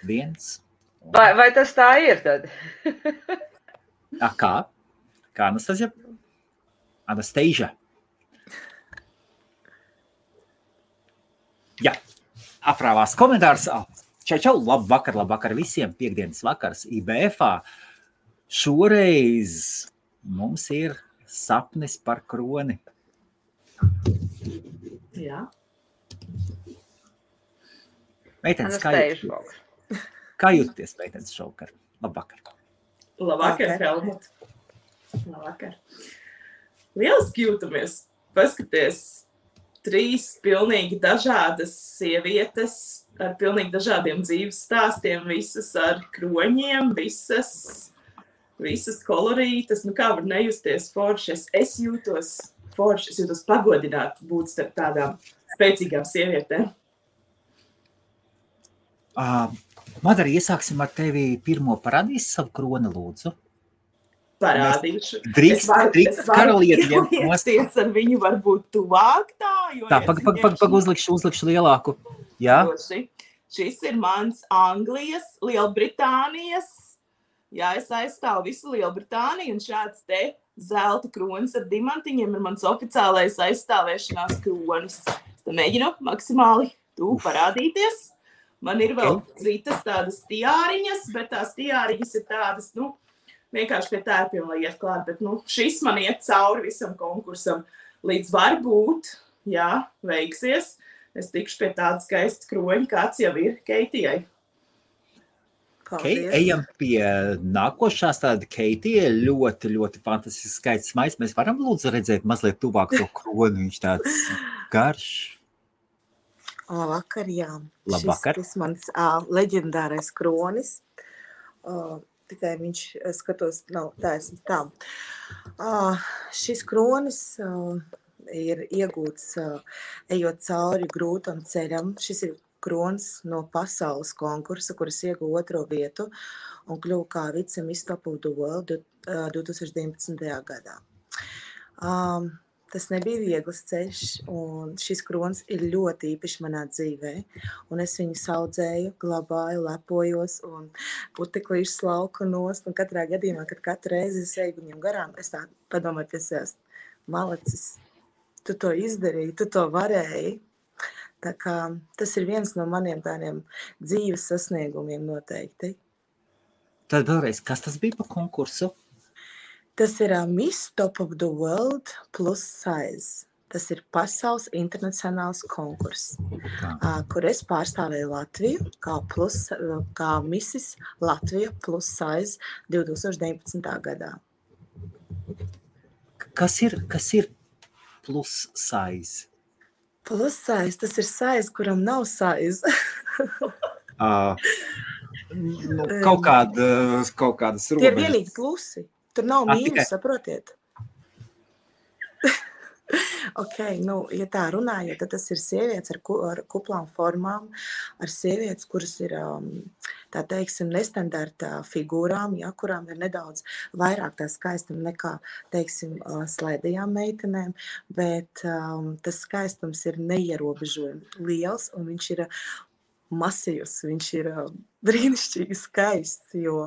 viens. Vai tas tā ir tad? Kā? Kā Anastasija? Anastasia. Jā, aprāvās komentārs. Čau, labvakar visiem. Piektdienas vakars IBF-ā. Šoreiz mums ir sapnis par kroni. Jā. Meitenes, kā jūties, meitenes, šovakar? Labvakar. Labvakar, Helmut. Labvakar. Lieliski jūtamies. Paskaties, 3 pilnīgi dažādas sievietes ar pilnīgi dažādiem dzīves stāstiem, visas ar kroņiem, visas kolorītas. Nu kā var nejusties forši? Es jūtos forši, es jūtos pagodināt būt starp tādām spēcīgām sievietēm. Madara, iesāksim ar tevi pirmo. Parādīsi savu kroni, lūdzu. Parādīšu. Drīkst karalieti. Es ar viņu varbūt tuvāk tā, jo... Tā, uzlikšu lielāku. Jā. Šis ir mans Anglijas, Lielbritānijas. Jā, es aizstāvu visu Lielbritāniju, un šāds te zelta kronis ar diamantiņiem ir mans oficiālais aizstāvēšanās kronis. Es mēģinu maksimāli parādīties. Man ir vēl citas tādas tiāriņas, bet tās tiāriņas ir tādas, vienkārši pie tērpiem, lai iet klāt. Bet, šis man iet cauri visam konkursam. Līdz varbūt, jā, veiksies. Es tikšu pie tāda skaista kroņa, kāds jau ir Keitijai. Ejam pie nākošās tāda Keitija. Ļoti, ļoti fantastisks skaists maiz. Mēs varam lūdzu redzēt mazliet tuvāk to kroni. Viņš tāds garš. Labvakar, jā. Labvakar. Šis mans leģendārais kronis. Tikai viņš, skatos, nav taisnība tā. Šis kronis ir iegūts ejot cauri grūtam ceļam. Šis ir kronis no pasaules konkursa, kuras ieguva 2. vietu un kļuva kā vice-miss Top of the World 2019. gadā. Tas nebija viegls ceļš, un šis kronis ir ļoti īpašs manā dzīvē. Un es viņu saudzēju, glabāju, lepojos, un puteklīšus lauku nost. Un katrā gadījumā, kad katru reizi es eju viņam garām, es tā padomāju pie sevis, malacis, tu to izdarīji, tu to varēji. Tā kā tas ir viens no maniem tādiem dzīves sasniegumiem noteikti. Tad vēlreiz, kas tas bija par konkursu? Tas ir Miss Top of the World plus size. Tas ir pasaules internacionāls konkurss, kur es pārstāvēju Latviju kā Missis Latvija plus size 2019. gadā. Kas ir plus size? Plus size, tas ir size, kuram nav size. Kaut kādas robežas. Tie ir vienīgi plusi. Tur nav mīnus, saprotiet? Ja tā runājot, tad tas ir sievietes ar kuplām formām, ar sievietes, kuras ir, tā teiksim, nestandarta figūrām, ja, kurām ir nedaudz vairāk tā skaistuma nekā, teiksim, slaidajām meitenēm, bet tas skaistums ir neierobežojami liels, un viņš ir masīvs, viņš ir brīnišķīgi skaists, jo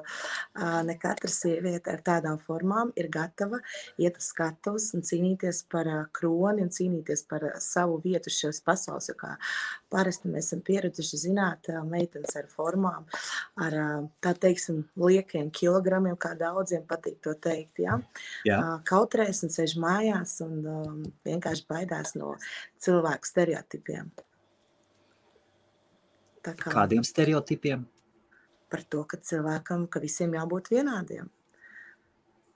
ne katra sieviete ar tādām formām ir gatava iet uz skatuves un cīnīties par kroni un cīnīties par savu vietu šajos pasaules, jo kā parasti mēs esam pieraduši zināt meitenes ar formām, ar, tā teiksim, liekiem kilogramiem, kā daudziem patīk to teikt, ja? Kautrēs un sēž mājās un vienkārši baidās no cilvēku stereotipiem. Kādiem stereotipiem? Par to, ka visiem jābūt vienādiem.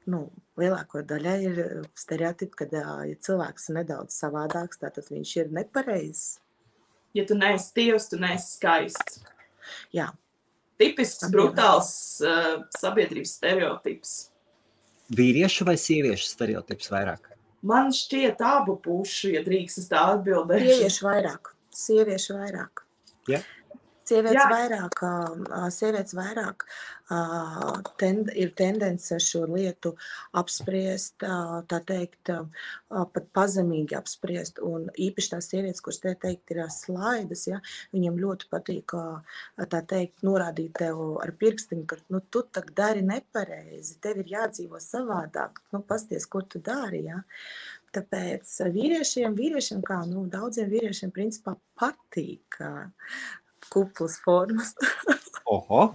Lielāko daļai ir stereotipi, ka ja cilvēks ir nedaudz savādāks, tātad viņš ir nepareizs. Ja tu neesi tievs, tu neesi skaists. Jā. Tipisks, brutāls sabiedrības stereotips. Vīriešu vai sieviešu stereotips vairāk? Man šķiet abu pušu, ja drīkst es tā atbildēšu. Sieviešu vairāk. Ja? Sievietes vairāk ir tendence šo lietu apspriest, tā teikt, pat pazemīgi apspriest. Un īpaši tās sievietes, kuras te teikt ir slaidas, ja, viņiem ļoti patīk, tā teikt, norādīt tev ar pirkstiņu, ka tu tak dari nepareizi, tev ir jādzīvo savādāk, pasties, ko tu dari, ja. Tāpēc vīriešiem kā, daudziem vīriešiem principā patīk kuplas formas. Oho.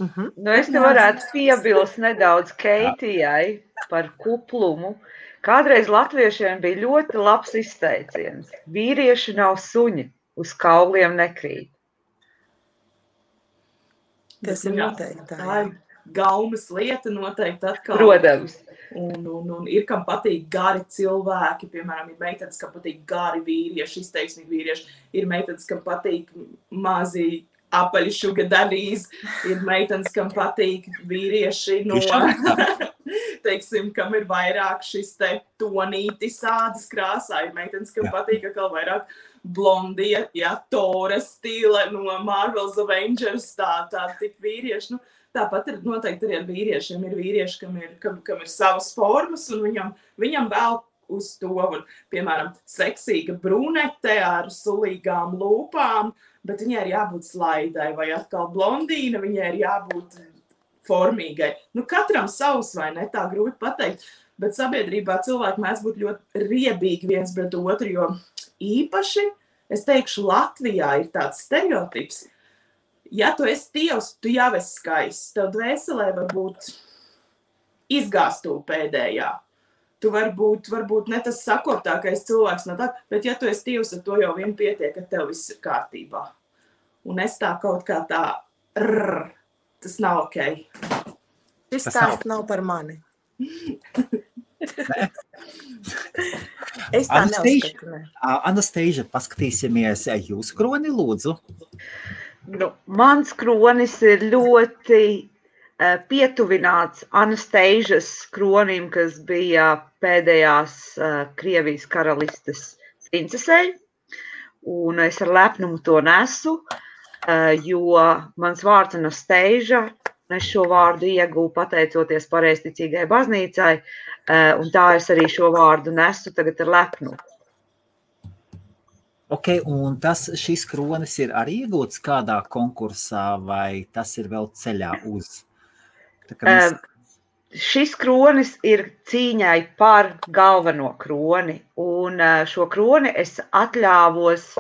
Es te varētu piebilst nedaudz Keitijai par kuplumu. Kādreiz latviešiem bija ļoti labs izteiciens. Vīrieši nav suņi, uz kauliem nekrīt. Tas ir noteikti. Tā ir gaumas lieta noteikti atkal. Protams. Un ir, kam patīk gari cilvēki, piemēram, ir meitenes, kam patīk gari vīrieši, izteiksmīgi vīrieši, ir meitenes, kam patīk mazi apaļi sugar daddies, ir meitenes, kam patīk vīrieši teiksim, kam ir vairāk šis te tonītis ādas krāsā, ir meitenes, kam patīk atkal vairāk blondie, Tora stila no Marvel's Avengers, tā tik vīrieši, Tāpat ir noteikti arī ar vīriešiem. Ir vīrieši, kam ir savas formas, un viņam vēl uz to, piemēram, seksīga brunete ar sulīgām lūpām, bet viņai ir jābūt slaidai, vai atkal blondīna, viņai ir jābūt formīgai. Katram savs, vai ne, tā grūti pateikt, bet sabiedrībā cilvēki mēdz būt ļoti riebīgi viens pret otru, jo īpaši, es teikšu, Latvijā ir tāds stereotips. Ja tu esi tievs, tu jau esi skaists. Tev dvēselē var būt izgāstū pēdējā. Tu varbūt ne tas sakortākais cilvēks, bet ja tu esi tievs, ar to jau vien pietiek, ka tev viss ir kārtībā. Un es tā kaut kā tā, tas nav ok. Šis stāsts nav par mani. Es tā neuzskatu, ne. Anastasia, paskatīsimies jūsu kroni, lūdzu. Mans kronis ir ļoti pietuvināts Anastasias kronim, kas bija pēdējās Krievijas karalistes princesei, un es ar lepnumu to nesu, jo mans vārds Anastasia, es šo vārdu ieguvu pateicoties pareizticīgai baznīcai, un tā es arī šo vārdu nesu tagad ar lepnumu. Ok, un šis kronis ir arī iegūts kādā konkursā, vai tas ir vēl ceļā uz? Šis kronis ir cīņai par galveno kroni, un šo kroni es atļāvos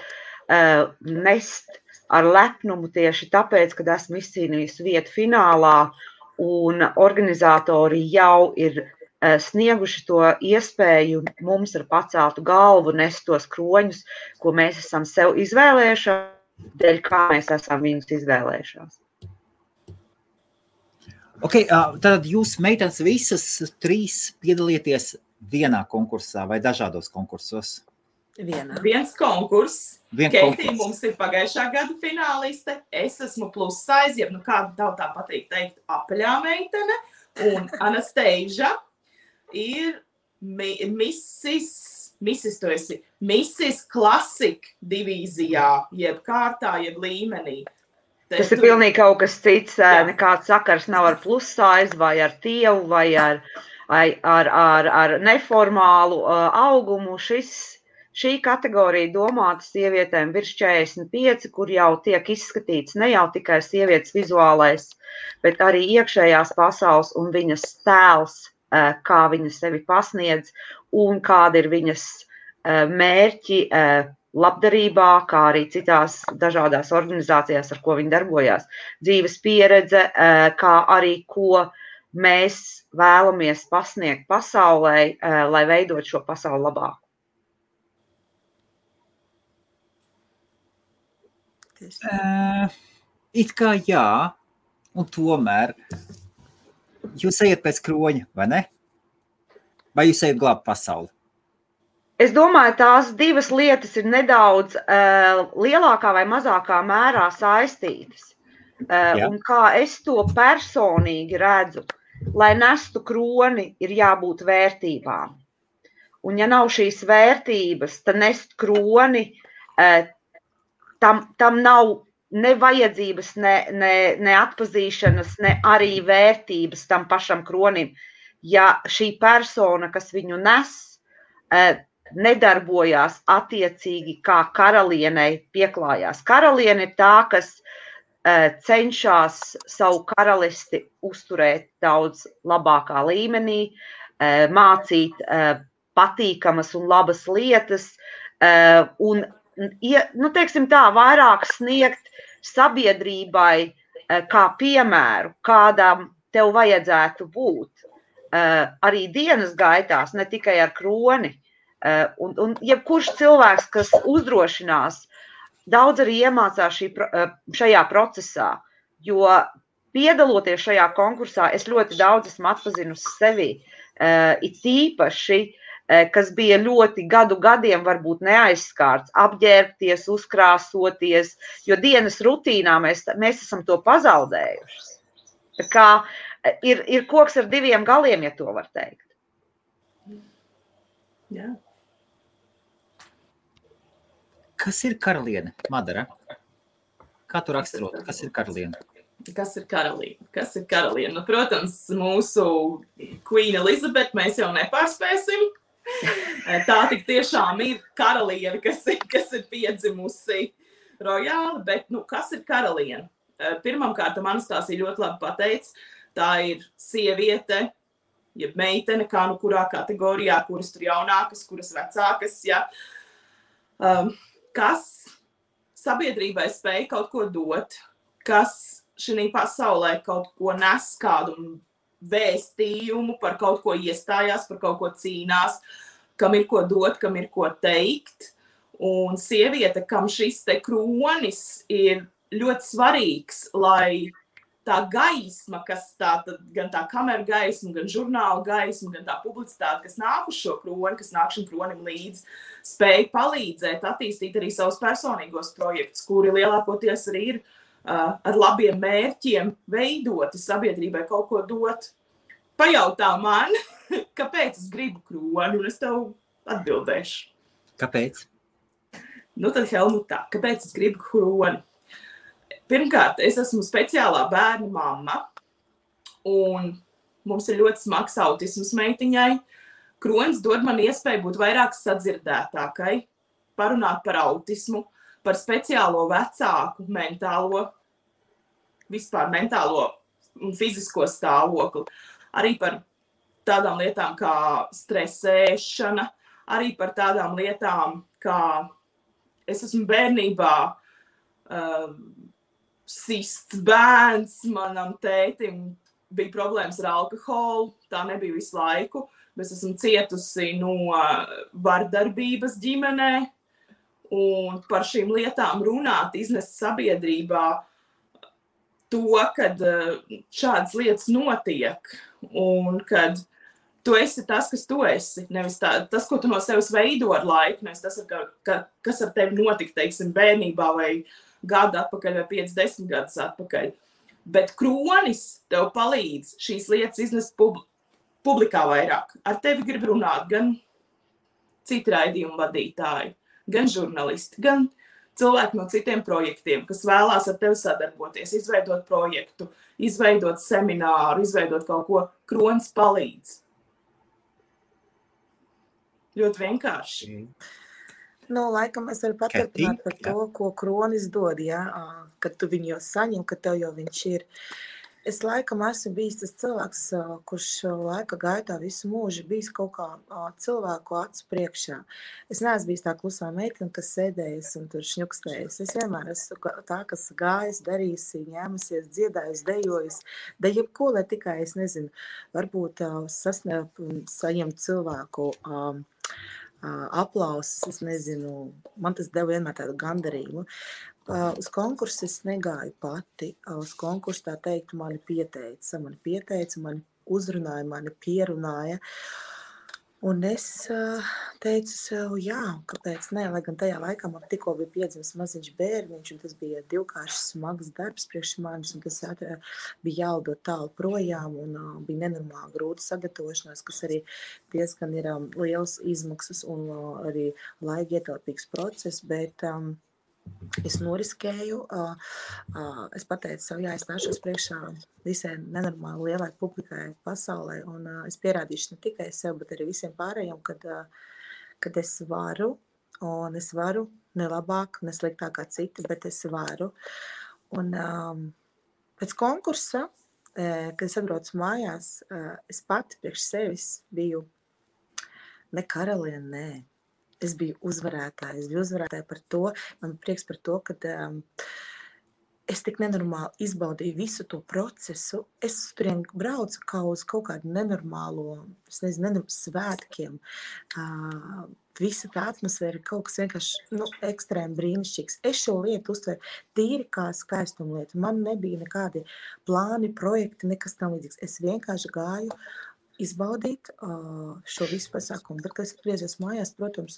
nest ar lepnumu tieši tāpēc, kad esmu izcīnījusi vietu finālā, un organizatori jau ir snieguši to iespēju mums ar paceltu galvu nest tos kroņus, ko mēs esam sev izvēlējušās, dēļ kā mēs esam viņus izvēlējušās. Ok, tad jūs meitenes visas 3 piedalieties vienā konkursā vai dažādos konkursos? Viens konkurss. Keitija mums ir pagājušā gada fināliste. Es esmu plus size, kāda tautā patīk teikt, apaļā meitene. Un Anastasia ir Mrs. Tu esi Mrs. Classic divīzijā, jeb kārtā, jeb līmenī. Tas ir pilnīgi kaut kas cits, nekāds sakars nav ar plus size, vai ar tievu, vai ar neformālu augumu. Šī kategorija domāta sievietēm virs 45, kur jau tiek izskatīts ne jau tikai sievietes vizuālais, bet arī iekšējās pasaules un viņas tēls, kā viņa sevi pasniedz un kāda ir viņas mērķi labdarībā, kā arī citās dažādās organizācijās, ar ko viņa darbojās. Dzīves pieredze, kā arī ko mēs vēlamies pasniegt pasaulē, lai veidot šo pasauli labāk. It kā jā, un tomēr jūs ejat pēc kroņa, vai ne? Vai jūs ejat glābt pasauli? Es domāju, tās divas lietas ir nedaudz lielākā vai mazākā mērā saistītas. Un kā es to personīgi redzu, lai nestu kroni, ir jābūt vērtībām. Un ja nav šīs vērtības, tad nest kroni, tam nav ne vajadzības, ne atpazīšanas, ne arī vērtības tam pašam kronim. Ja šī persona, kas viņu nes, nedarbojās attiecīgi kā karalienei pieklājās. Karaliene ir tā, kas cenšas savu karalisti uzturēt daudz labākā līmenī, mācīt patīkamas un labas lietas, un, teiksim tā, vairāk sniegt sabiedrībai kā piemēru, kādam tev vajadzētu būt. Arī dienas gaitās, ne tikai ar kroni. Un jebkurš cilvēks, kas uzdrošinās, daudz arī iemācās šajā procesā, jo piedaloties šajā konkursā, es ļoti daudz esmu atpazinusi sevi, it īpaši, kas bija ļoti gadiem varbūt neaizskārts, apģērbties, uzkrāsoties, jo dienas rutīnā mēs esam to pazaudējuši. Tā kā ir koks ar diviem galiem, ja to var teikt. Jā. Kas ir karaliene, Madara? Kā tu raksturotu, kas ir karaliene? Kas ir karaliene? Kas ir karaliene? Nu, protams, mūsu Queen Elizabeth mēs jau nepārspēsim. Tā tik tiešām ir karaliene, kas ir piedzimusi rojāli, bet kas ir karaliene? Pirmkārt, Anastasija ļoti labi pateica, tā ir sieviete, jeb meitene, kā kurā kategorijā, kuras tur jaunākas, kuras vecākas, ja, kas sabiedrībai spēj kaut ko dot, kas šī pasaulē kaut ko nes, kādu vēstījumu, par kaut ko iestājās, par kaut ko cīnās, kam ir ko dot, kam ir ko teikt. Un sieviete, kam šis te kronis ir ļoti svarīgs, lai tā gaisma, kas gan tā kameru gaisma, gan žurnāla gaisma, gan tā publicitāte, kas nāk uz šo kroni, kas nāk šim kronim līdz, spēj palīdzēt attīstīt arī savus personīgos projektus, kuri lielākoties arī ir ar labiem mērķiem veidoti sabiedrībai kaut ko dot. Pajautā man, kāpēc es gribu kroni, un es tev atbildēšu. Kāpēc? Nu tad, Helmutā, kāpēc es gribu kroni? Pirmkārt, es esmu speciālā bērnu mamma, un mums ir ļoti smags autisms meitiņai. Kronis dod man iespēju būt vairāk sadzirdētākai, parunāt par autismu, par speciālo vecāku mentālo un fizisko stāvokli, arī par tādām lietām kā stresēšana, arī par tādām lietām kā es esmu bērnībā sists bērns, manam tētim bija problēmas ar alkoholu, tā nebija visu laiku, bet es esmu cietusi no vardarbības ģimenē, un par šīm lietām runāt, iznest sabiedrībā to, kad šādas lietas notiek, un kad tu esi tas, kas tu esi, nevis tas, ko tu no sevis veido ar laiku, nevis tas, kas ar tevi notika, teiksim, bērnībā vai gadu atpakaļ vai 5-10 gadus atpakaļ. Bet kronis tev palīdz šīs lietas iznest publikā vairāk. Ar tevi grib runāt gan citi raidījumu vadītāji, gan žurnālisti, gan cilvēki no citiem projektiem, kas vēlās ar tevi sadarboties, izveidot projektu, izveidot semināru, izveidot kaut ko, kronis palīdz. Ļoti vienkārši. Laikam es varu paturpināt par to, ko kronis dod, ja? Kad tu viņu jau saņem, kad tev jau viņš ir. Es laikam esmu bijis tas cilvēks, kurš laika gaitā visu mūžu bijis kaut kā cilvēku acu priekšā. Es neesmu bijis tā klusā meitene, kas sēdējas un tur šņukstējas. Es vienmēr esmu tā, kas gājas, darījusi, ņēmusies, dziedājusi, dejojusi. Da jebko, lai tikai, es nezinu, varbūt saņemt cilvēku aplausus, es nezinu, man tas deva vienmēr tādu gandarījumu. Uz konkursu es negāju pati, uz konkursu tā teikt mani pieteica, mani uzrunāja, mani pierunāja. Un es teicu sev, jā, kāpēc ne, lai gan tajā laikā man tikko bija piedzimis maziņš bērniņš, un tas bija divkārši smags darbs priekš manis, un tas bija jālido tālu projām, un bija nenormāli grūti sagatavošanās, kas arī diezgan ir liels izmaksas un arī laika ietilpīgs process, bet Es noriskēju, es pateicu savu, jā, es nāšos priekšā visai nenormāli lielai publikai pasaulē, un es pierādīšu ne tikai sev, bet arī visiem pārējiem, kad es varu, un es varu ne labāk, ne sliktāk kā citi, bet es varu. Un pēc konkursa, kad es atbraucu mājās, es pati priekš sevis biju ne karaliene, nē. Es biju uzvarētāja par to, man prieks par to, ka es tik nenormāli izbaudīju visu to procesu. Es turien braucu kā uz kaut kādu nenormālo, es nezinu, svētkiem. Visa tā atmosfēra ir kaut kas vienkārši ekstrēmi brīnišķīgs. Es šo lietu uztveru tīri kā skaistumu lietu. Man nebija nekādi plāni, projekti, nekas tam līdzīgs. Es vienkārši gāju izbaudīt šo visu pasākumu. Bet, kad es atgriezies mājās, protams,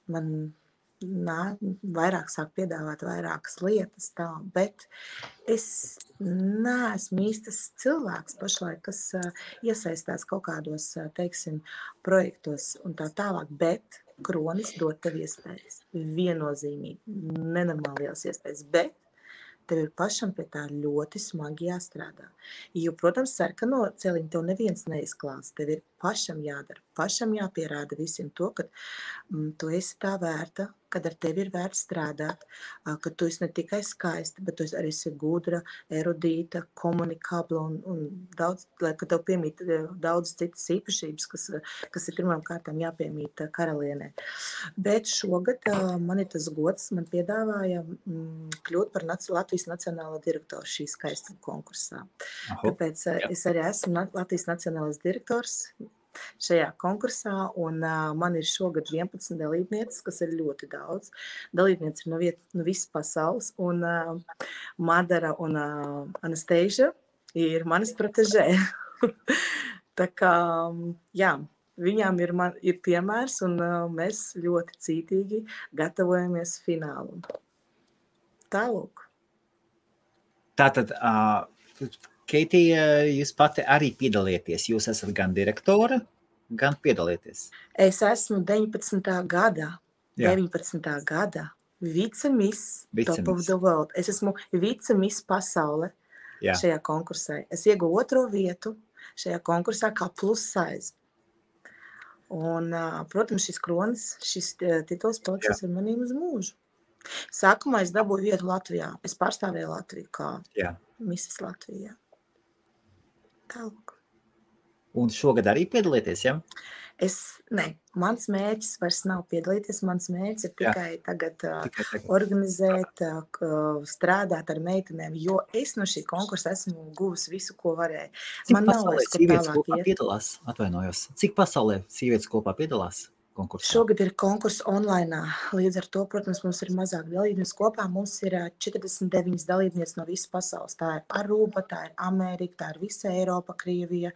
man vairāk sāk piedāvāt vairākas lietas tā, bet es neesmu īstas cilvēks pašlaik, kas iesaistās kaut kādos, teiksim, projektos un tā tālāk, bet Kronis dod tev iespējas. Viennozīmīgi, nenormāli liels iespējas, bet tev ir pašam pie tā ļoti smagi jāstrādā. Jo, protams, sarkano celiņu tev neviens neizklās. Tev ir pašam jādara, pašam jāpierāda visiem to, ka tu esi tā vērta, kad ar tevi ir vērts strādāt, ka tu esi ne tikai skaista, bet tu arī esi gudra, erudīta, komunikabla un daudz, ka tev piemīt daudz citas īpašības, kas ir pirmām kārtām jāpiemīt karalienē. Bet šogad man ir tas gods, man piedāvāja kļūt par Latvijas nacionālo direktoru šī skaistuma konkursā. Tāpēc es arī esmu Latvijas nacionālais direktors šajā konkursā, un man ir šogad 11 dalībnieces, kas ir ļoti daudz. Dalībnieces ir no visas pasaules, un Madara un Anastasia ir manas protežē. Tā kā, jā, viņām ir piemērs, un mēs ļoti cītīgi gatavojamies finālu. Tālūk. Tātad, Keitija, jūs pati arī piedalieties. Jūs esat gan direktora, gan piedalieties. Es esmu 19. gada vice-miss Top of the World. Es esmu vice-miss pasaule šajā konkursā. Es ieguvu 2. vietu šajā konkursā kā plus size. Un, protams, šis kronis, šis tituls paliks ar manīm uz mūžu. Sākumā es dabūju vietu Latvijā. Es pārstāvēju Latviju kā Missis Latvijā. Tālāk. Un šogad arī piedalieties, ja? Mans mērķis vairs nav piedalīties. Mans mērķis ir tikai tagad organizēt, strādāt ar meitenēm, jo es no šī konkursa esmu guvusi visu, ko varēju. Cik pasaulē sievietes kopā piedalās? Atvainojos. Cik pasaulē sievietes kopā piedalās? Konkursā. Šogad ir konkurss online. Līdz ar to, protams, mums ir mazāk dalībnieks kopā. Mums ir 49 dalībnieks no visas pasaules. Tā ir Aruba, tā ir Amerika, tā ir visa Eiropa, Krievija,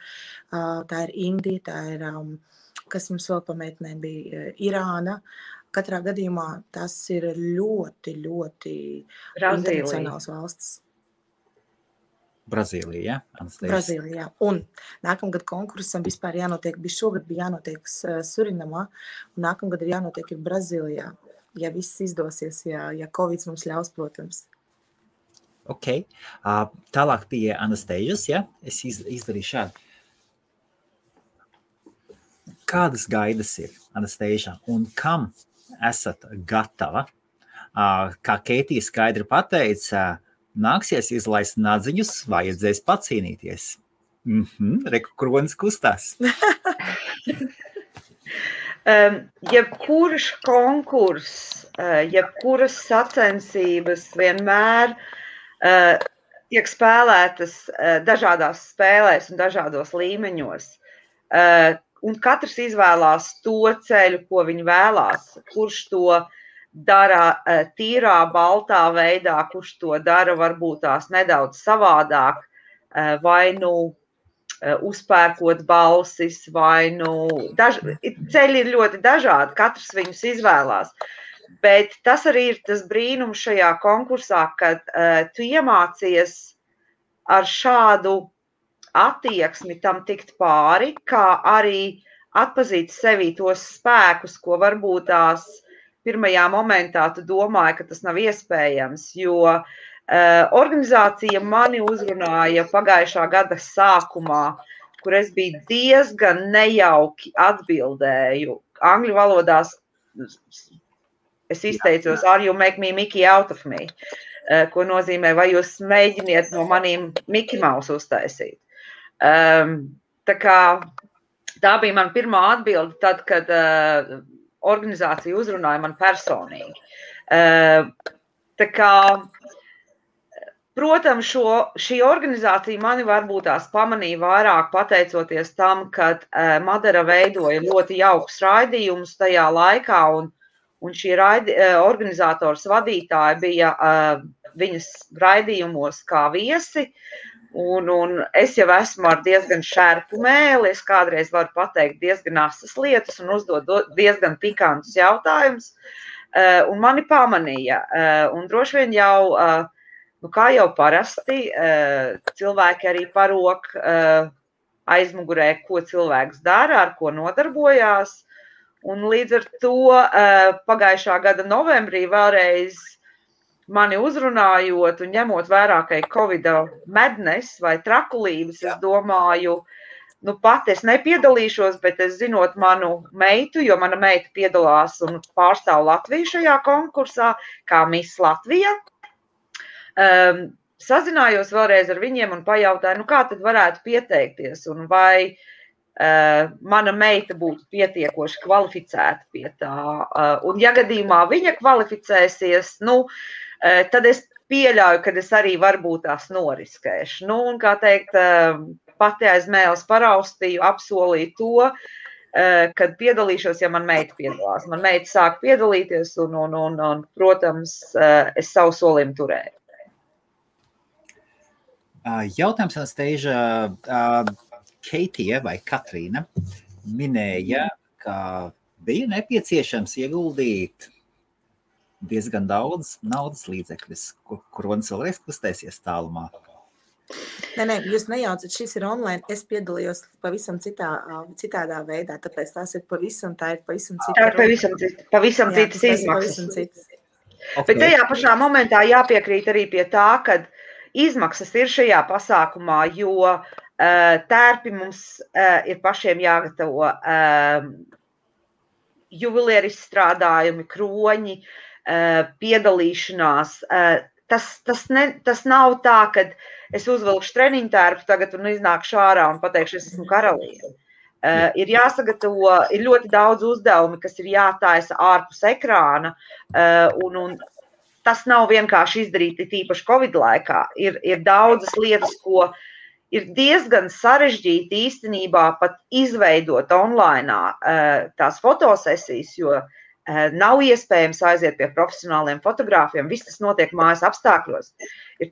tā ir Indija, tā ir, kas mums vēl pameitnē bija, Irāna. Katrā gadījumā tas ir ļoti, ļoti internacionāls valsts. Brazīlija, ja? Anastasia. Brazīlija, jā. Un nākamgad konkursam vispār jānotiek, šogad bija jānotiek Surinamā, un nākamgad ir jānotiek ir Brazīlijā, ja viss izdosies, ja Covid mums ļaus, protams. Ok. Tālāk pie Anastasias, ja? Es izdarīju šādu. Kādas gaidas ir, Anastasia, un kam esat gatava? Kā Keitija skaidri pateica, nāksies izlaist nadziņus, vajadzēs pacīnīties. Reku kronis kustās. Jebkurš konkurss, jebkuras sacensības vienmēr tiek spēlētas dažādās spēlēs un dažādos līmeņos. Un katrs izvēlās to ceļu, ko viņi vēlās, kurš to dara tīrā, baltā veidā, kurš to dara varbūt tās nedaudz savādāk, vai uzpērkot balsis, vai ceļi ir ļoti dažādi, katrs viņus izvēlās. Bet tas arī ir tas brīnums šajā konkursā, kad tu iemācies ar šādu attieksmi tam tikt pāri, kā arī atpazīt sevī tos spēkus, ko varbūt tās pirmajā momentā tu domāji, ka tas nav iespējams, jo organizācija mani uzrunāja pagājušā gada sākumā, kur es biju diezgan nejauki atbildēju. Angļu valodās es izteicos, are you make me Mickey out of me, ko nozīmē, vai jūs mēģiniet no maniem Mickey Mouse uztaisīt. Tā kā tā bija man pirmā atbilde tad, kad organizācija uzrunāja man personīgi. Tā kā, protams, šī organizācija mani varbūt tās pamanīja vairāk pateicoties tam, kad Madara veidoja ļoti jaukus raidījumus tajā laikā, un šī organizators vadītāja bija viņas raidījumos kā viesi, un es jau esmu ar diezgan šērpu mēli, es kādreiz varu pateikt diezgan asas lietas un uzdot diezgan pikantus jautājumus, un mani pamanīja, un droši vien jau, kā jau parasti, cilvēki arī parok aizmugurē, ko cilvēks dara, ar ko nodarbojās, un līdz ar to pagājušā gada novembrī vēlreiz mani uzrunājot un ņemot vērā, ka ir Covid madness vai trakulības, es domāju, pat es nepiedalīšos, bet es zinot manu meitu, jo mana meita piedalās un pārstāv Latviju šajā konkursā, kā Miss Latvija. Sazinājos vēlreiz ar viņiem un pajautāju, kā tad varētu pieteikties un vai mana meita būtu pietiekoši kvalificēta pie tā. Un ja gadījumā viņa kvalificēsies, tad es pieļauju, ka es arī varbūt tās noriskēšu. Un, kā teikt, pati aiz mēles paraustīju, apsolīju to, kad piedalīšos, ja man meita piedalās. Man meita sāk piedalīties un protams, es savu solījumu turēju. Jautājums Anastēža, Keitija vai Katrīna minēja, ka bija nepieciešams ieguldīt diezgan daudz naudas līdzekļus, kur un cilvēks kustēsies tālumā. Nē, jūs nejaucat, šis ir online, es piedalījos pavisam citādā veidā, tāpēc tā ir pavisam cita. Tā ir pavisam citas izmaksas. Okay. Bet tajā pašā momentā jāpiekrīt arī pie tā, ka izmaksas ir šajā pasākumā, jo tērpi mums ir pašiem jāgatavo, juvelieru izstrādājumi, kroņi, piedalīšanās. Tas nav tā, ka es uzvilkšu treniņu tērpu tagad un iznākšu ārā un pateikšu, es esmu karaliene. Ir jāsagatavo, ir ļoti daudz uzdevumi, kas ir jātaisa ārpus ekrāna, un tas nav vienkārši izdarīt tīpaši Covid laikā. Ir daudzas lietas, ko ir diezgan sarežģīti īstenībā pat izveidot online tās fotosesijas, jo nav iespējams aiziet pie profesionāliem fotogrāfiem, viss tas notiek mājas apstākļos.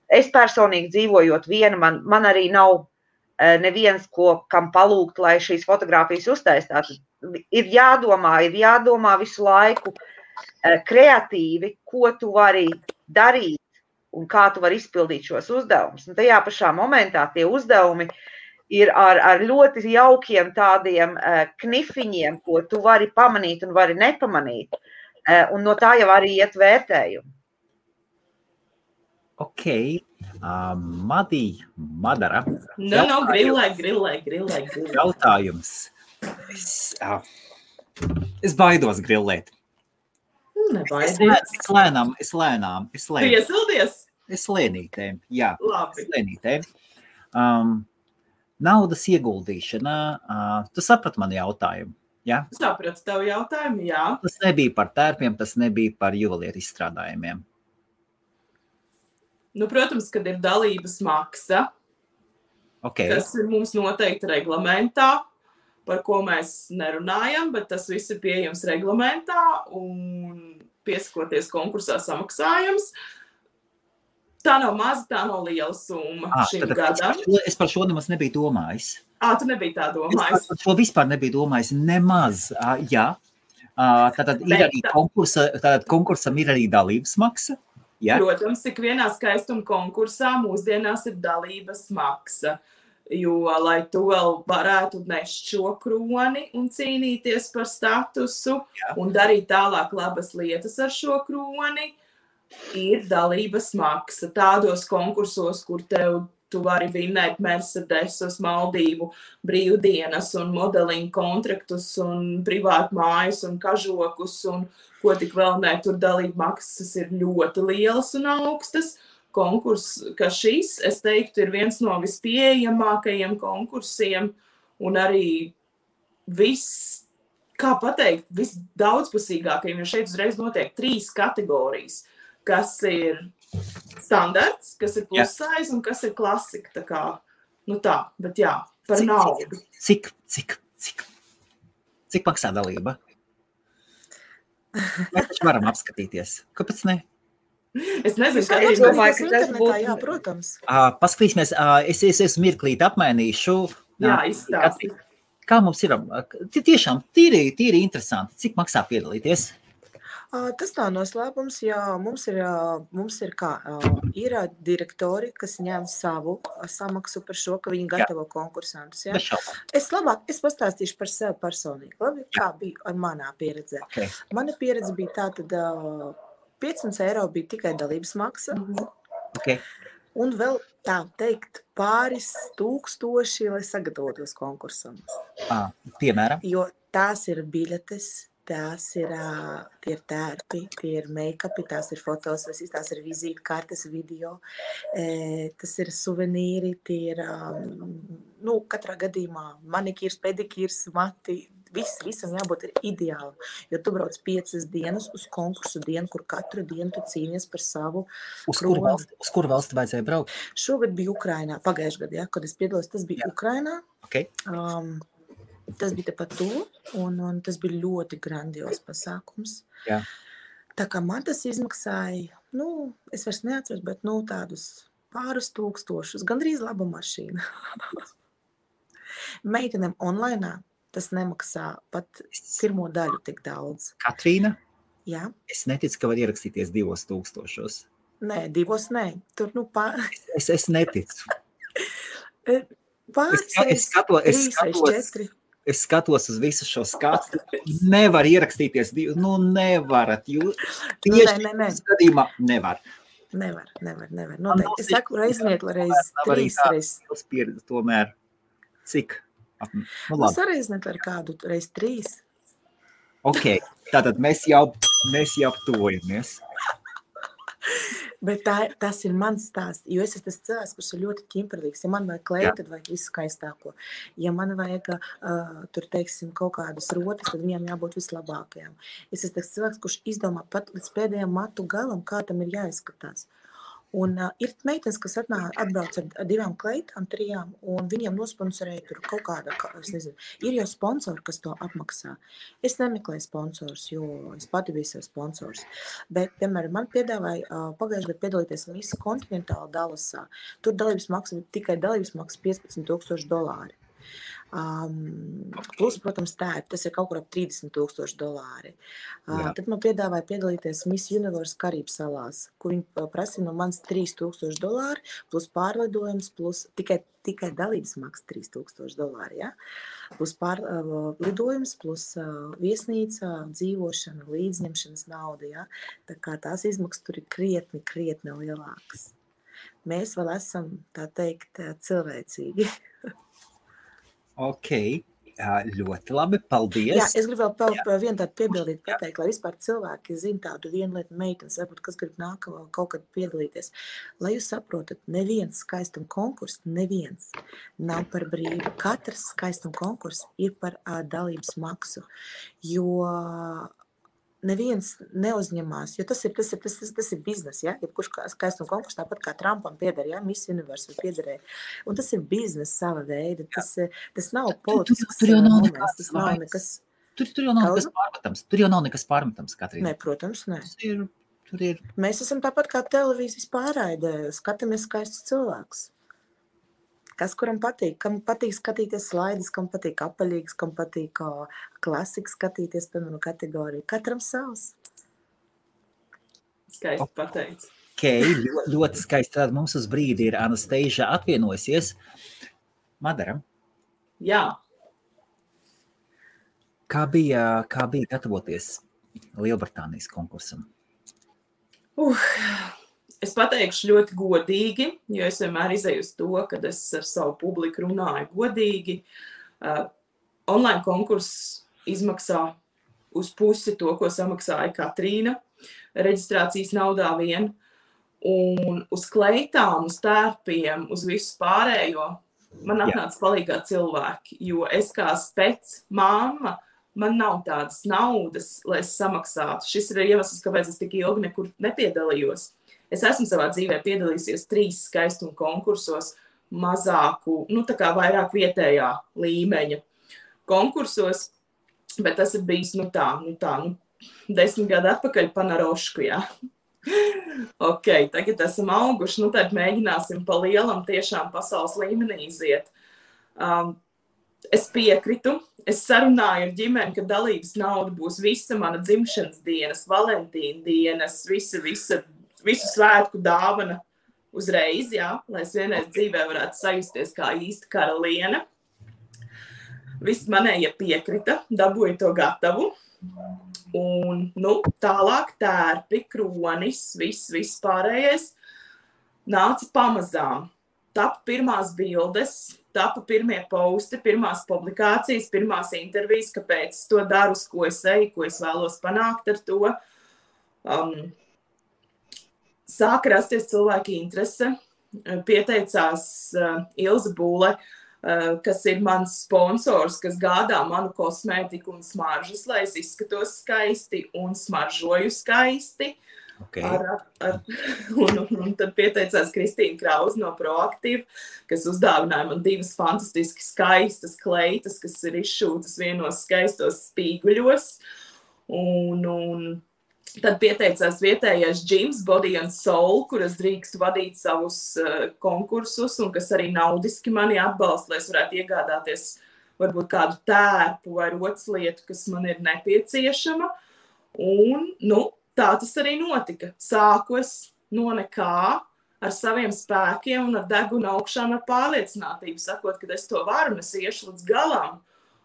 Es personīgi dzīvojot viena, man arī nav neviens, kam palūgt, lai šīs fotogrāfijas uztaistātu. Ir jādomā visu laiku kreatīvi, ko tu vari darīt un kā tu vari izpildīt šos uzdevumus. Un tajā pašā momentā tie uzdevumi ir ar ļoti jaukiem tādiem knifiņiem, ko tu vari pamanīt un vari nepamanīt. Un no tā jau arī iet vērtējumi. Ok. Madara. Grillē. Jautājums. Es baidos grillēt. Nebaidies. Es lēnām. Tu iesildies? Es lēnītēm, jā. Labi. Lēnītēm. Naudas ieguldīšana. Tu saprati mani jautājumu, jā? Sapratu tavu jautājumu, jā. Tas nebija par tērpiem, tas nebija par juvelieru izstrādājumiem. Protams, kad ir dalības maksa, kas ir mums noteikti reglamentā, par ko mēs nerunājam, bet tas viss ir pieejams reglamentā un piesakoties konkursā samaksājums. Tā nav maza, tā nav liela summa šim gadam. Es par šo nemaz nebiju domājis. Tu nebija tā domājis? Es par šo vispār nebiju domājis nemaz, jā. Tātad ir arī konkursam ir arī dalības maksa. Ja? Protams, ik vienā skaistuma konkursā mūsdienās ir dalības maksa. jo, lai tu vēl varētu nest šo kroni un cīnīties par statusu un darīt tālāk labas lietas ar šo kroni, ir dalības maksa tādos konkursos, kur tu vari vinnēt Mercedesus, Maldīvu brīvdienas un modeling kontraktus un privātu mājas un kažokus un ko tik vēl ne, tur dalība maksas ir ļoti lielas un augstas. Konkurs, ka šis, es teiktu, ir viens no vispieejamākajiem konkursiem un arī visdaudzpusīgākajiem, jo šeit uzreiz notiek 3 kategorijas, kas ir standarts, kas ir plussaiz un kas ir klasika. Tā kā, bet jā, par naudu. Cik maksā dalība? Mēs taču varam apskatīties. Kāpēc ne? Es nezinu, kā Es domāju, ka tas būtu. Jā, protams. Paskatīsimies, es mirklīt apmainīšu. Jā, izstāsti. Kā mums ir? Tiešām tīri interesanti. Cik maksā piedalīties? Tas nav noslēpums, jo mums ir direktori, kas ņem savu samaksu par šo, ka viņi gatavo konkursantus. Ja? Es pastāstīšu par sevi personīgi, labi, kā bija ar manā pieredzē. Okay. Mana pieredze bija tā, tad 500 eiro bija tikai dalības maksa. Okay. Un vēl tā teikt pāris tūkstoši, lai sagatavotos konkursam. Piemēram? Jo tās ir biļetes. Tās ir, tie ir tērpi, tie ir make-upi, tās ir fotos, tās ir vizītkartes, video, tas ir suvenīri, tie ir, katrā gadījumā manikīrs, pedikīrs, mati, visam jābūt ir ideāli, jo tu brauc 5 dienas uz konkursu dienu, kur katru dienu tu cīnies par savu kroni. Uz kuru valsti vajadzēja braukt? Šogad bija Ukrainā, pagājušajā gadā, kad es piedalos, tas bija Ukrainā. Okay. Tas bija tepat to, un tas bija ļoti grandios pasākums. Jā. Tā kā man tas izmaksāja, es vairs neatceros, bet tādus pāris tūkstošus, gandrīz laba mašīna. Meitenēm online tas nemaksā pat pirmo daļu tik daudz. Katrīna? Jā. Es neticu, ka var ierakstīties 2000. Nē, 2 nē. Tur Es neticu. Pāris, 3 vai 4. Es skatos uz visu šo skatu. Nevar ierakstīties. Nevarat. Tieši skatījumā nevar. Nevar. Noteikti. Es saku reizniet, reiz 3 reizes. Pieredze tomēr. Cik? Sareizniet ar kādu reiz 3. Ok. Tātad mēs jau tuvojamies. Bet tas ir mans stāsts, jo es esmu tas cilvēks, kurš ir ļoti ķimperlīgs. Ja man vajag kleju, tad vajag visu skaistāko. Ja man vajag, tur teiksim, kaut kādas rotas, tad viņām jābūt vislabākajām. Es esmu tas cilvēks, kurš izdomā pat līdz pēdējām matu galam, kā tam ir jāizskatās. Un ir meitenes, kas atbrauc ar 2 kleitām, 3, un viņiem nosponsorēja tur kaut kāda, es nezinu, ir jau sponsori, kas to apmaksā. Es nemeklēju sponsors, jo es pati biju sev sponsors. Bet, piemēram, man piedāvāja pagājušajā gadā piedalīties Miss Kontinentāla Dallasā. Tur dalības maksa, tikai dalības maksa $15,000. Plus, protams, tas ir kaut kur ap $30,000. Tad man piedāvāja piedalīties Miss Universe Karību salās, kur viņi prasīja no manis $3,000, plus pārlidojums, plus tikai dalības maksa $3,000, ja? Plus pārlidojums, plus viesnīca, dzīvošana, līdzņemšanas nauda, ja? Tā kā tās izmaksas tur ir krietni lielākas. Mēs vēl esam, tā teikt, cilvēcīgi. Ok, ļoti labi, paldies. Jā, es gribu vēl vienu tādu piebildīt, pateikt, lai vispār cilvēki zina tādu vienu lietu meitenes, varbūt, kas grib kaut kad piedalīties. Lai jūs saprotat, neviens skaistuma konkurss, neviens nav par brīvu. Katrs skaistuma konkurss ir par dalības maksu, jo neviens neuzņemās, jo tas ir biznes, ja? Jebkurš skaistuma konkurss, tāpat kā Trumpam pieder, ja? Miss Universe piederēja. Un tas ir biznes sava veida, tas nav politisks moments, tas nav nekas. Tur jau nav nekas pārmetams. Tur jau nav nekas pārmetams, Katrīna. Nē, protams, nē. Tur ir. Mēs esam tāpat kā televīzijas pārraidē, skatāmies skaistus cilvēkus. Kas kuram patīk? Kam patīk skatīties slaidus, kam patīk apaļīgs, kam patīk klasikas skatīties, piemēram, kategoriju. Katram savs. Skaisti pateicis. Ok, ļoti skaisti. Tad mums uz brīdi ir Anastasia atvienojusies. Madara, Jā. kā bija gatavoties Lielbritānijas konkursam? Es pateikšu ļoti godīgi, jo es vienmēr izēju uz to, kad es ar savu publiku runāju godīgi. Online konkurss izmaksā uz pusi to, ko samaksāja Katrīna, reģistrācijas naudā vien, un uz kleitām, uz tērpiem, uz visu pārējo man atnāca palīgā cilvēki, jo es kā mamma, man nav tādas naudas, lai es samaksātu. Šis ir iemesls, kāpēc es tik ilgi nekur nepiedalījos. Es esmu savā dzīvē piedalījusies 3 skaistuma konkursos, mazāku, tā kā vairāk vietējā līmeņa konkursos, bet tas ir bijis, 10 gadu atpakaļ panarošku, jā. Ok, tagad esam auguši, tad mēģināsim pa lielam tiešām pasaules līmenī iziet. Es piekritu, es sarunāju ar ģimeni, ka dalības nauda būs visa mana dzimšanas dienas, Valentīna dienas, visu svētku dāvana uzreiz, jā, lai es vienreiz dzīvē varētu sajusties kā īsta karaliene. Viss manējie piekrita, dabūju to gatavu. Un, tālāk tērpi, kronis, viss pārējais nāca pamazām. Tapa pirmās bildes, tapa pirmie posti, pirmās publikācijas, pirmās intervijas, kāpēc es to daru, uz ko es eju, ko es vēlos panākt ar to. Sāka rasties cilvēki interese, pieteicās Ilze Būle, kas ir mans sponsors, kas gādā manu kosmētiku un smaržas, lai es izskatos skaisti un smaržoju skaisti. Okay. Un tad pieteicās Kristīna Krause no Proaktīva, kas uzdāvināja man 2 fantastiski skaistas kleitas, kas ir izšūtas vienos skaistos spīguļos. Un tad pieteicās vietējais gyms Body and Soul, kuras drīkst vadīt savus konkursus un kas arī naudiski mani atbalsta, lai es varētu iegādāties varbūt kādu tērpu vai roclietu, kas man ir nepieciešama. Un, tā tas arī notika. Sāku es no nekā ar saviem spēkiem un ar degunu augšām ar pārliecinātību, sakot, ka es to varu, es iešu līdz galam.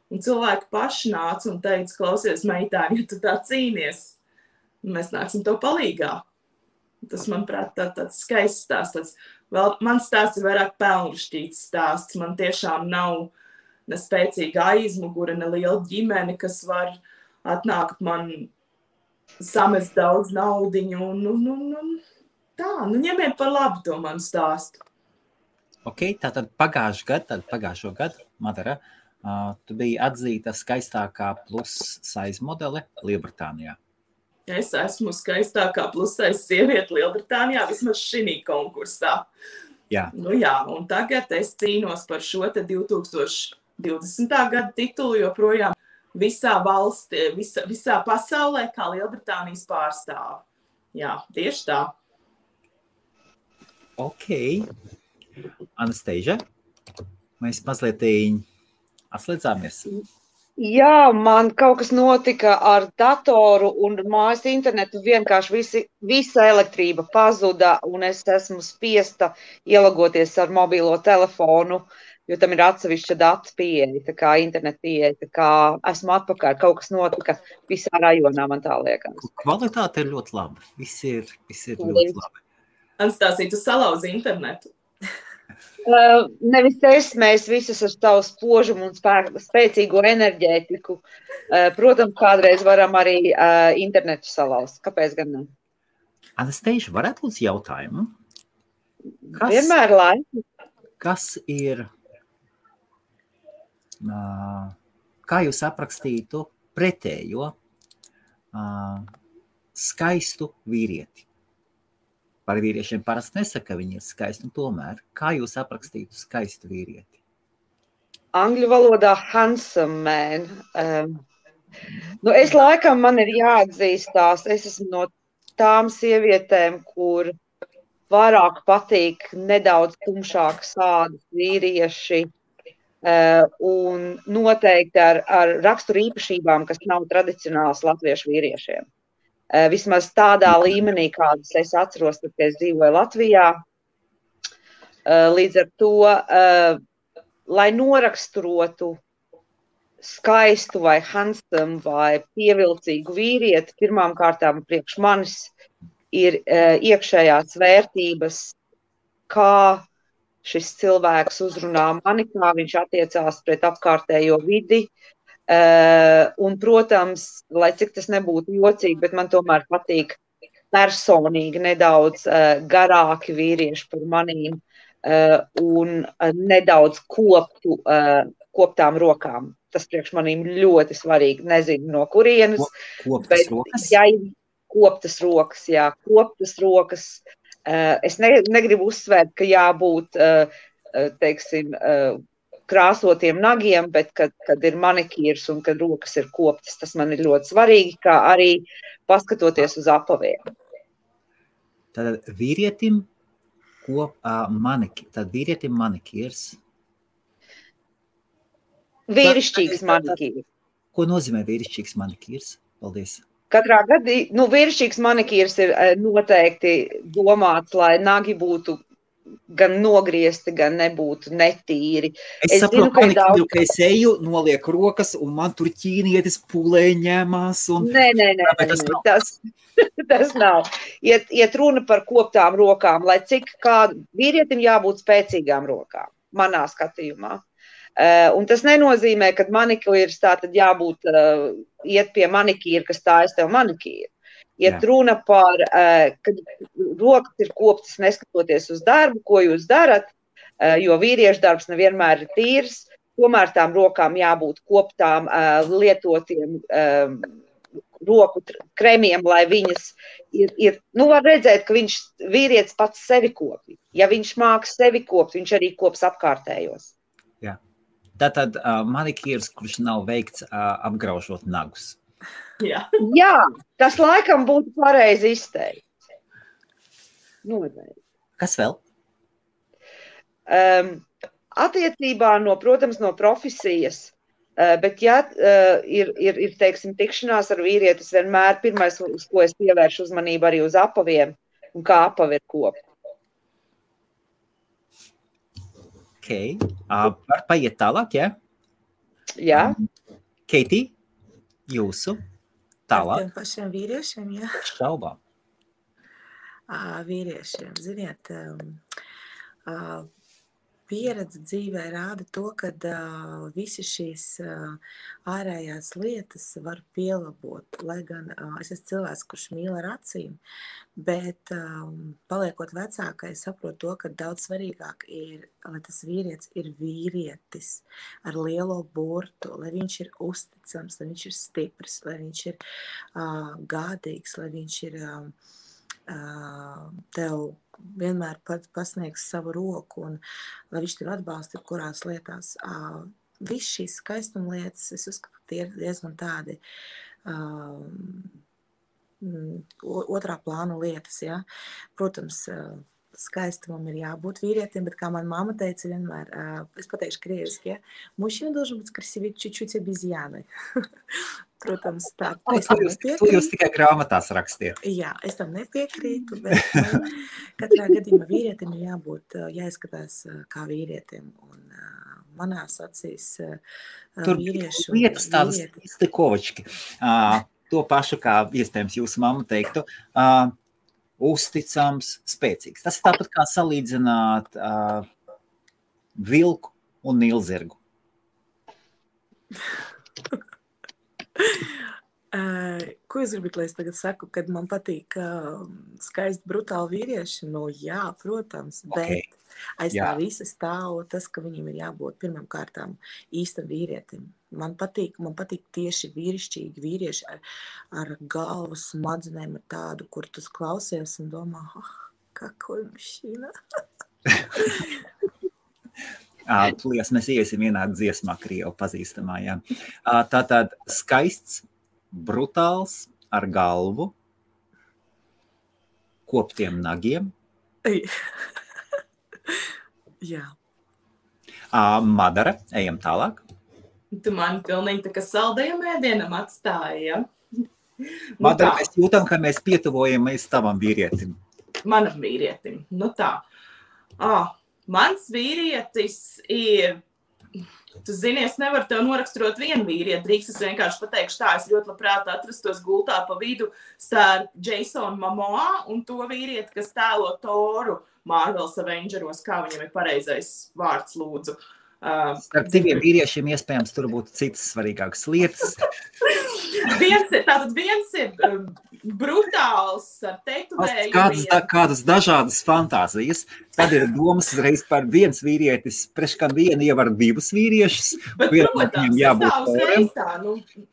Un cilvēki paši nāca un teica, klausies, meitāni, ja tu tā cīnies, mēs nāksim tev palīgā. Tas, manuprāt, tāds skaists stāsts. Mans stāsts ir vairāk pelnrašķīts stāsts. Man tiešām nav ne spēcīga aizmugure, ne liela ģimene, kas var atnākt man samest daudz naudiņu. Ņemiet par labu to manu stāstu. Ok, tātad pagājušo gadu, Madara, tu biji atzīta skaistākā plus size modele Lielbritānijā. Es esmu skaistākā plus-size sieviete Lielbritānijā, vismaz šī konkursā. Jā. Un tagad es cīnos par šo 2020. Gada titulu, joprojām visā valstī, visā pasaulē, kā Lielbritānijas pārstāve. Jā, tieši tā. Ok. Anastasia, mēs mazliet atslēdzāmies. Jā, man kaut kas notika ar datoru un mājas internetu, vienkārši visa elektrība pazuda un es esmu spiesta ielagoties ar mobilo telefonu, jo tam ir atsevišķa datu pieeja, tā kā internet pieeja, tā kā esmu atpakaļ, kaut kas notika visā rajonā, man tā liekas. Kvalitāte ir ļoti laba, viss ir ļoti labi. Anastasija, tu salauzi internetu? Nevis mēs visas ar savu spožumu un spēcīgo enerģētiku. Protams, kādreiz varam arī internetu salauzt. Kāpēc gan ne? Anastasia, varētu lūdzu jautājumu? Vienmēr laimi. Kas ir, kā jūs aprakstītu pretējo skaistu vīrieti? Par vīriešiem parasti nesaka, ka viņi ir skaisti, un tomēr, kā jūs aprakstītu skaistu vīrieti? Angļu valodā handsome man. Es laikam man ir jāatzīstās, es esmu no tām sievietēm, kur vairāk patīk nedaudz tumšākas ādas vīrieši un noteikti ar raksturu īpašībām, kas nav tradicionāls latviešu vīriešiem. Vismaz tādā līmenī, kādas es atceros, kad es dzīvoju Latvijā. Līdz ar to lai noraksturotu skaistu vai handsome vai pievilcīgu vīrieti, pirmām kārtām priekš manis ir iekšējās vērtības, kā šis cilvēks uzrunā mani, kā viņš attiecās pret apkārtējo vidi. Un, protams, lai cik tas nebūtu jocīgi, bet man tomēr patīk personīgi nedaudz garāki vīrieši par manīm un nedaudz koptām rokām. Tas priekš manīm ļoti svarīgi, nezinu no kurienes. Koptas rokas? Jā, koptas rokas, jā, koptas rokas. Es negribu uzsvērt, ka jābūt, teiksim, krāsotiem nagiem, bet kad ir manikīrs un kad rokas ir koptas, tas man ir ļoti svarīgi, kā arī paskatoties uz apaviem. Tad vīrietim manikīrs. Vīrišķīgs manikīrs. Ko nozīmē vīrišķīgs manikīrs? Paldies. Katrā gadījumā, vīrišķīgs manikīrs ir noteikti domāts, lai nagi būtu gan nogriezti, gan nebūtu netīri. Es saprotu, ka es eju, nolieku rokas, un man tur ķīnietis pulē ņemās. Nē, tas nav. Iet runa par koptām rokām, lai cik kādu vīrietim jābūt spēcīgām rokām, manā skatījumā. Un tas nenozīmē, ka manikīrs tā tad jābūt iet pie manikīra, kas stājas tev manikīru. Iet runa par, kad rokas ir koptas neskatoties uz darbu, ko jūs darat, jo vīriešu darbs nevienmēr ir tīrs, tomēr tām rokām jābūt koptām lietotiem roku kremiem, lai viņas ir, var redzēt, ka vīrietis pats sevi kopi. Ja viņš māks sevi kopt, viņš arī kops apkārtējos. Jā. Tātad manikīrs, kurš nav veikts apgraužot nagus. Jā, tas laikam būtu pareizi izteikts. Kas vēl? Attiecībā protams, no profesijas, bet ir teiksim, tikšanās ar vīrietis vienmēr pirmais, uz ko es pievēršu uzmanību arī uz apaviem un kā apavi ir kopti. Okay. Var paiet tālāk, jā? Jā. Keitī, jūsu tālāk? Tiem pašiem vīriešiem, jā? Šaubām. Vīriešiem, ziniet, pieredze dzīvē rāda to, ka visi šīs ārējās lietas var pielabot, lai gan es esmu cilvēks, kurš mīl ar acīm, bet paliekot vecākai, saprotu to, ka daudz svarīgāk ir, lai tas vīrietis ir vīrietis ar lielo burtu, lai viņš ir uzticams, lai viņš ir stiprs, lai viņš ir gādīgs, lai viņš ir tev vienmēr pasniegs savu roku un lai viņš tev atbalsta kurās lietās. Viss šīs skaistuma lietas, es uzskatu, tie ir diezgan tādi otrā plāna lietas, ja. Protams, skaistumam ir jābūt vīrietim, bet kā man mamma teica vienmēr, es pateikšu krieviski, ja, мужчина должен быть красивее чуть-чуть обезьяной. Protams, tā. To jūs tikai grāmatās rakstiet. Jā, es tam nepiekrītu, bet katrā gadījumā vīrietim ir jābūt, jāizskatās kā vīrietim. Un manās acīs vīriešu... Tur vietas tādas stikovački. To pašu, kā iespējams jūsu mamma teiktu, uzticams, spēcīgs. Tas ir tāpat kā salīdzināt vilku un nilzirgu. Ko jūs gribat, lai es tagad saku, kad man patīk skaisti brutāli vīrieši? Nu jā, protams, bet aiz tā visa stāv tas, ka viņiem ir jābūt pirmām kārtām īstam vīrietim. Man patīk tieši vīrišķīgi vīrieši ar galvu smadzenēm, ar tādu, kur tu klausies un domā, какой мужчина. Tūlīt mēs iesim vienā dziesmā, Krievu pazīstamā, jā. Tātad skaists, brutāls, ar galvu, koptiem nagiem. Jā. Madara, ejam tālāk. Tu mani pilnīgi tā kā saldējam ēdienam atstāji, ja? Madara, mēs jūtam, ka mēs pietuvojamies tavam vīrietim. Manam vīrietim, nu tā. Mans vīrietis ir Tu zini, es nevaru tev noraksturot vienu vīrieti. Drīkst es vienkārši pateikšu tā, es ļoti labprāt atrastos gultā pa vidu starp Jasonu Momoa un to vīrieti, kas tēlo Toru Marvels Avengeros, kā viņam ir pareizais vārds, lūdzu. Starp diviem vīriešiem iespējams tur būtu citas svarīgākas lietas. Viens ir brutāls ar tetovējumiem. Kādas dažādas fantāzijas. Tad ir domas reiz par viens vīrietis, preškam vienu ievar divus vīriešus. Bet, protams,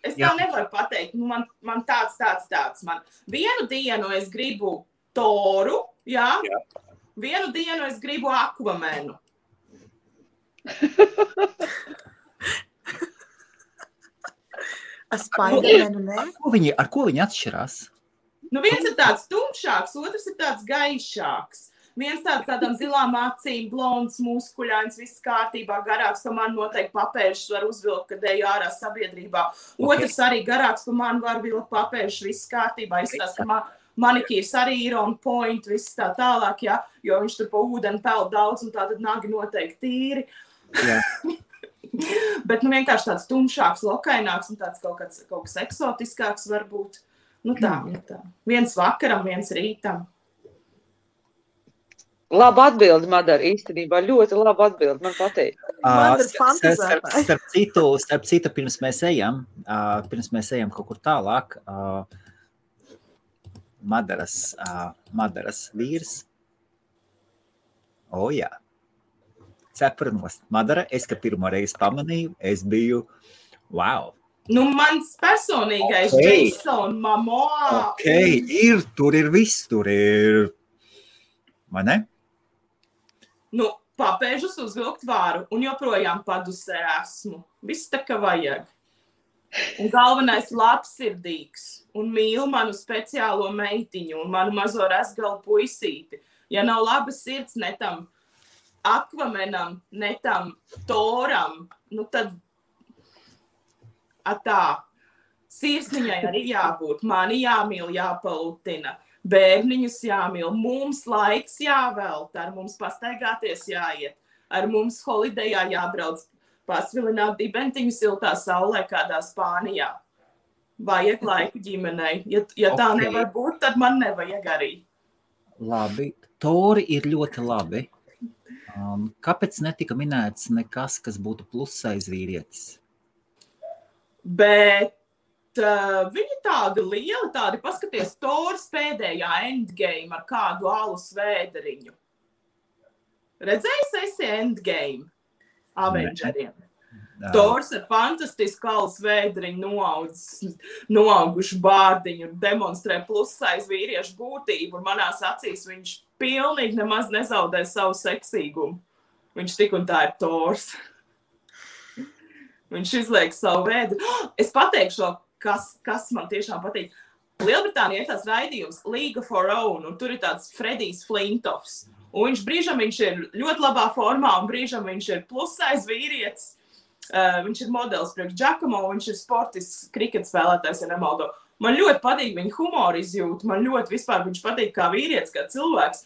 es tā nevaru pateikt. Man tāds. Man vienu dienu es gribu Toru, jā? Vienu dienu es gribu Aquamanu. Spidermanu, ne? Ar ko viņi atšķirās? Viens ir tāds tumšāks, otrs ir tāds gaišāks. Viens tādām zilām acīm, blonds, muskuļains, viss kārtībā, garāks, pa man noteikti papēžus var uzvilkt, kad eju ārā sabiedrībā. Otrs arī garāks, pa man var vilkt papēžus, viss kārtībā. Izskatās, ka manikīrs arī ir on point, viss tā tālāk, jā, jo viņš tur pa ūdeni peld daudz un tātad nagi noteikti tīri. Jā. Bet vienkārši tāds tumšāks, lokaināks un tāds kaut kas eksotiskāks varbūt. Tā. Viens vakaram, viens rītam. Laba atbildi, Madara, īstenībā. Ļoti laba atbildi, man patīk. Starp citu, pirms mēs ejam kaut kur tālāk, Madaras vīrs. Jā. Cepuranos. Madara, es, ka pirmo reizi pamanīju, es biju, wow. Mans personīgais Jason Momoa. Tur ir viss, tur ir, vai ne? Papēžus uzvilkt varu un joprojām padusē esmu. Viss tā, ka vajag. Un galvenais labsirdīgs un mīl manu speciālo meitiņu un manu mazo resgalu puisīti. Ja nav labas sirds netam Aquamanam, netam Toram, tad tā. Sirsniņai arī jābūt, mani jāmīl, jāpalutina, bērniņus jāmīl, mums laiks jāvelta, ar mums pastaigāties jāiet, ar mums holidejā jābrauc, pasvilināt dibentiņu siltā saulē kādā Spānijā. Vajag laiku ģimenei. Ja tā nevar būt, tad man nevajag arī. Labi, Tori ir ļoti labi. Kāpēc netika minēts nekas, kas būtu plusais vīrietis? Bet viņi tādi lieli, paskaties, Tors pēdējā Endgame ar kādu alus vēderiņu. Redzējis esi Endgame Avengeriem? Tors ar fantastisku alus vēderiņu noaugušu bārdiņu un demonstrē plussais vīriešu būtību, un manās acīs viņš pilnīgi nemaz nezaudē savu seksīgumu. Viņš tik un tā ir Tors. Viņš izliek savu vēdu. Es pateikšu, kas man tiešām patīk. Lielbritānijā ir tāds raidījums League of Our Own, un tur ir tāds Fredijs Flintoffs. Un brīžam viņš ir ļoti labā formā, un brīžam viņš ir plusais vīrietis. Viņš ir modelis priekš Giacomo, viņš ir sportisks kriketa spēlētājs, ja nemaldo. Man ļoti patīk viņa humora izjūta, man ļoti vispār viņš patīk kā vīrietis, kā cilvēks.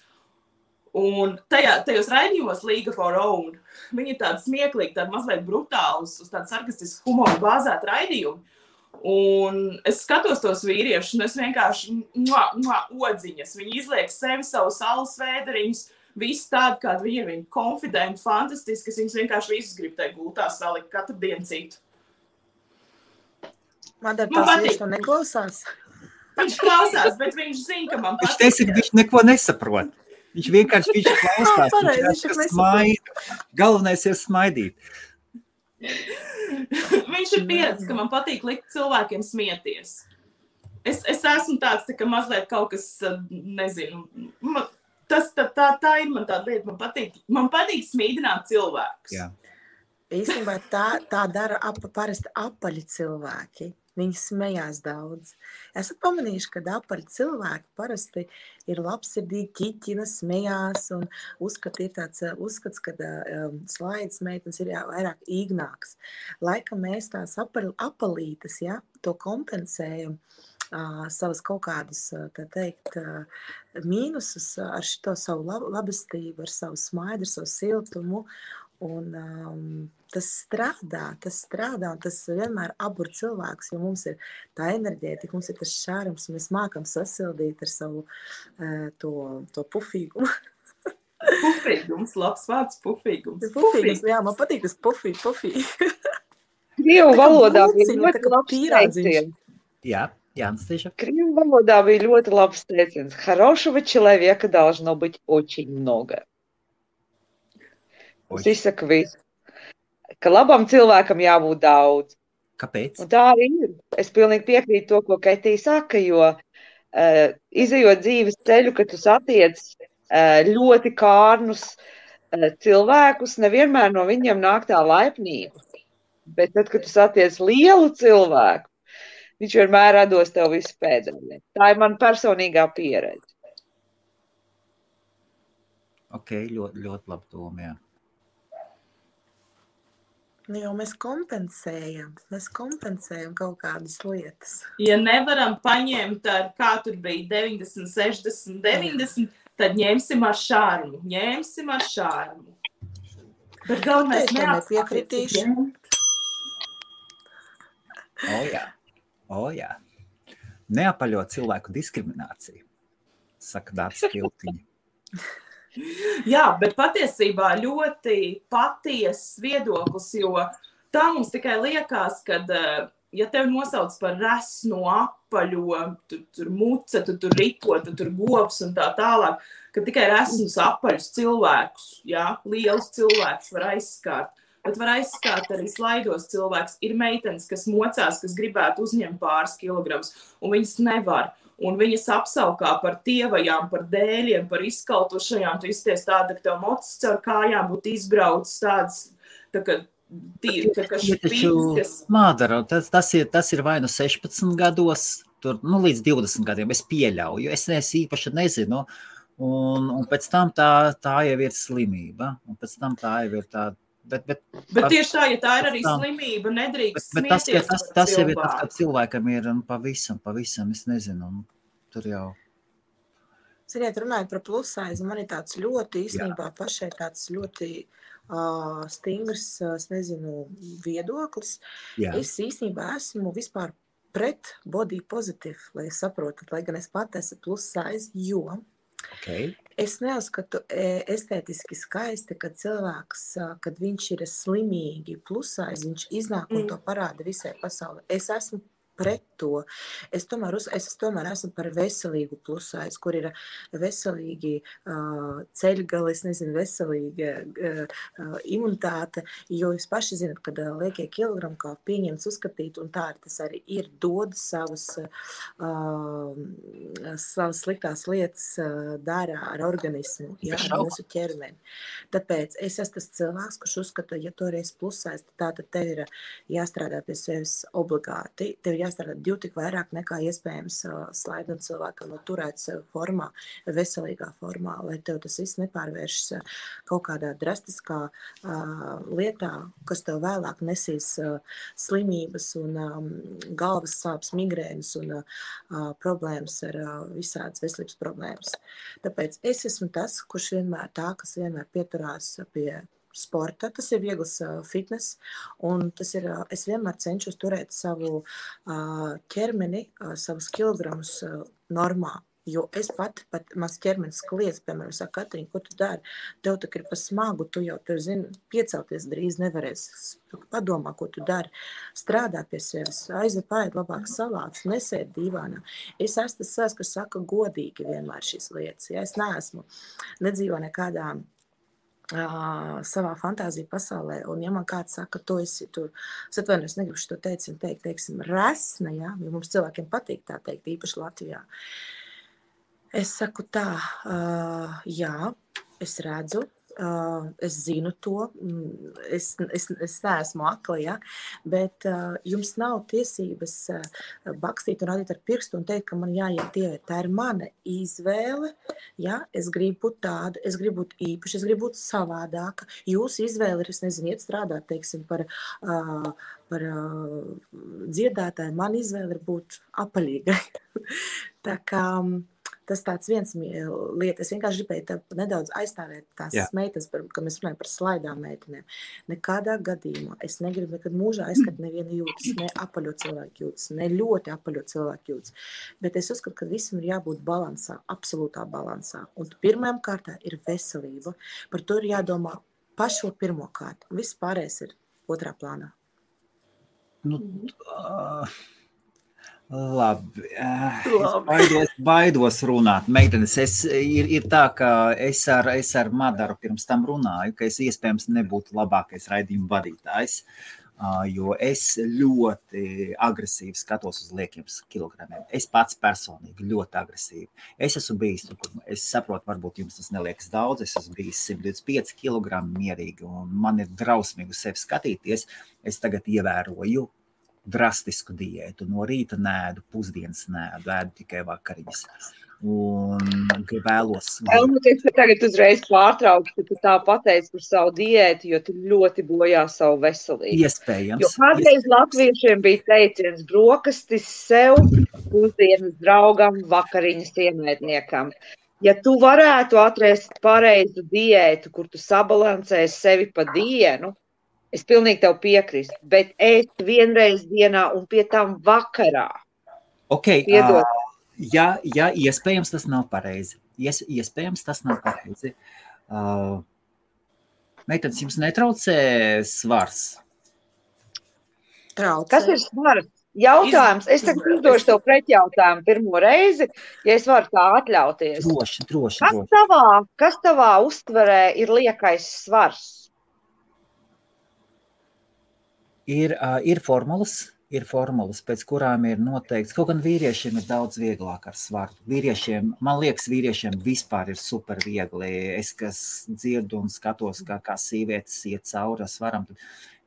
Un tajos raidījumos League of Our Own, viņi ir tādi smieklīgi, tādi mazliet brutāli, uz tādu sarkastisku humoru bāzēt raidījumu. Un es skatos tos vīriešus, un es vienkārši odziņas. Viņi izliek sevi savus alus vēderiņus, visu tādu, kādu viņi ir, viņi konfidenti, fantastiski, es viņus vienkārši visus gribu tai gultā salikt katru dienu citu. Madara, tās viņš to neklausās? Viņš klausās, bet viņš zina, ka man patīk. Viņš teica, ka viņš neko nesaprot. Viņš vienkārši klausās, viņš smaida. Galvenais ir smaidīt. Viņš ir pieredzis, ka man patīk likt cilvēkiem smieties. Es esmu tāds, ka mazliet kaut kas, nezinu, tā ir man tāda lieta, man patīk smīdināt cilvēkus. Jā. Īstenībā tā dara parasti apaļi cilvēki. Viņi smējās daudz. Esat pamanījuši, ka apaļi cilvēki parasti ir labsirdīgi, ķiķina, smējās un ir tāds uzskats, ka slaidas meitenes ir vairāk īgnāks. Laikam mēs tās apalītes, to kompensējam savas kaut kādus, tā teikt, mīnusus ar šito savu labestību, ar savu smaidu, ar savu siltumu. Un tas strādā, un tas vienmēr abur cilvēks, jo mums ir tā enerģētika, mums ir tas šārums, mēs mākam sasildīt ar savu to pufīgumu. Pufīgums, labs vārds, pufīgums. Pufīgums, jā, man patīk tas pufī. Krievu valodā bija tā ļoti kā labs pīrādziņš. teiciens. Jā, Anastasia. Крым валода bija ļoti labs teiciens. Хорошего человека должно быть очень много. Tas izsaka visu. Ka labam cilvēkam jābūt daudz. Kāpēc? Un tā arī ir. Es pilnīgi piekrītu to, ko Kaitī saka, jo izejot dzīves ceļu, kad tu satiec ļoti kārnus cilvēkus, nevienmēr no viņiem nāk tā laipnība. Bet tad, kad tu satiec lielu cilvēku, viņš vienmēr dos tev visu pēdējā. Tā ir man personīgā pieredze. Ok, ļoti, ļoti labi doma, jā. Jo mēs kompensējam kaut kādas lietas. Ja nevaram paņemt ar, kā tur bija 90, 60, 90, tad ņemsim ar šārmu. Bet galvenais nepiekritīšu. O jā. Neapaļot cilvēku diskrimināciju, saka Dārts Kiltiņa. Jā, bet patiesībā ļoti patiesas viedoklis, jo tā mums tikai liekas, kad, ja tev nosauc par resno, apaļo, tur muce, tur riko, tur govs un tā tālāk, ka tikai resnus apaļus cilvēkus, jā, lielus cilvēkus var aizskārt. Bet var aizskārt arī slaidos cilvēks. Ir meitenes, kas mocās, kas gribētu uzņemt pāris kilogramus, un viņas nevar. Un viņas apsaukā par tievajām, par dēļiem, par izkaltušajām. Tu izties tāda, ka tev mocis caur kājām būtu izbraucis tādas, tā kā špīgas. Mādara, tas ir vai nu 16 gados, tur, līdz 20 gadiem, es pieļauju, es īpaši nezinu. Un pēc tam tā jau ir slimība, un pēc tam tā jau ir tā. Bet tieši tā, ja tā ir arī slimība, nedrīkst smieties par cilvēku. Tas jau ir tas, ka cilvēkam ir pavisam, es nezinu, tur jau. Ziniet, runājot par plusaizi, man ir tāds ļoti, īstenībā pašai tāds ļoti stingrs, es nezinu, viedoklis. Jā. Es īstenībā esmu vispār pret body positive, lai saprotat, lai gan es pat esmu plusaizi, jo es neuzskatu estētiski skaisti, kad cilvēks, kad viņš ir slimīgi plusais, viņš iznāk un to parāda visai pasaulē. Es esmu pret to. Es tomēr esmu par veselīgu plusais, kur ir veselīgi ceļgali, es nezinu, veselīga imunitāte, jo jūs paši zinat, kad liekie kilogrami kā pieņemts uzskatīt, un tā tas arī ir dod savas sliktās lietas dara ar organismu, jā, ar mūsu ķermeni. Tāpēc es esmu tas cilvēks, kurš uzskata, ja tu esi plusais, tad tev ir jāstrādā pie sevis obligāti, tev ir jāstrādā 2 tik vairāk nekā iespējams slaidot cilvēkam turēt sevi formā, veselīgā formā, lai tev tas viss nepārvēršas kaut kādā drastiskā lietā, kas tev vēlāk nesīs slimības un galvas sāpes, migrēnas un problēmas ar visādas veselības problēmas. Tāpēc es esmu tas, kas vienmēr pieturās pie sporta, tas ir viegls fitness, un tas ir, es vienmēr cenšos turēt savu ķermeni, savus kilogramus normā, jo es pat mans ķermenis kliedz, piemēram, saka, Katrīna, ko tu dari? Tev tak ir pa smagu, tu jau, zini, piecelties drīz nevarēs, padomā, ko tu dari, strādā pie sevis, aizved labāk salātus, nesēd dīvānā. Es esmu tas savs, kas saka godīgi vienmēr šīs lietas, ja es neesmu, nedzīvo nekādā savā fantāzija pasaulē, un ja man kāds saka, tu esi tur, es atvainojos, negribu šo teiksim, resna, ja, jo mums cilvēkiem patīk tā teikt, īpaši Latvijā. Es saku tā, jā, es redzu, es zinu to, es neesmu akla, ja, bet jums nav tiesības bakstīt un rādīt ar pirkstu un teikt, ka man jāiet dievēt. Tā ir mana izvēle, ja, es gribu būt tāda, es gribu būt īpaši, es gribu būt savādāka. Jūsu izvēle ir, es nezinu, iet strādāt, teiksim, par dziedātāju, man izvēle ir būt apaļīgai. Tā kā tas tāds viens lieta. Es vienkārši gribēju nedaudz aizstāvēt tās meitas, kad mēs runājam par slaidām meitenēm. Nekādā gadījumā es negribu nekad mūžā aizskat nevienu jūtas, ne apaļo cilvēku jūtas, ne ļoti apaļo cilvēku jūtas. Bet es uzskatu, ka visam ir jābūt balansā, absolūtā balansā. Un pirmajam kārtā ir veselība. Par to ir jādomā pašo pirmo kārtu. Viss pārējais ir otrā plānā. Labi. Baidos runāt. Meitenes, ir tā, ka es ar Madaru pirms tam runāju, ka es iespējams nebūtu labākais raidījuma vadītājs, jo es ļoti agresīvi skatos uz liekiem kilogramiem. Es pats personīgi ļoti agresīvi. Es esmu bijis, es saprotu, varbūt jums tas neliekas daudz, es esmu bijis 125 kilogrami mierīgi, un man ir drausmīgi uz sevi skatīties. Es tagad ievēroju drastisku diētu. No rīta nēdu, pusdienas nēdu, ēdu tikai vakariņas. Un vēlos... Es tagad uzreiz pārtraukšu, ka tu tā pateici par savu diētu, jo tu ļoti bojā savu veselību. Iespējams. Jo kādreiz latviešiem bija teiciens brokastis sev, pusdienas draugam, vakariņas ienaidniekam. Ja tu varētu atrast pareizu diētu, kur tu sabalansēsi sevi pa dienu, es pilnīgi tev piekrīstu, bet ēst vienreiz dienā un pie tam vakarā. Okay, ja iespējams tas nav pareizi. Iespējams tas nav pareizi. Meitenes, jums netraucē svars? Traucē. Kas ir svars? Jautājums. Es tagad uzdošu tev pretjautājumu pirmo reizi, ja es varu tā atļauties. Droši. Kas tavā uztverē ir liekais svars? Ir formulas, pēc kurām ir noteikts, kaut gan vīriešiem ir daudz vieglāk ar svaru. Man liekas, vīriešiem vispār ir super viegli. Es, kas dzirdu un skatos, kā sievietes iet cauri svaram, tad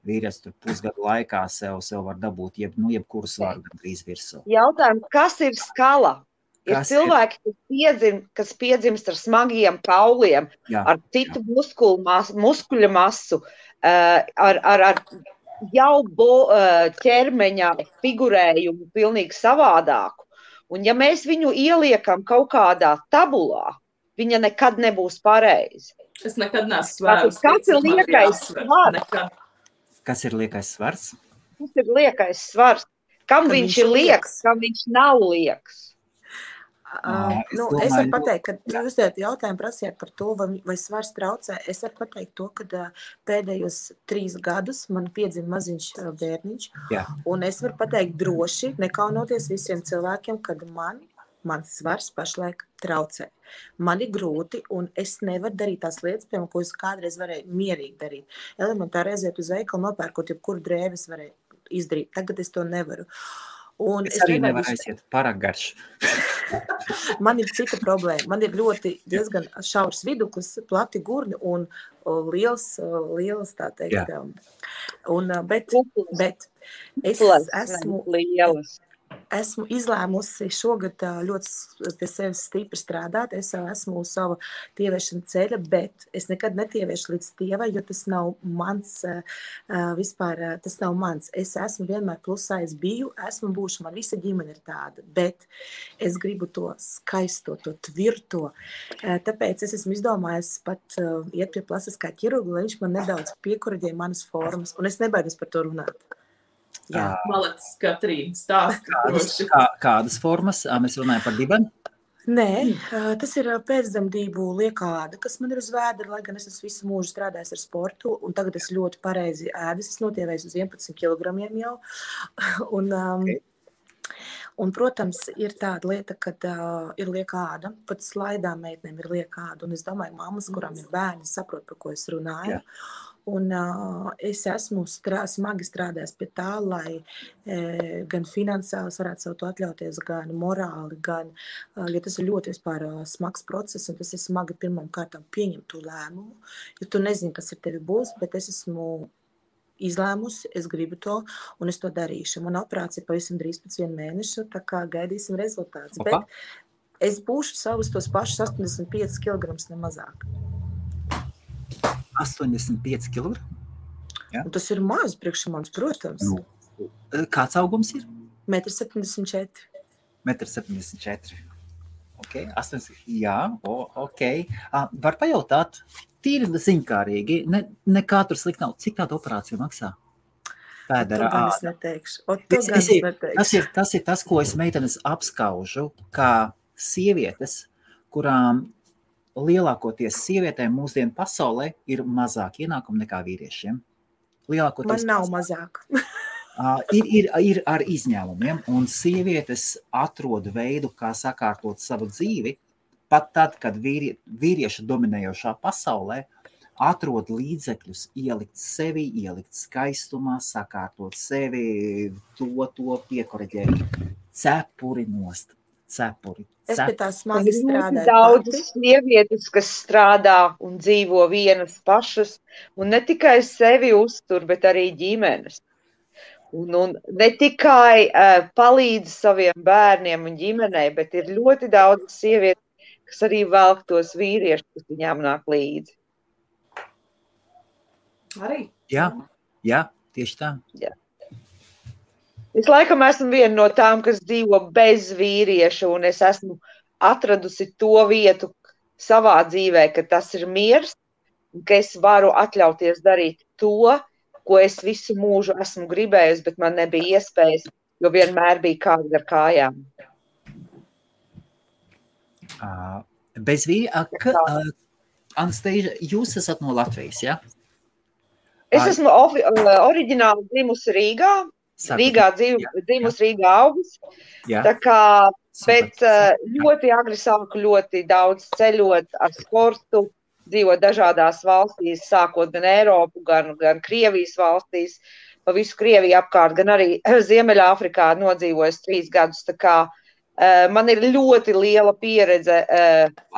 vīrietis tur pusgadu laikā sev var dabūt jebkuru svaru gandrīz virsū. Jautājums, kas ir skala? Ir cilvēki, kas piedzimst ar smagiem kauliem, ar citu muskuļu masu, ar jau ķermeņa figurējumu pilnīgi savādāku. Un ja mēs viņu ieliekam kaut kādā tabulā, viņa nekad nebūs pareizi. Es nekad neesmu svērus. Kas ir liekais svars? Kas ir liekais svars? Kas ir liekais svars? Kam viņš ir lieks, kam viņš nav lieks? Es varu pateikt, ka jūs jautājumu prasījāt par to, vai svars traucē. Es varu pateikt to, ka pēdējos 3 gadus man piedzima maziņš bērniņš, un es varu pateikt droši, nekaunoties visiem cilvēkiem, kad mans svars pašlaik traucē. Man ir grūti, un es nevaru darīt tās lietas, piemēram, ko es kādreiz varēju mierīgi darīt. Elementāri aiziet uz veikalu, nopērkot jebkuru drēbes varēju izdarīt. Tagad es to nevaru. Un es arī nevaru aiziet pārāk garš. Man ir cita problēma. Man ir diezgan šaurs viduklis, plati gurni un liels tā teikt. Bet es esmu izlēmusi šogad ļoti pie sevis stipri strādāt. Es esmu uz savu tievēršana ceļa, bet es nekad netievēršu līdz tievai, jo tas nav mans vispār, tas nav mans. Es esmu vienmēr plusā, es biju, esmu būšu, man visa ģimene ir tāda, bet es gribu to skaisto, to tvirto. Tāpēc es esmu izdomājis pat iet pie plastiskā ķirurga, lai viņš man nedaudz piekuraģē manas formas, un es nebaidos par to runāt. Malets, Katrīna, stāsti. Kādas formas? Mēs runājam par dibeni? Nē, tas ir pēcdzemdību liekā āda, kas man ir uz vēdera, lai gan es esmu visu mūžu strādājis ar sportu, un tagad es ļoti pareizi ēdas, es notievējos uz 11 kilogramiem jau. Un, protams, ir tāda lieta, kad ir liekā āda, pat slaidām meitnēm ir liekā āda, un es domāju, mammas, kurām ir bērni, saprot, par ko es runāju. Un es esmu smagi strādājis pie tā, lai gan finansiāli varētu sev to atļauties, gan morāli, gan, jo tas ir ļoti vispār smags process, un tas ir smagi pirmām kārtām pieņemt to lēmumu, jo tu nezini, kas ar tevi būs, bet es esmu izlēmusi, es gribu to, un es to darīšu. Mana operācija pavisam drīz pēc 1 mēneša, tā kā gaidīsim rezultātus. Bet es būšu savus tos pašus 85 kg nemazāk. 85 kg? Ja? Tas ir maz priekš manis, protams. Kāds augums ir? 1,74 m. 1,74 m. Okay, 8, jā, ok. Var pajautāt, tīri ziņkārīgi, nekā tur slikt nav. Cik tāda operācija maksā? Pēdera āda. Tas ir tas, ko es meitenes apskaužu, kā sievietes, kurām lielākoties sievietēm mūsdienu pasaulē ir mazāk ienākumu nekā vīriešiem. Man nav mazāk. Ir ar izņēmumiem, un sievietes atrod veidu, kā sakārtot savu dzīvi, pat tad, kad vīrieša dominējošā pasaulē atrod līdzekļus, ielikt sevi, ielikt skaistumā, sakārtot sevi, to piekoreģēt. Cepuri nost. Cepuri. Es pie tā smagi strādāju. Daudzas sievietes, kas strādā un dzīvo vienas pašas, un ne tikai sevi uztur, bet arī ģimenes. Un ne tikai palīdz saviem bērniem un ģimenei, bet ir ļoti daudz sievietes, kas arī velk tos vīriešus, kas viņām nāk līdzi. Arī? Jā, tieši tā. Jā. Es laikam esmu viena no tām, kas dzīvo bez vīrieša, un es esmu atradusi to vietu savā dzīvē, ka tas ir miers, un ka es varu atļauties darīt to, ko es visu mūžu esmu gribējusi, bet man nebija iespējas, jo vienmēr bija kāds ar kājām. Bez vīrieša, Anastasia, jūs esat no Latvijas, ja? Es esmu oriģināli dzimusi Rīgā. Rīgā dzimusi Rīgā augus. Tā kā pēc ļoti agri sāku ļoti daudz ceļot ar sportu, dzīvot dažādās valstīs, sākot gan Eiropu, gan Krievijas valstīs, pa visu Krieviju apkārt, gan arī Ziemeļāfrikā nodzīvojis 3 gadus. Tā kā man ir ļoti liela pieredze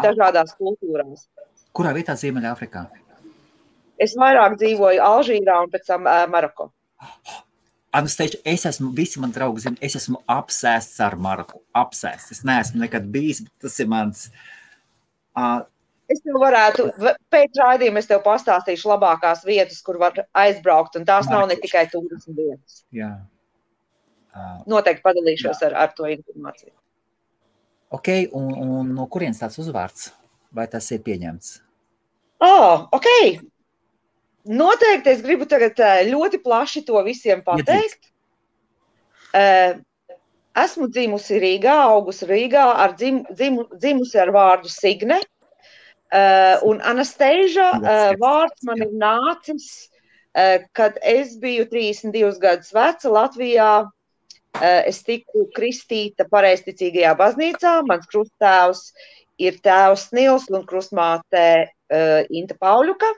dažādās kultūrās. Kurā vietā Ziemeļāfrikā? Es vairāk dzīvoju Alžīrā un pēc tam Maroko. Anastasia, visi man draugi zina, es esmu apsēsts ar Maroku. Apsēsts. Es neesmu nekad bijis, bet tas ir mans. Es tev varētu, pēc raidījuma es tev pastāstīšu labākās vietas, kur var aizbraukt, un tās nav ne tikai turismu vietas. Jā. Noteikti padalīšos ar to informāciju. Ok, un no kurienes tāds uzvārds? Vai tas ir pieņemts? Ok. Noteikti es gribu tagad ļoti plaši to visiem pateikt. Esmu dzimusi Rīgā, augusi Rīgā, dzimusi ar vārdu Signe. Un Anastasia vārds man ir nācis, kad es biju 32 gadus veca Latvijā. Es tiku kristīta pareizticīgajā baznīcā. Mans krusttēvs ir tēvs Nils un krustmāte Inta Pauļuka.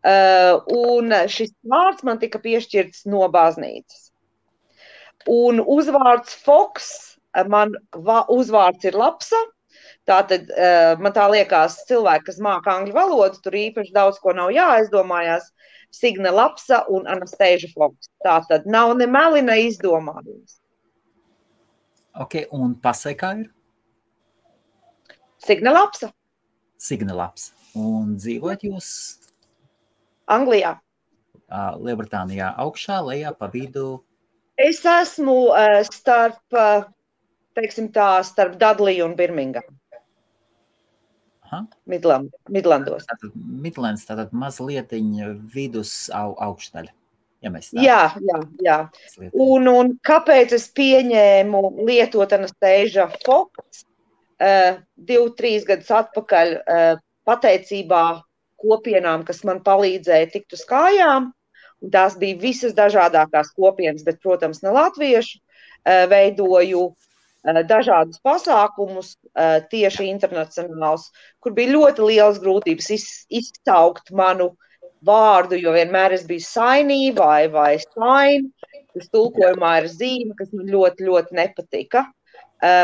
Un šis vārds man tika piešķirts no baznīcas. Un uzvārds Foks, man uzvārds ir Lapsa. Tātad man tā liekas cilvēki, kas māka angļu valodu, tur īpaši daudz ko nav jāaizdomājās. Signe Lapsa un Anastasia Foks. Tātad nav ne meli, ne izdomājums. Ok, un pasē kā ir? Signe Lapsa. Signe Lapsa. Un dzīvojat jūs? Anglijā. Lielbritānijā augšā, lejā, pa vidu? Es esmu starp Dudley un Birmingham. Midlandos. Midlands, tātad mazlietiņa vidus augšdaļa. Ja mēs tā. Jā. Un kāpēc es pieņēmu lietot Anastasia Foks 2-3 gadus atpakaļ pateicībā kopienām, kas man palīdzēja tikt uz kājām, un tās bija visas dažādākās kopienas, bet, protams, ne latviešu, veidoju dažādus pasākumus, tieši internacionāls, kur bija ļoti lielas grūtības izcaukt manu vārdu, jo vienmēr es biju sainī vai sain, kas tulkojumā ir zīme, kas man ļoti, ļoti nepatika.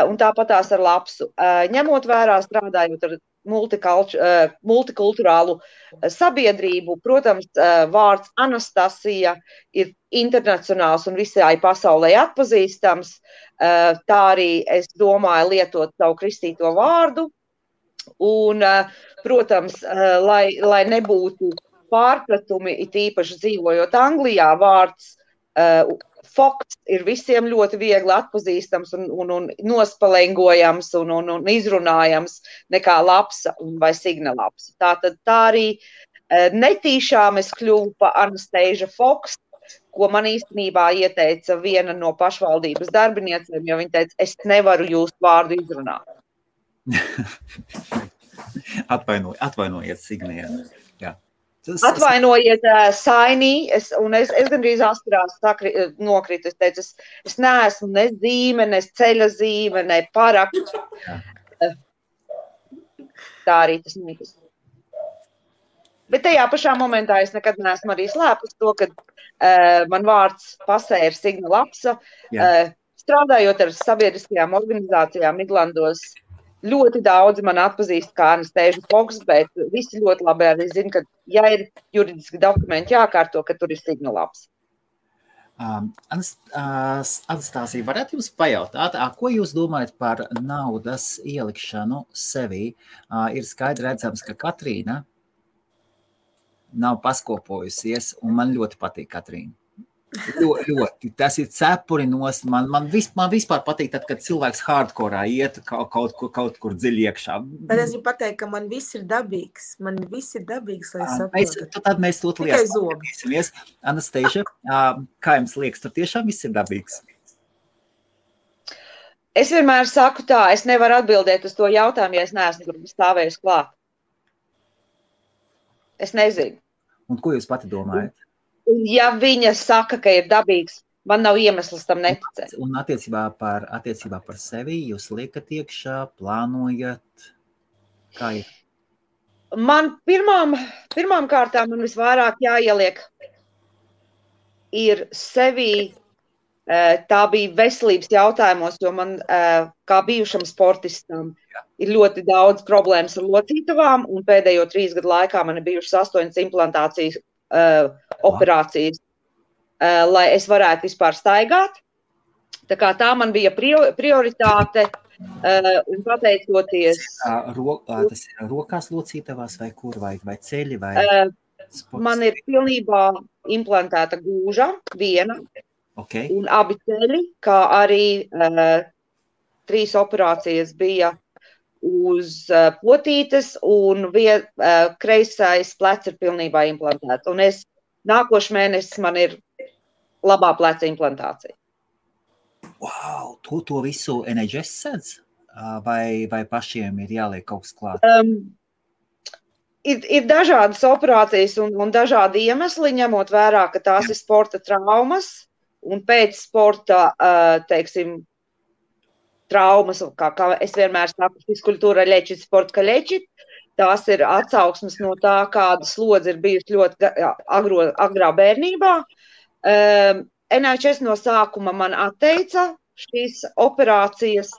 Un tāpatās ar Lapsu. Ņemot vērā strādājot ar multikulturālu sabiedrību, protams, vārds Anastasia ir internacionāls un visai pasaulē atpazīstams. Tā arī es domāju lietot savu kristīto vārdu. Un, protams, lai nebūtu pārpratumi, it īpaši dzīvojot Anglijā, vārds Foks ir visiem ļoti viegli atpazīstams un nospalengojams un izrunājams nekā lapsa vai signa lapsa. Tātad tā arī netīšām es kļuvu pa Anastasia Foks, ko man īstenībā ieteica viena no pašvaldības darbiniecēm, jo viņa teica, es nevaru jūsu vārdu izrunāt. Atvainojiet, Signija. Jā. Atvainojiet, Sainī, es gandrīz asprās nokritu. Es teicu, es neesmu ne zīme, ne ceļa zīme, ne paraksts. Tā arī tas mītas. Bet tajā pašā momentā es nekad neesmu arī slēpus to, ka man vārds pasē ir Signa Lapsa. Strādājot ar sabiedriskajām organizācijām Midlandos, ļoti daudz man atpazīst kā Anastasia Foks, bet visi ļoti labi arī zina, ka ja ir juridiski dokumenti jākārto, ka tur ir Signa Lapsa. Anastasija, varētu jums pajautāt, ko jūs domājat par naudas ielikšanu sevī? Ir skaidri redzams, ka Katrīna nav paskopojusies, un man ļoti patīk Katrīna. Ļoti. Tas ir cepuri nost. Man vispār patīk, tad, kad cilvēks hardkorā iet kaut kur dziļi iekšā. Bet es gribu pateikt, ka man viss ir dabīgs. Man viss ir dabīgs, lai saprotu. Tad mēs to liesimies. Anastasia, kā jums liekas, tur tiešām viss ir dabīgs? Es vienmēr saku tā, es nevaru atbildēt uz to jautājumu, ja es neesmu tur stāvējusi klāt. Es nezinu. Un ko jūs pati domājat? Un ja viņa saka, ka ir dabīgs, man nav iemesls tam neticēt. Un attiecībā par sevi jūs liekat iekšā, plānojat, kā ir? Man pirmām kārtām man visvairāk jāieliek ir sevi, tā bija veselības jautājumos, jo man kā bijušam sportistam ir ļoti daudz problēmas ar locītavām, un pēdējo 3 gadu laikā man ir bijušas 8 implantācijas operācijas, lai es varētu vispār staigāt. Tā kā tā man bija prioritāte, un pateicoties... Tas ir rokās locītavās vai kur, vai ceļi, vai sports? Man ir pilnībā implantēta gūža, viena, un abi ceļi, kā arī 3 operācijas bija uz potītes, un kreisais plecs ir pilnībā implantēts. Un nākošu mēnesi man ir labā pleca implantācija. Wow, to visu NHS sedz? Vai pašiem ir jāliek kaut kas klāt? Ir dažādas operācijas un dažādi iemesli, ņemot vērā, ka tās ir sporta traumas, un pēc sporta, teiksim, traumas, kā es vienmēr saku, fiskultūra ļečit, sporta ka ļečit. Tās ir atsauksmes no tā, kāda slodze ir bijusi ļoti agrā bērnībā. NHS no sākuma man atteica šīs operācijas.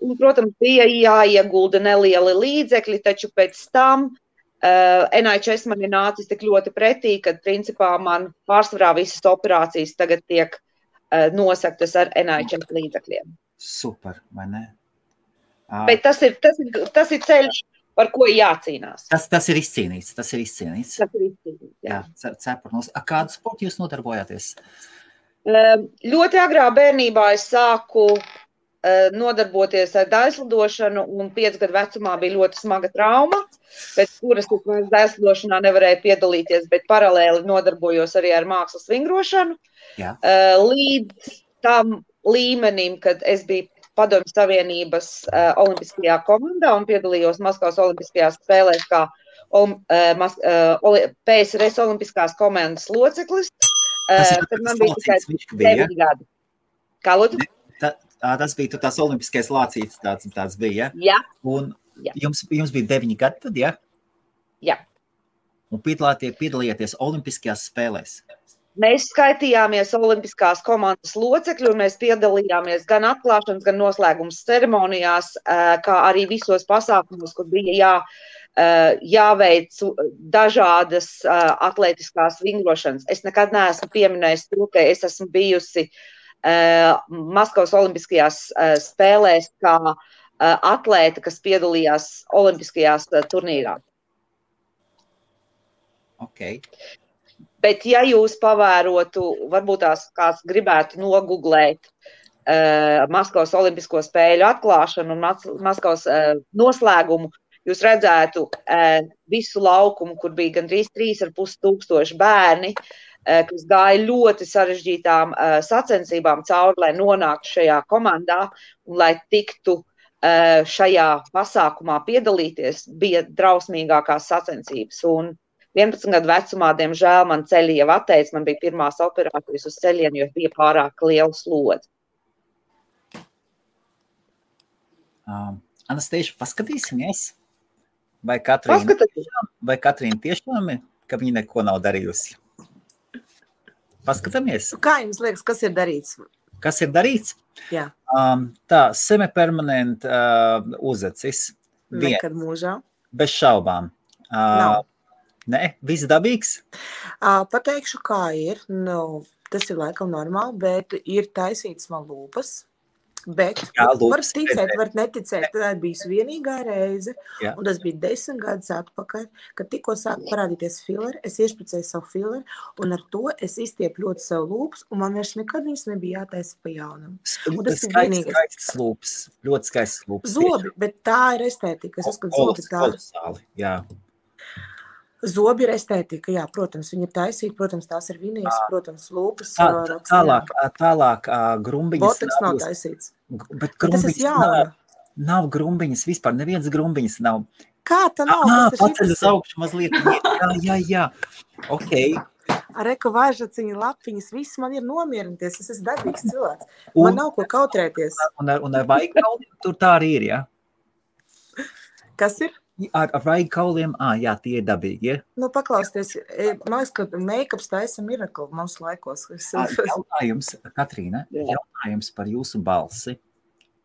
Un, protams, bija jāiegulda nelieli līdzekļi, taču pēc tam NHS man ir nācis tik ļoti pretī, kad principā man pārsvarā visas operācijas tagad tiek nosaktas ar NHS līdzekļiem. Super, vai ne? Bet tas ir ceļš, par ko jācīnās. Tas ir izcīnīts. Jā. Cepurnos. Kādu sportu jūs nodarbojāties? Ļoti agrā bērnībā es sāku nodarboties ar daļslidošanu, un 5 gadu vecumā bija ļoti smaga trauma, pēc kuras es daļslidošanā nevarēju piedalīties, bet paralēli nodarbojos arī ar mākslas vingrošanu. Līdz tam līmenim, kad es biju Padomju Savienības olimpiskajā komandā un piedalījos Maskavas olimpiskajās spēlēs kā PSRS olimpiskās komandas loceklis. Tad man bija tikai 9 gadi. Kā lūdzu? Tas bija tās olimpiskais lācītis, tāds bija, ja? Jā. Un jums bija 9 gadi tad, ja? Jā. Un piedalījāties olimpiskajās spēlēs? Mēs skaitījāmies olimpiskās komandas locekļi, un mēs piedalījāmies gan atklāšanas, gan noslēgums ceremonijās, kā arī visos pasākumos, kur bija jāveic dažādas atlētiskās vingrošanas. Es nekad neesmu pieminējis to, ka es esmu bijusi Maskavas olimpiskajās spēlēs kā atlēta, kas piedalījās olimpiskajās turnīrā. Okay. Bet ja jūs pavērotu, varbūt tās kāds gribētu noguglēt Maskavas olimpisko spēļu atklāšanu un Maskavas noslēgumu, jūs redzētu visu laukumu, kur bija gandrīz 3,5 bērni, kas gāja ļoti sarežģītām sacensībām cauri, lai nonāktu šajā komandā un lai tiktu šajā pasākumā piedalīties, bija drausmīgākās sacensības. Un 11 gadu vecumā, diemžēl, man ceļi jau atteica, man bija pirmās operācijas uz ceļiem, jo bija pārāk liela slodze. Anastasija, paskatīsimies, vai Katrīna tiešām ir, ka viņa neko nav darījusi? Paskatāmies. Kā jums liekas, kas ir darīts? Kas ir darīts? Jā. Tā, semipermanent uzacis. Nekad mūžā. Bez šaubām. Nav. Nē, viss dabīgs? Pateikšu, kā ir. Nu, tas ir laikam normāli, bet ir taisīts man lūpas. Bet var ticēt, var neticēt, tā bija vienīgā reize, un tas bija 10 gadus atpakaļ, kad tikko sāk parādīties fileri, es iešpricēju savu fileri, un ar to es izstiepu ļoti savu lūpas, un man vairs nekad viņas nebija jātaisa pa jaunam. Skaistas lūpas, ļoti skaistas lūpas. Zobi, bet tā ir estētika. Es uzskatu, zobi tā. Kolosāli, jā. Zobi ir estētika, jā, protams, viņi ir taisīti, protams, tās ir vinijas, protams, lūpas. Tālāk grumbiņas. Boteks nav taisīts. Bet grumbiņas nav grumbiņas vispār, neviens grumbiņas nav. Kā tā nav? Paceļ uz augšu mazliet. Jā. Ok. Reku vaižaciņa lapiņas, viss man ir nomierināties, es esmu dabīgs cilvēks. Man nav ko kautrēties. Un ar vaigkauliem tur tā arī ir, jā? Kas ir? Ar vaigkauliem, jā, tie ir dabīgi, ja? Nu, paklausties, man liekas, ka make-ups taisa mirakli mums laikos. Jautājums, Katrīna, jautājums par jūsu balsi.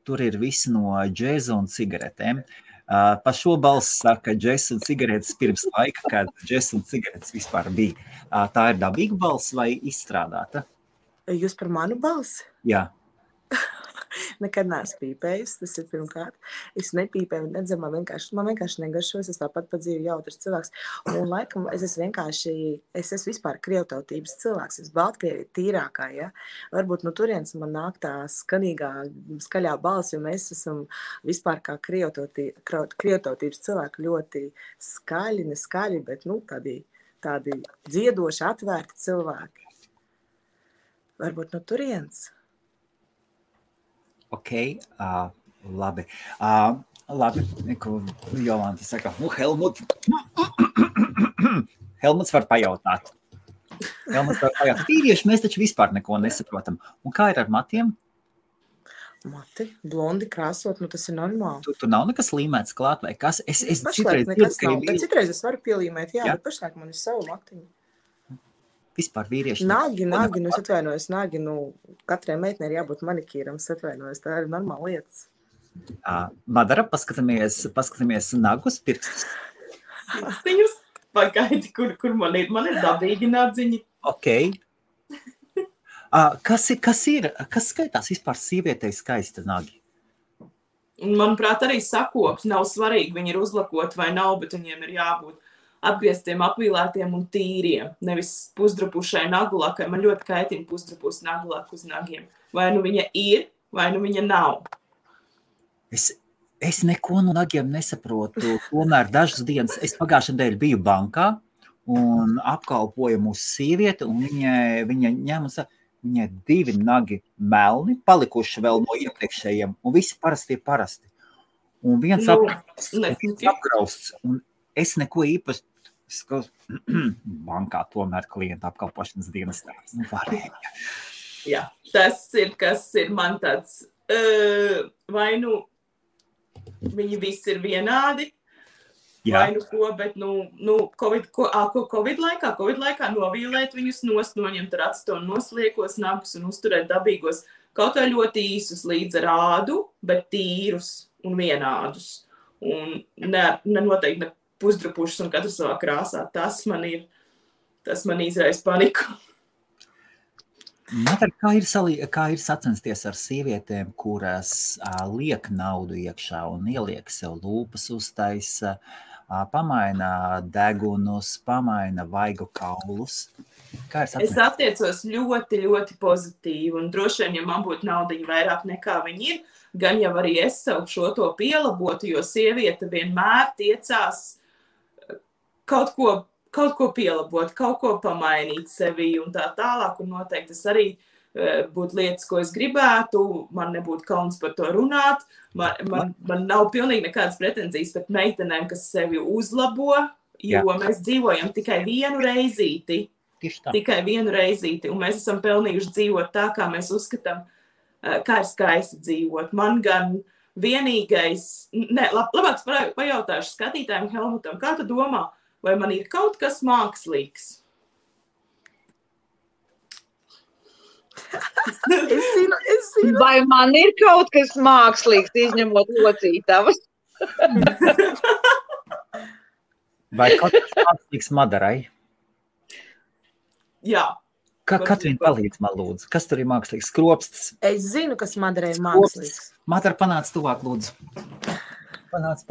Tur ir visi no džēza un cigaretēm. Pa šo balsi saka džēza un cigaretes pirms laika, kad džēza un cigaretes vispār bija. Tā ir dabīga balsi vai izstrādāta? Jūs par manu balsi? Jā. Nekad neesmu pīpējis, tas ir pirmkārt. Es nepīpēju un nedzemu, man vienkārši negaršos, es tāpat pa dzīvi jautrs cilvēks. Un laikam es esmu vispār krievtautības cilvēks, es Baltkrievi tīrākā, ja. Varbūt no turienes man nāk tā skaļā balss, jo mēs esam vispār kā krievtautības cilvēki ļoti skaļi, neskaļi, bet tādi dziedoši, atvērti cilvēki. Varbūt no turienes. Ok, labi. Labi, ko Jolanta saka, Helmuts var pajautāt. Vīrieši, mēs taču vispār neko nesaprotam. Un kā ir ar matiem? Mati, blondi krāsot, tas ir normāli. Tur nav nekas līmēts klāt vai kas? Es citreiz nekas nav, bet citreiz es varu pielīmēt, jā. Bet pašlaik man ir savu matiņu. Vispār vīrieši. Nagi, es atvainojos, katrai meitnei ir jābūt manikīram, es atvainojos, tā ir normāla lietas. Madara, paskatāmies nagus, pirkstus. Pirkstiņus, pagaidi, kur man ir dabīgi nadziņi. Ok. Kas skaitās vispār sievietei skaista nagi? Manuprāt, arī sakops nav svarīgi, viņi ir uzlakoti vai nav, bet viņiem ir jābūt apgrieztiem, apvīlētiem un tīriem, nevis pusdrapušai nagulakai. Man ļoti kaitina pusdrapus nagulaka uz nagiem. Vai nu viņa ir, vai nu viņa nav. Es neko no nagiem nesaprotu. Tomēr dažas dienas, es pagājušajā nedēļā biju bankā un apkalpoju mūsu sievieti, un viņa ņem un saka, viņai 2 nagi melni, palikuši vēl no iepriekšējiem, un visi parasti. Un viens apgrausts, un es neko īpaši bankā tomēr klienta apkalpošanas dienestā. Varēja. Jā, tas ir, kas ir man tāds, vai nu viņi visi ir vienādi, vai nu ko, bet Covid laikā novīlēt viņus nost, noņemt ar atstonu nosliekos nagus un uzturēt dabīgos, kaut kā ļoti īsus līdz ar ādu, bet tīrus un vienādus. Un noteikti ne pusdrapušas un katru savā krāsā. Tas man izraisa paniku. Kā ir sacensties ar sievietēm, kuras liek naudu iekšā un ieliek sev lūpas uztaisa, pamaina degunus, pamaina vaigu kaulus? Kā Es attiecos ļoti, ļoti pozitīvi, un droši vien, ja man būtu naudiņa vairāk nekā viņi ir, gan jau arī es sev šo to pielabotu, jo sieviete vienmēr tiecās kaut ko pielabot, kaut ko pamainīt sevī un tā tālāk, un noteikti tas arī būtu lietas, ko es gribētu, man nebūtu kauns par to runāt, man nav pilnīgi nekādas pretenzijas pret meitenēm, kas sevi uzlabo, jo mēs dzīvojam tikai vienu reizīti, un mēs esam pelnījuši dzīvot tā, kā mēs uzskatām, kā ir skaisti dzīvot. Man gan vienīgais, labāk pajautāšu skatītājiem Helmutam, kā tu domā, vai man ir kaut kas mākslīgs? Es zinu. Vai man ir kaut kas mākslīgs, izņemot locītavas? Vai kaut kas mākslīgs Madarai? Jā. Katrīna palīdz man lūdzu. Kas tur ir mākslīgs? Skropstas. Es zinu, kas Madarai ir mākslīgs. Madara, panāc tuvāk lūdzu. Panāc.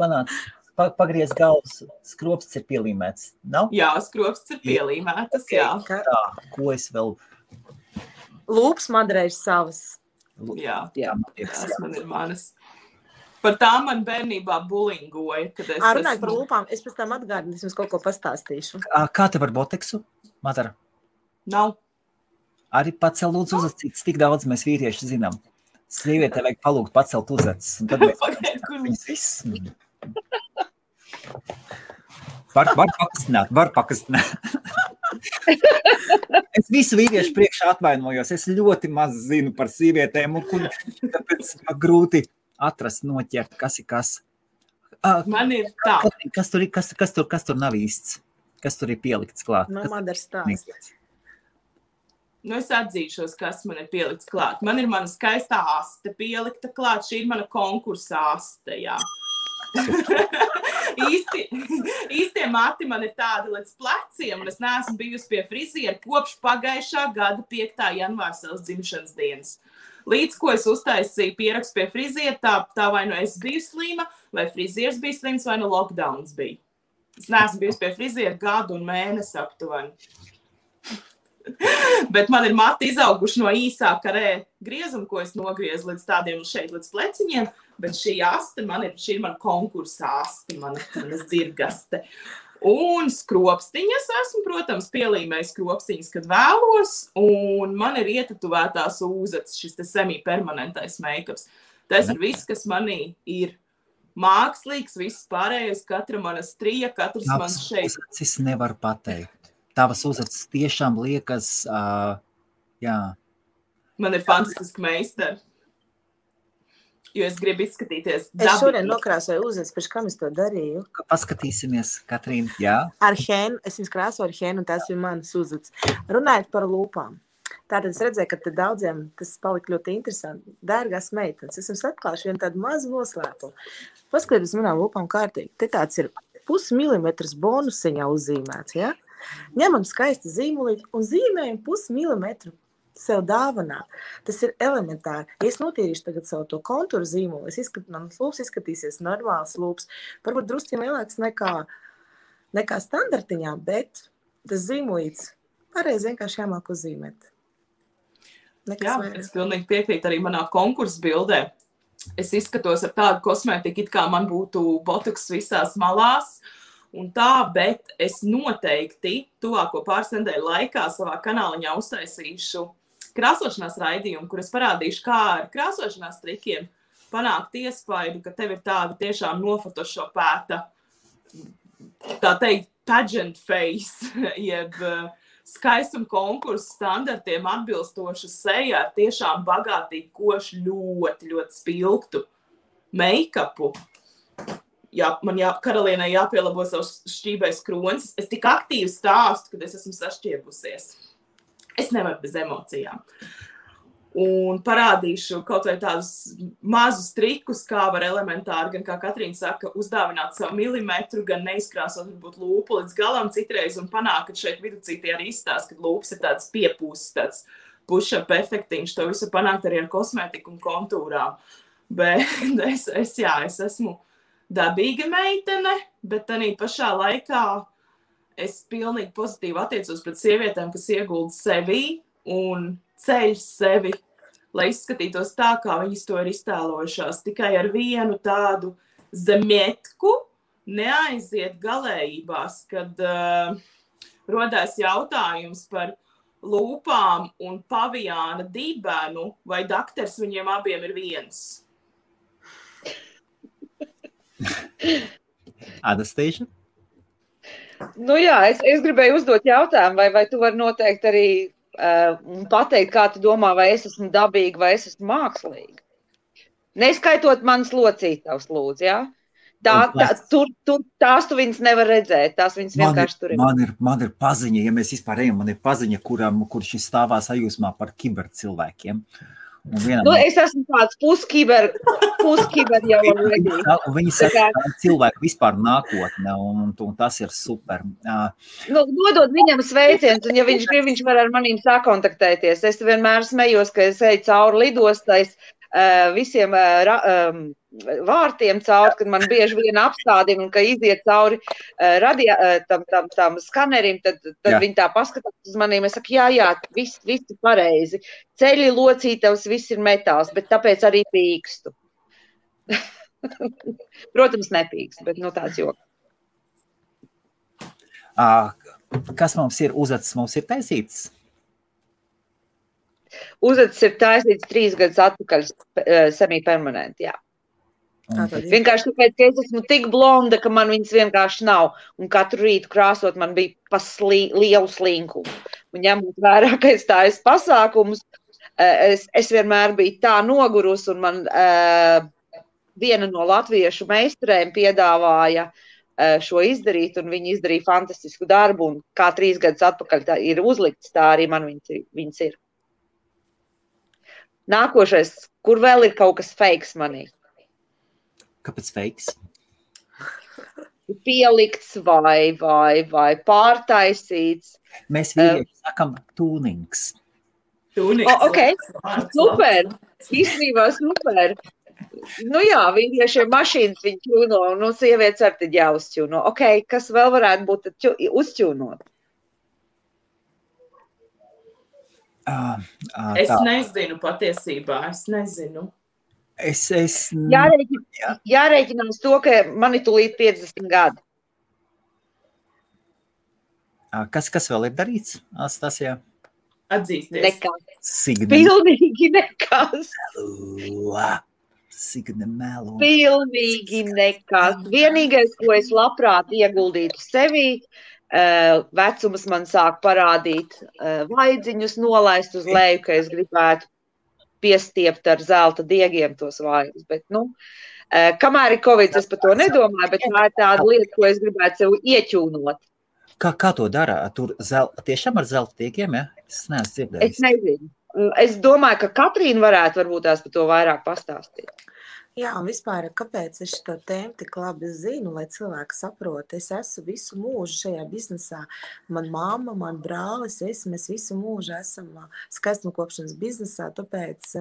Pagriez galvas. Skropsts ir pielīmēts. Nav? Jā, skropsts ir pielīmētas, jā. Tā, ko es vēl... Lūps Madarai ir savas. Jā, tas man ir manas. Par tām man bērnībā bulingoja, kad es Runājot par lūpām, es pēc tam atgādinu, es jums kaut ko pastāstīšu. Kā tev ar boteksu, Madara? Nav. Arī pacel lūdzu uzacis, tik daudz mēs vīrieši zinām. Sievietē vajag palūgt pacelt uzacis. Un tad mēs viss... Var pakastināt. Es visu vīriešu priekšā atvainojos. Es ļoti maz zinu par sievietēm, un tāpēc grūti atrast, noķert, kas ir kas. Man ir tā. Kas tur nav īsts? Kas tur ir pielikts klāt? Man Madara stāsts. Es atzīšos, kas man ir pielikts klāt. Man ir mana skaistā aste pielikta klāt. Šī ir mana konkursa aste, jā. Īstie mati man ir tādi līdz pleciem, un es neesmu bijusi pie friziera kopš pagājušā gada 5. janvāra savas dzimšanas dienas. Līdz ko es uztaisīju pierakstu pie friziera, tā vai nu es biju slima, vai frizieris bija slims, vai nu lockdowns bija. Es neesmu bijusi pie friziera gadu un mēnesi aptuveni. Bet man ir mati izauguši no īsā karē griezuma, ko es nogriezu līdz tādiem šeit, līdz pleciņiem, bet šī aste šī ir mana konkursa aste, mana zirgaste. Un skropstiņas esmu, protams, pielīmējis skropstiņas, kad vēlos, un man ir ietatuvētās ūzats, šis te semi-permanentais make-ups. Tas ir viss, kas manī ir mākslīgs, viss pārējais, katra mana strija, katrs man šeit. Es nevaru pateikt. Tavas uzacis tiešām liekas, jā. Man ir fantastiski meistari. Jo es gribu izskatīties dabīgi. Es šodien nokrāsoju uzacis, pēc kam es to darīju. Paskatīsimies, Katrīna, jā. Ar hēnu, es viņas krāsoju ar hēnu, un tās ir manas uzacis. Runājot par lūpām. Tātad es redzēju, ka te daudziem tas palika ļoti interesanti. Dārgās meitenes, es jums atklāšu vienu tādu mazu noslēpumu. Paskatieties manām lūpām kārtīgi. Te tāds ir 0,5 milimetrs bonusiņā uzzīmēts, ja? Ņemam skaisti zīmulīti un zīmējam 0,5 milimetru sev dāvanā. Tas ir elementāri. Ja es notīrīšu tagad savu to kontūru zīmuli, mans lūps izskatīsies normāls lūps. Varbūt drusciņ lielāks nekā standartiņā, bet tas zīmulīts pareizi vienkārši jāmāk uzzīmēt. Es pilnīgi piekrītu arī manā konkursa bildē. Es izskatos ar tādu kosmētiku, it kā man būtu botoks visās malās. Un tā, bet es noteikti tuvāko pāris nedēļu laikā savā kanāliņā uztaisīšu krāsošanās raidījumu, kur es parādīšu, kā ar krāsošanās trikiem panākt iespaidu, ka tev ir tāda tiešām nofotošopēta, tā teikt, pageant face, jeb skaistuma konkursu standartiem atbilstoša seja ar tiešām bagātīgi košu, ļoti, ļoti spilgtu make-upu. Man karalienai jāpielabo savus šķībais kronis. Es tik aktīvi stāstu, kad es esmu sašķiebusies. Es nevaru bez emocijām. Un parādīšu kaut vai tādus mazus trikus, kā var elementāri, gan kā Katrīna saka, uzdāvināt savu milimetru, gan neizkrāsot varbūt lūpu līdz galam citreiz un panākt, ka šeit viducītī arī izstāst, kad lūpas ir tāds piepūsts, tāds push-up efektiņš. To visu panākt arī ar kosmētiku un kontūrām. Bet es esmu dabīga meitene, bet arī pašā laikā es pilnīgi pozitīvi attiecos pret sievietēm, kas iegulda sevi un ceļ sevi, lai izskatītos tā, kā viņas to ir iztēlojušās. Tikai ar vienu tādu zemietku neaiziet galējībās, kad rodās jautājums par lūpām un pavijāna dibenu, vai dakters viņiem abiem ir viens. Anastasia? Nu jā, es gribēju uzdot jautājumu, vai tu vari noteikt arī pateikt, kā tu domā, vai es esmu dabīga, vai es esmu mākslīga. Neskaitot manas locītavas, lūdzu, jā? Tās tu viņas nevar redzēt, tās viņas vienkārši tur ir. Man ir paziņa, ja mēs vispār ejam, man ir paziņa, kurš stāvā sajūsmā par kibercilvēkiem. Es esmu tāds puskiber jau already. Viņi saka, ka cilvēku vispār nākotne, un tas ir super. Nodod viņam sveiciens, un ja viņš grib, viņš var ar manīm sakontaktēties. Es vienmēr smejos, ka es eju cauri lidostais visiem vārtiem cauri, kad man bieži viena apstādina, un ka iziet cauri tam skanerim, tad viņi tā paskatās uz manīm. Es saku, jā, viss ir pareizi. Ceļi, locītavs, viss ir metāls, bet tāpēc arī pīkstu. Protams, nepīkstu, bet tāds joks. Kas mums ir uzacis? Mums ir taisīts? Uzacis ir taisīts 3 gadus atpakaļ semi-permanenti, jā. Vienkārši tāpēc, ka es esmu tik blonda, ka man viņas vienkārši nav. Un katru rītu krāsot man bija lielu slinkumu. Un ņemot vērā, ka es tājas pasākumus, es vienmēr biju tā nogurus, un man viena no latviešu meistarēm piedāvāja šo izdarīt, un viņi izdarīja fantastisku darbu, un kā 3 gadus atpakaļ tā ir uzlikts, tā arī man viņas ir. Nākošais, kur vēl ir kaut kas fakes manī? Kāpēc fakes? Pielikts vai pārtaisīts. Mēs vīrieši sakam tūnings. Ok, super. Īstenībā super. Nu jā, vīriešiem mašīnas viņi ķūno, un sievietes ar tad jāuzķūno. Ok, kas vēl varētu būt uzķūnot? Es nezinu patiesībā, es nezinu. Jārēķinās to, ka man ir tūlīt 50 gadi. Kas vēl ir darīts, Anastasija? Atzīsties. Nekas. Pilnīgi nekas. Signe melo. Pilnīgi nekas. Vienīgais, ko es labprāt ieguldītu sevī, vecums man sāk parādīt vaidziņus nolaist uz leju, ka es gribētu piestiept ar zelta diegiem tos vaigus. Bet, kamēr ir Covid, es par to nedomāju, bet tā ir tāda lieta, ko es gribētu sev ieķūnot. Kā to dara? Tur tiešām ar zelta diegiem, ja? Es neesmu dzirdējis. Es nezinu. Es domāju, ka Katrīna varētu varbūt tās par to vairāk pastāstīt. Jā, un vispār, kāpēc es šo tēmu tik labi zinu, lai cilvēki saprot, es esmu visu mūžu šajā biznesā. Man mamma, man brālis, mēs visu mūžu esam skaistumkopšanas biznesā, tāpēc,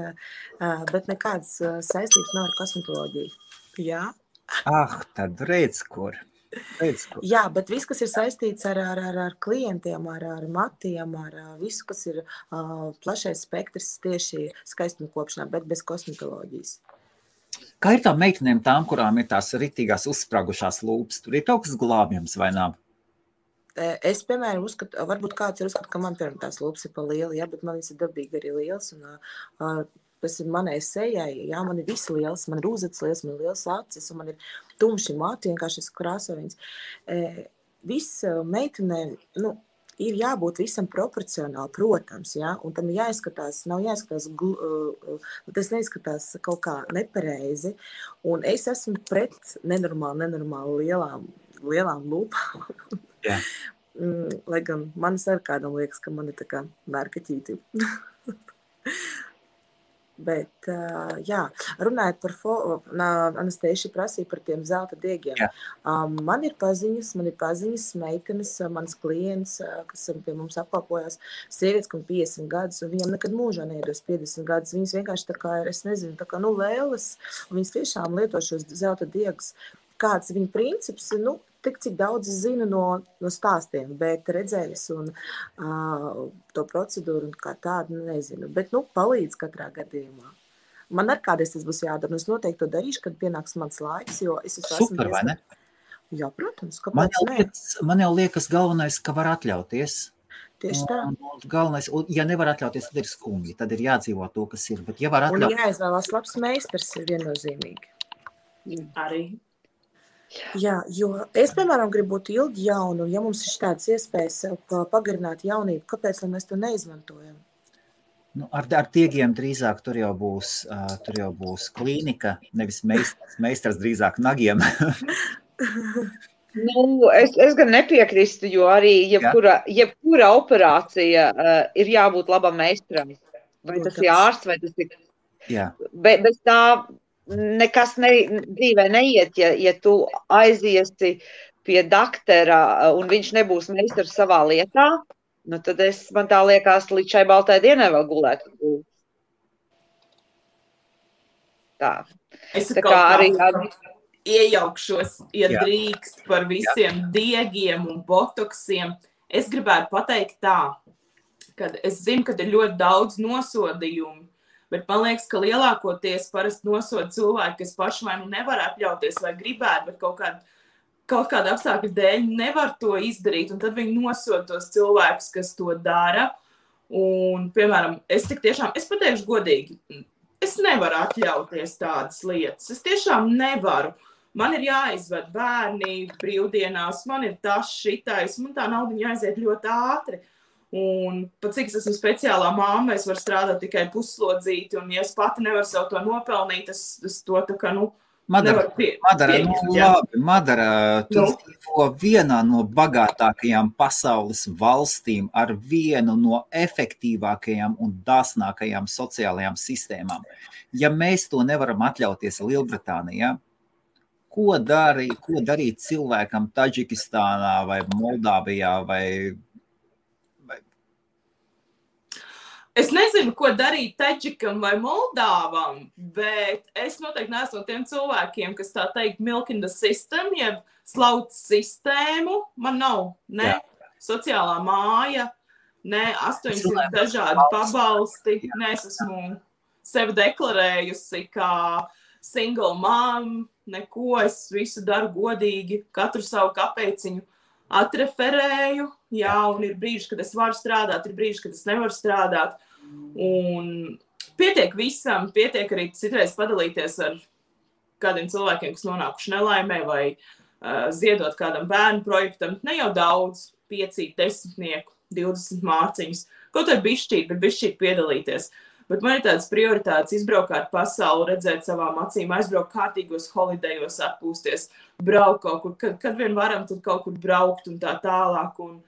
bet nekādas saistības nav ar kosmetoloģiju. Jā? Tad redz, kur. Jā, bet viss, kas ir saistīts ar klientiem, ar matiem, ar visu, kas ir plašais spektrs tieši skaistumkopšanā, bet bez kosmetoloģijas. Kā ir tām meitenēm, kurām ir tās ritīgās uzspragušās lūpas? Tur ir kaut kas glābjams vai nav? Es, piemēram, uzskatu, varbūt kāds ir uzskatu, ka man piemēram tās lūpas ir pa lieli, jā, bet man viņas ir dabīgi arī liels, un tas ir manai sejai, jā, man ir visi liels, man ir uzacis liels, man ir liels acis, un man ir tumši mati, vienkārši es krāsoju viņas. Viss meitenēm, ir jābūt visam proporcionāli, protams, ja? Un tam jāizskatās, nav jāizskatās, tas neizskatās kaut kā nepareizi. Un es esmu pret nenormāli lielām lūpām. Yeah. Lai gan manis ar kādam liekas, ka man ir tā kā mērkaķīti. Bet, jā, runājot par Anastasija prasīja par tiem zelta diegiem. Yeah. Man ir paziņas meitenes, manas klients, kas pie mums apkalpojās, sievietes, kam 50 gadus, un viņam nekad mūžā neiedos 50 gadus. Viņas vienkārši tā kā ir, es nezinu, tā kā lēles, un viņas tiešām lieto šos zelta diegus. kāds viņa princips, tik cik daudz es zinu no stāstiem, bet redzējis un to procedūru un kā tādu nezinu. Bet, palīdz katrā gadījumā. Man ar kādreiz tas būs jādara, un es noteikti to darīšu, kad pienāks mans laiks, jo es esmu Super, vai ne? Jā, protams, Man kāpēc ne? man jau liekas galvenais, ka var atļauties. Tieši tā. Un galvenais, ja nevar atļauties, tad ir skumji, tad ir jādzīvo to, kas ir. Bet ja var Un atļauties, jāizvēlās labs meistars ir viennozīmīgi. Arī. Jā, jo es, piemēram, gribu būt ilgi jauna, un ja mums ir tādas iespējas sev pagarināt jaunību, kāpēc lai mēs to neizmantojam? ar tiegiem drīzāk tur jau būs klīnika, nevis meistars drīzāk nagiem. Es gan nepiekrīstu, jo arī jebkura operācija ir jābūt labam meistaram. Vai tas ir ārsts, vai tas ir... Jā. Bez tā nekas dzīvē neiet, ja tu aiziesi pie daktera un viņš nebūs meistars savā lietā, tad man tā liekas, līdz šai baltai dienai vēl gulētu. Tā. Es Tā kā arī... iejaukšos, ja drīkst par visiem diegiem un botoksiem. Es gribētu pateikt tā, ka es zinu, ka ir ļoti daudz nosodījumu, bet man liekas, ka lielākoties parasti nosoda cilvēki, kas paši vai nevar atļauties vai gribētu, bet kaut kāda apstākļa dēļ nevar to izdarīt, un tad viņi nosoda tos cilvēkus, kas to dara. Un, piemēram, es pateikšu godīgi, es nevaru atļauties tādas lietas. Es tiešām nevaru. Man ir jāizved bērni brīvdienās, man ir tas šitais, man tā naudiņa jāaiziet ļoti ātri. Un pat cik es esmu speciālā mamma, es varu strādāt tikai puslodzīti, un ja es pati nevaru sev to nopelnīt, es to tā kā, nevaru pieņemt. Madara, tu dzīvo vienā no bagātākajām pasaules valstīm ar vienu no efektīvākajām un dāsnākajām sociālajām sistēmām. Ja mēs to nevaram atļauties Lielbritānijā, ko darīt cilvēkam Taģikistānā vai Moldāvijā vai... Es nezinu, ko darīt Taģikam vai Moldāvam, bet es noteikti neesmu no tiem cilvēkiem, kas tā teikt milk in the system, jeb slauc sistēmu. Man nav ne sociālā māja, ne 800 dažādi pabalsti, ne es esmu sevi deklarējusi kā single mom, neko, es visu daru godīgi, katru savu kapeciņu atreferēju, un ir brīži, kad es varu strādāt, ir brīži, kad es nevaru strādāt. Un pietiek visam, pietiek arī citreiz padalīties ar kādiem cilvēkiem, kas nonākuši nelaimē vai ziedot kādam bērnu projektam. Ne jau daudz, 5, 10, 20 mārciņus. Kaut arī bišķīt, bet bišķīt piedalīties. Bet man ir tādas prioritātes izbraukāt pasauli, redzēt savām acīm, aizbraukt kārtīgos holidejos, atpūsties, braukt kaut kur, kad vien varam, tad kaut kur braukt un tā tālāk. Un,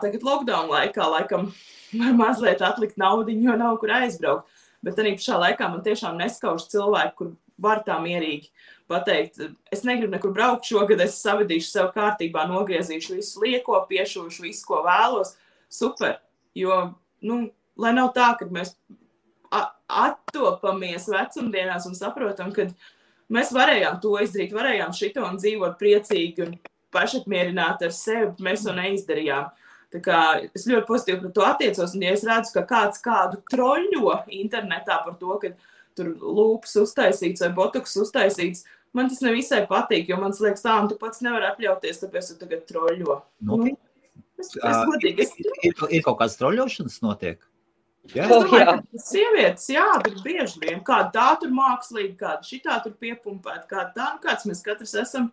tagad lockdown laikā, laikam, var mazliet atlikt naudiņu, jo nav kur aizbraukt. Bet arī pašā laikā man tiešām neskauž cilvēki, kur var tā mierīgi pateikt, es negribu nekur braukt šogad, es savedīšu sev kārtībā, nogriezīšu visu lieko, piešūšu visu, ko vēlos. Super, jo, lai nav tā, kad mēs attopamies vecumdienās un saprotam, ka mēs varējām to izdarīt, varējām šito un dzīvot priecīgi un pašapmierināti ar sevi, bet mēs to neizdarījām. Tā kā es ļoti pozitīvi par to attiecos, un ja es redzu, ka kāds kādu troļļo internetā par to, ka tur lūpas uztaisīts vai botoks uztaisīts, man tas nevisai patīk, jo man liekas tā, un tu pats nevar atļauties, tāpēc tu tagad troļļo. Es godīgi. Ir kaut kāds troļļošanas notiek? Es domāju, ka sievietes, bet bieži vien, kāda tā tur mākslīgi, kāda šitā tur piepumpēt, kāda tā, kāds mēs katrs esam,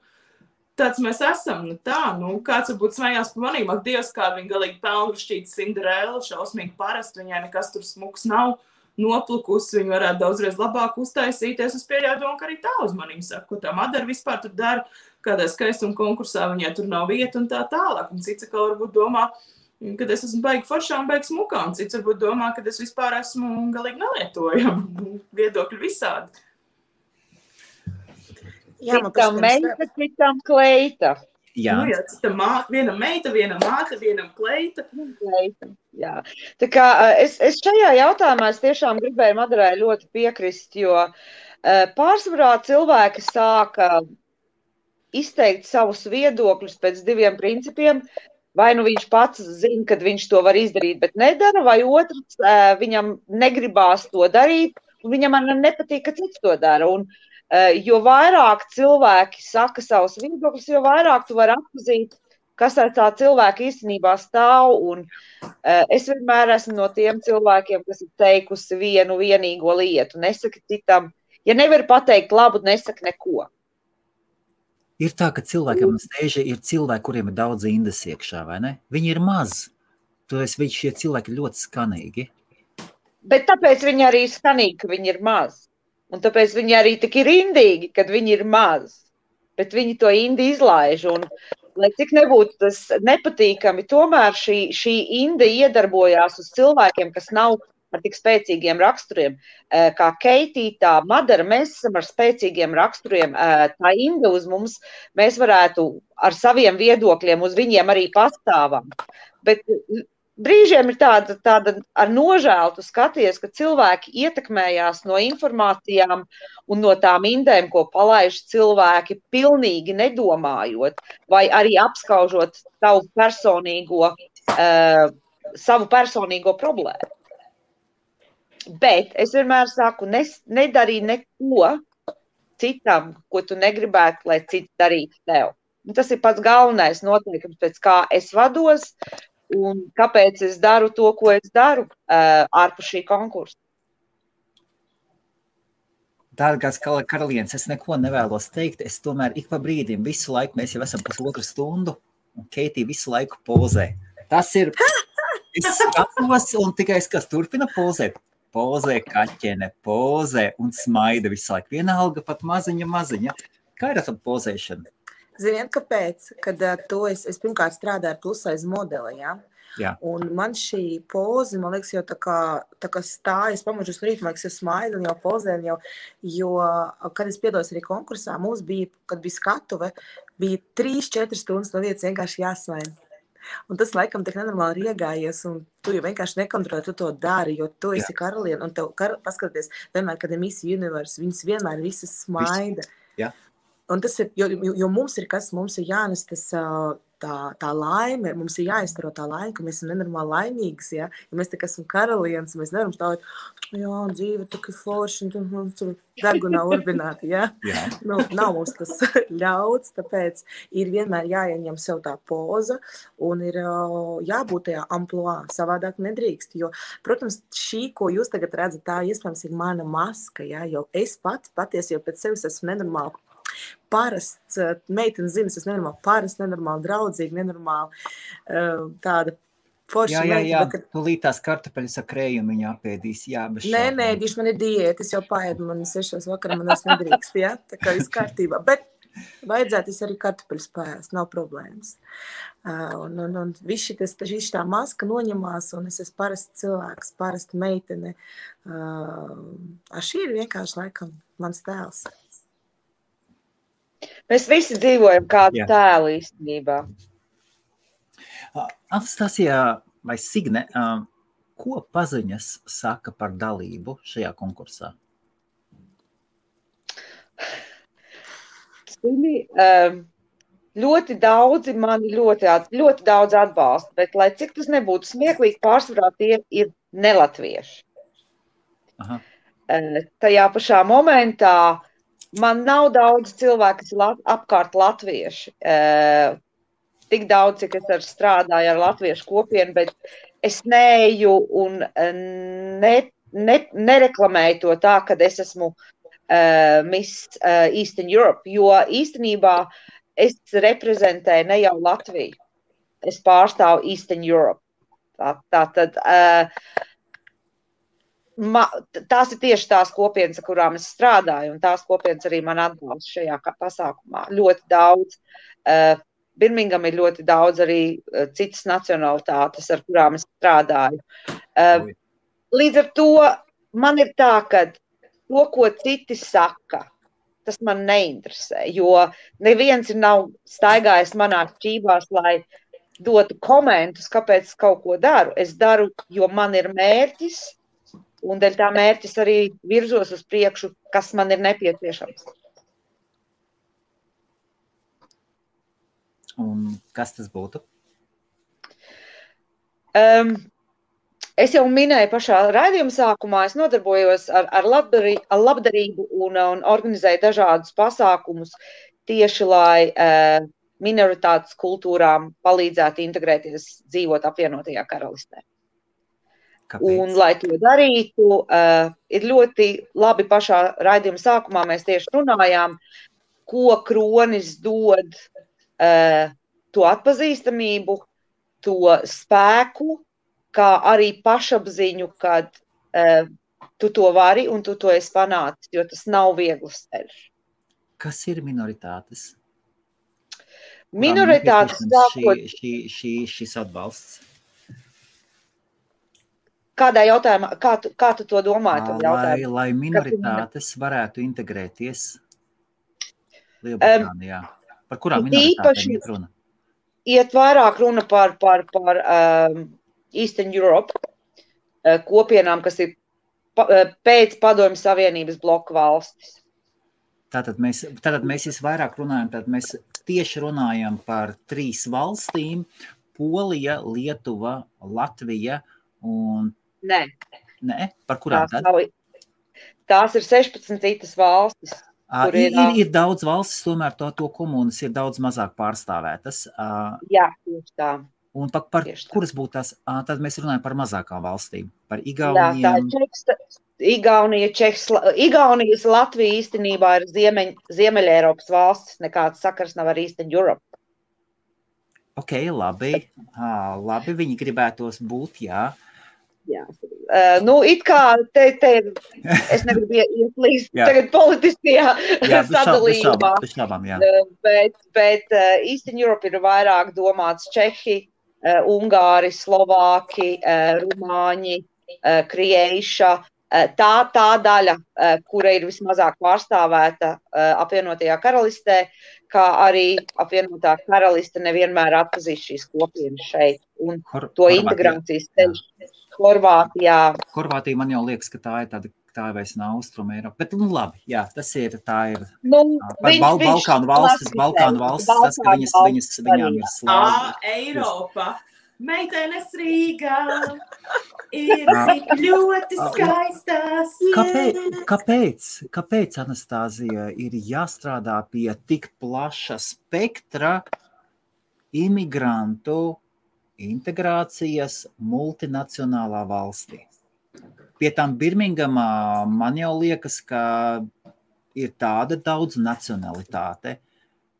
tāds mēs esam, kāds varbūt smējās par manīm, ak Dievs, kāda viņa galīgi pelnrušķīta Cinderella, šausmīgi parasti, viņai nekas tur smuks nav, noplukusi, viņa varētu daudzreiz labāk uztaisīties, es pieļauju domu, ka arī tā uz manīm saka, ko tā Madara vispār tur dara, kādā skaistuma konkursā viņai tur nav vieta un tā tālāk, un cits atkal varbūt domā, kad es esmu baigi foršā un baigi smukā, un cits varbūt domā, ka es vispār esmu galīgi nelietojama, viedokļi visādi. Citam meita, citam kleita. Jā, citam vienam meita, vienam māte, vienam kleita. Jā. Tā kā es šajā jautājumā tiešām gribēju Madarai ļoti piekrist, jo pārsvarā cilvēki sāka izteikt savus viedokļus pēc 2 principiem. Vai nu viņš pats zina, kad viņš to var izdarīt, bet nedara, vai otrs viņam negribās to darīt, un viņam nepatīk, ka cits to dara. Un, jo vairāk cilvēki saka savus viedokļus, jo vairāk tu vari atpazīt, kas ar tā cilvēka īstenībā stāv. Un es vienmēr esmu no tiem cilvēkiem, kas ir teikusi vienu vienīgo lietu. Nesaki citam, ja nevar pateikt labu, nesaki neko. Ir tā, ka cilvēkiem ir cilvēki, kuriem ir daudz indes iekšā, vai ne? Viņi ir maz. Šie cilvēki ir ļoti skanīgi. Bet tāpēc viņi arī ir skanīgi, ka viņi ir maz. Un tāpēc viņi arī tik ir indīgi, kad viņi ir maz. Bet viņi to indi izlaiž. Un, lai cik nebūtu tas nepatīkami, tomēr šī inde iedarbojās uz cilvēkiem, kas nav ar tik spēcīgiem raksturiem. Kā Keitī, tā Madara, mēs esam ar spēcīgiem raksturiem. Tā inde uz mums, mēs varētu ar saviem viedokļiem uz viņiem arī pastāvam. Bet brīžiem ir tāda ar nožēlu tu skaties, ka cilvēki ietekmējās no informācijām un no tām indēm, ko palaiž cilvēki, pilnīgi nedomājot, vai arī apskaužot savu personīgo problēmu. Bet es vienmēr saku, nedarī neko citam, ko tu negribētu, lai cits darītu tev. Un tas ir pats galvenais noteikums, pēc kā es vados un kāpēc es daru to, ko es daru ārpus šī konkursa. Dārgās karalienes, es neko nevēlos teikt. Es tomēr ik pa brīdim visu laiku, mēs jau esam 1,5 stundu, un Keitī visu laiku pozē. Tas ir, es skatos, un tikai es kas turpina pozēt. Pozē kaķene, pozē un smaida visu laiku. Vienalga pat maziņa. Kā ir ar pozēšanu? Ziniet, kāpēc? Kad es pirmkārt strādāju ar plusaiz modeli, ja? Jā. Un man šī poze, man liekas, jau tā kā stājas pamožus rīt, man liekas, jau smaida un jau pozē, jo, kad es piedalos arī konkursā, mums bija, kad bija skatuve, bija 3-4 stundas no vietas vienkārši jāsmaida. Un tas laikam tik nenormāli riegājies, un tu jau vienkārši nekontrolē, tu to dari, jo tu esi karaliene, un tev paskaties, vienmēr, kad ir Miss Universe, viņas vienmēr visas smaida. Jā. Un tas ir, jo mums ir kas, mums ir jānes tas tā laime, mums ir jāizstaro tā laime, ka mēs esam nenormāli laimīgas, ja? Ja mēs tik esam karalienes, mēs nevaram stāvēt, jā, dzīve tik forši, un tur degunā urbināti, ja? Jā. Nu, nav mums tas ļauts, tāpēc ir vienmēr jāieņem sev tā poza un ir jābūt tajā amploā, savādāk nedrīkst, jo, protams, šī, ko jūs tagad redzat, tā iespējams ir mana maska, ja? Jo es patiesi jau pēc sevis esmu nenormāli parasts, meitenes zina, es nenormāli parasts, nenormāli draudzīgi, nenormāli tāda forša meita. Jā, tūlīt tās kartupeļas ar krējumu viņa apēdīs, jā, bez šaubām. Nē, diši man ir diēta, es jau paēdu, man 6 vakarā man es nedrīkst, jā, tā kā viss kārtībā, bet vajadzētu es arī kartupeļas paēst, nav problēmas. Un viss tā maska noņemās, un es esmu parasts cilvēks, parasta meitene. Šī ir vienkārši laikam mans tēls. Mēs visi dzīvojam kādu tēlu īstenībā. Anastasija vai Signe, ko paziņas saka par dalību šajā konkursā? Ļoti daudzi mani ļoti daudz atbalsta, bet lai cik tas nebūtu smieklīgi, pārsvarā tie ir nelatvieši. Aha. Tajā pašā momentā man nav daudz cilvēku, kas ir apkārt latvieši. Tik daudz, cik es strādāju ar latviešu kopienu, bet es neeju un nereklamēju to tā, kad es esmu Miss Eastern Europe, jo īstenībā es reprezentēju ne jau Latviju. Es pārstāvu Eastern Europe. Tātad tās ir tieši tās kopienas, ar kurām es strādāju, un tās kopienas arī man atbalsta šajā pasākumā. Ļoti daudz. Birmingham ir ļoti daudz arī citas nacionalitātes, ar kurām es strādāju. Līdz ar to man ir tā, ka to, ko citi saka, tas man neinteresē, jo neviens nav staigājis manā šķībās, lai dotu komentus, kāpēc es kaut ko daru. Es daru, jo man ir mērķis, un dēļ tā mērķis arī virzos uz priekšu, kas man ir nepieciešams. Un kas tas būtu? Es jau minēju pašā raidījuma sākumā, es nodarbojos ar labdarību un organizēju dažādus pasākumus tieši, lai minoritātes kultūrām palīdzētu integrēties, dzīvot apvienotajā karalistē. Kāpēc? Un, lai to darītu, ir ļoti labi pašā raidījuma sākumā mēs tieši runājām, ko kronis dod to atpazīstamību, to spēku, kā arī pašapziņu, kad tu to vari un tu to esi panācis, jo tas nav viegls ceļš. Kas ir minoritātes? Minoritātes sākot... Šis atbalsts? Kādā jautājumā, kā tu to domāji? Lai minoritātes varētu integrēties Lielbritānijā. Par kurām minoritātēm iet runa? Iet vairāk runa par Eastern Europe kopienām, kas ir pēc Padomju Savienības bloka valstis. Tātad mēs visvairāk runājam, tad mēs tieši runājam par 3 valstīm – Polija, Lietuva, Latvija un... Nē? Par kurām tad? Tās ir 16 citas valstis. Ir daudz valstis, tomēr to komunas ir daudz mazāk pārstāvētas. Jā, tieši tā. Un par kuras būtu tās, tad mēs runājam par mazākām valstīm, par Igauniem. Jā, tā ir Igaunijas Latvija īstenībā ir Ziemeļa Eiropas valstis, nekāds sakars nav ar Eastern Europe. Ok, labi, viņi gribētos būt, jā. Jā. It kā es negribu iet līdz tagad politiskajā sadalījumā, bet Eastern Europe ir vairāk domāts Čehi, Ungāri, Slovāki, Rumāņi, Krieiša, tā daļa, kura ir vismazāk pārstāvēta apvienotajā karalistē, kā arī apvienotā karaliste nevienmēr atpazīst šīs kopienas šeit un to integrācijas ceļš. Horvātija man jau liekas, ka tā ir vairs nav Austrum Eiropa, bet labi, jā, tā ir Balkānu valstis, tas, ka viņām ir slāva. Eiropa, meitenes Rīgā ir tik ļoti skaistās. Kāpēc, Anastāzija, ir jāstrādā pie tik plaša spektra imigrantu integrācijas multinacionālā valstī? Pie tām Birmingamā man jau liekas, ka ir tāda daudz nacionalitāte,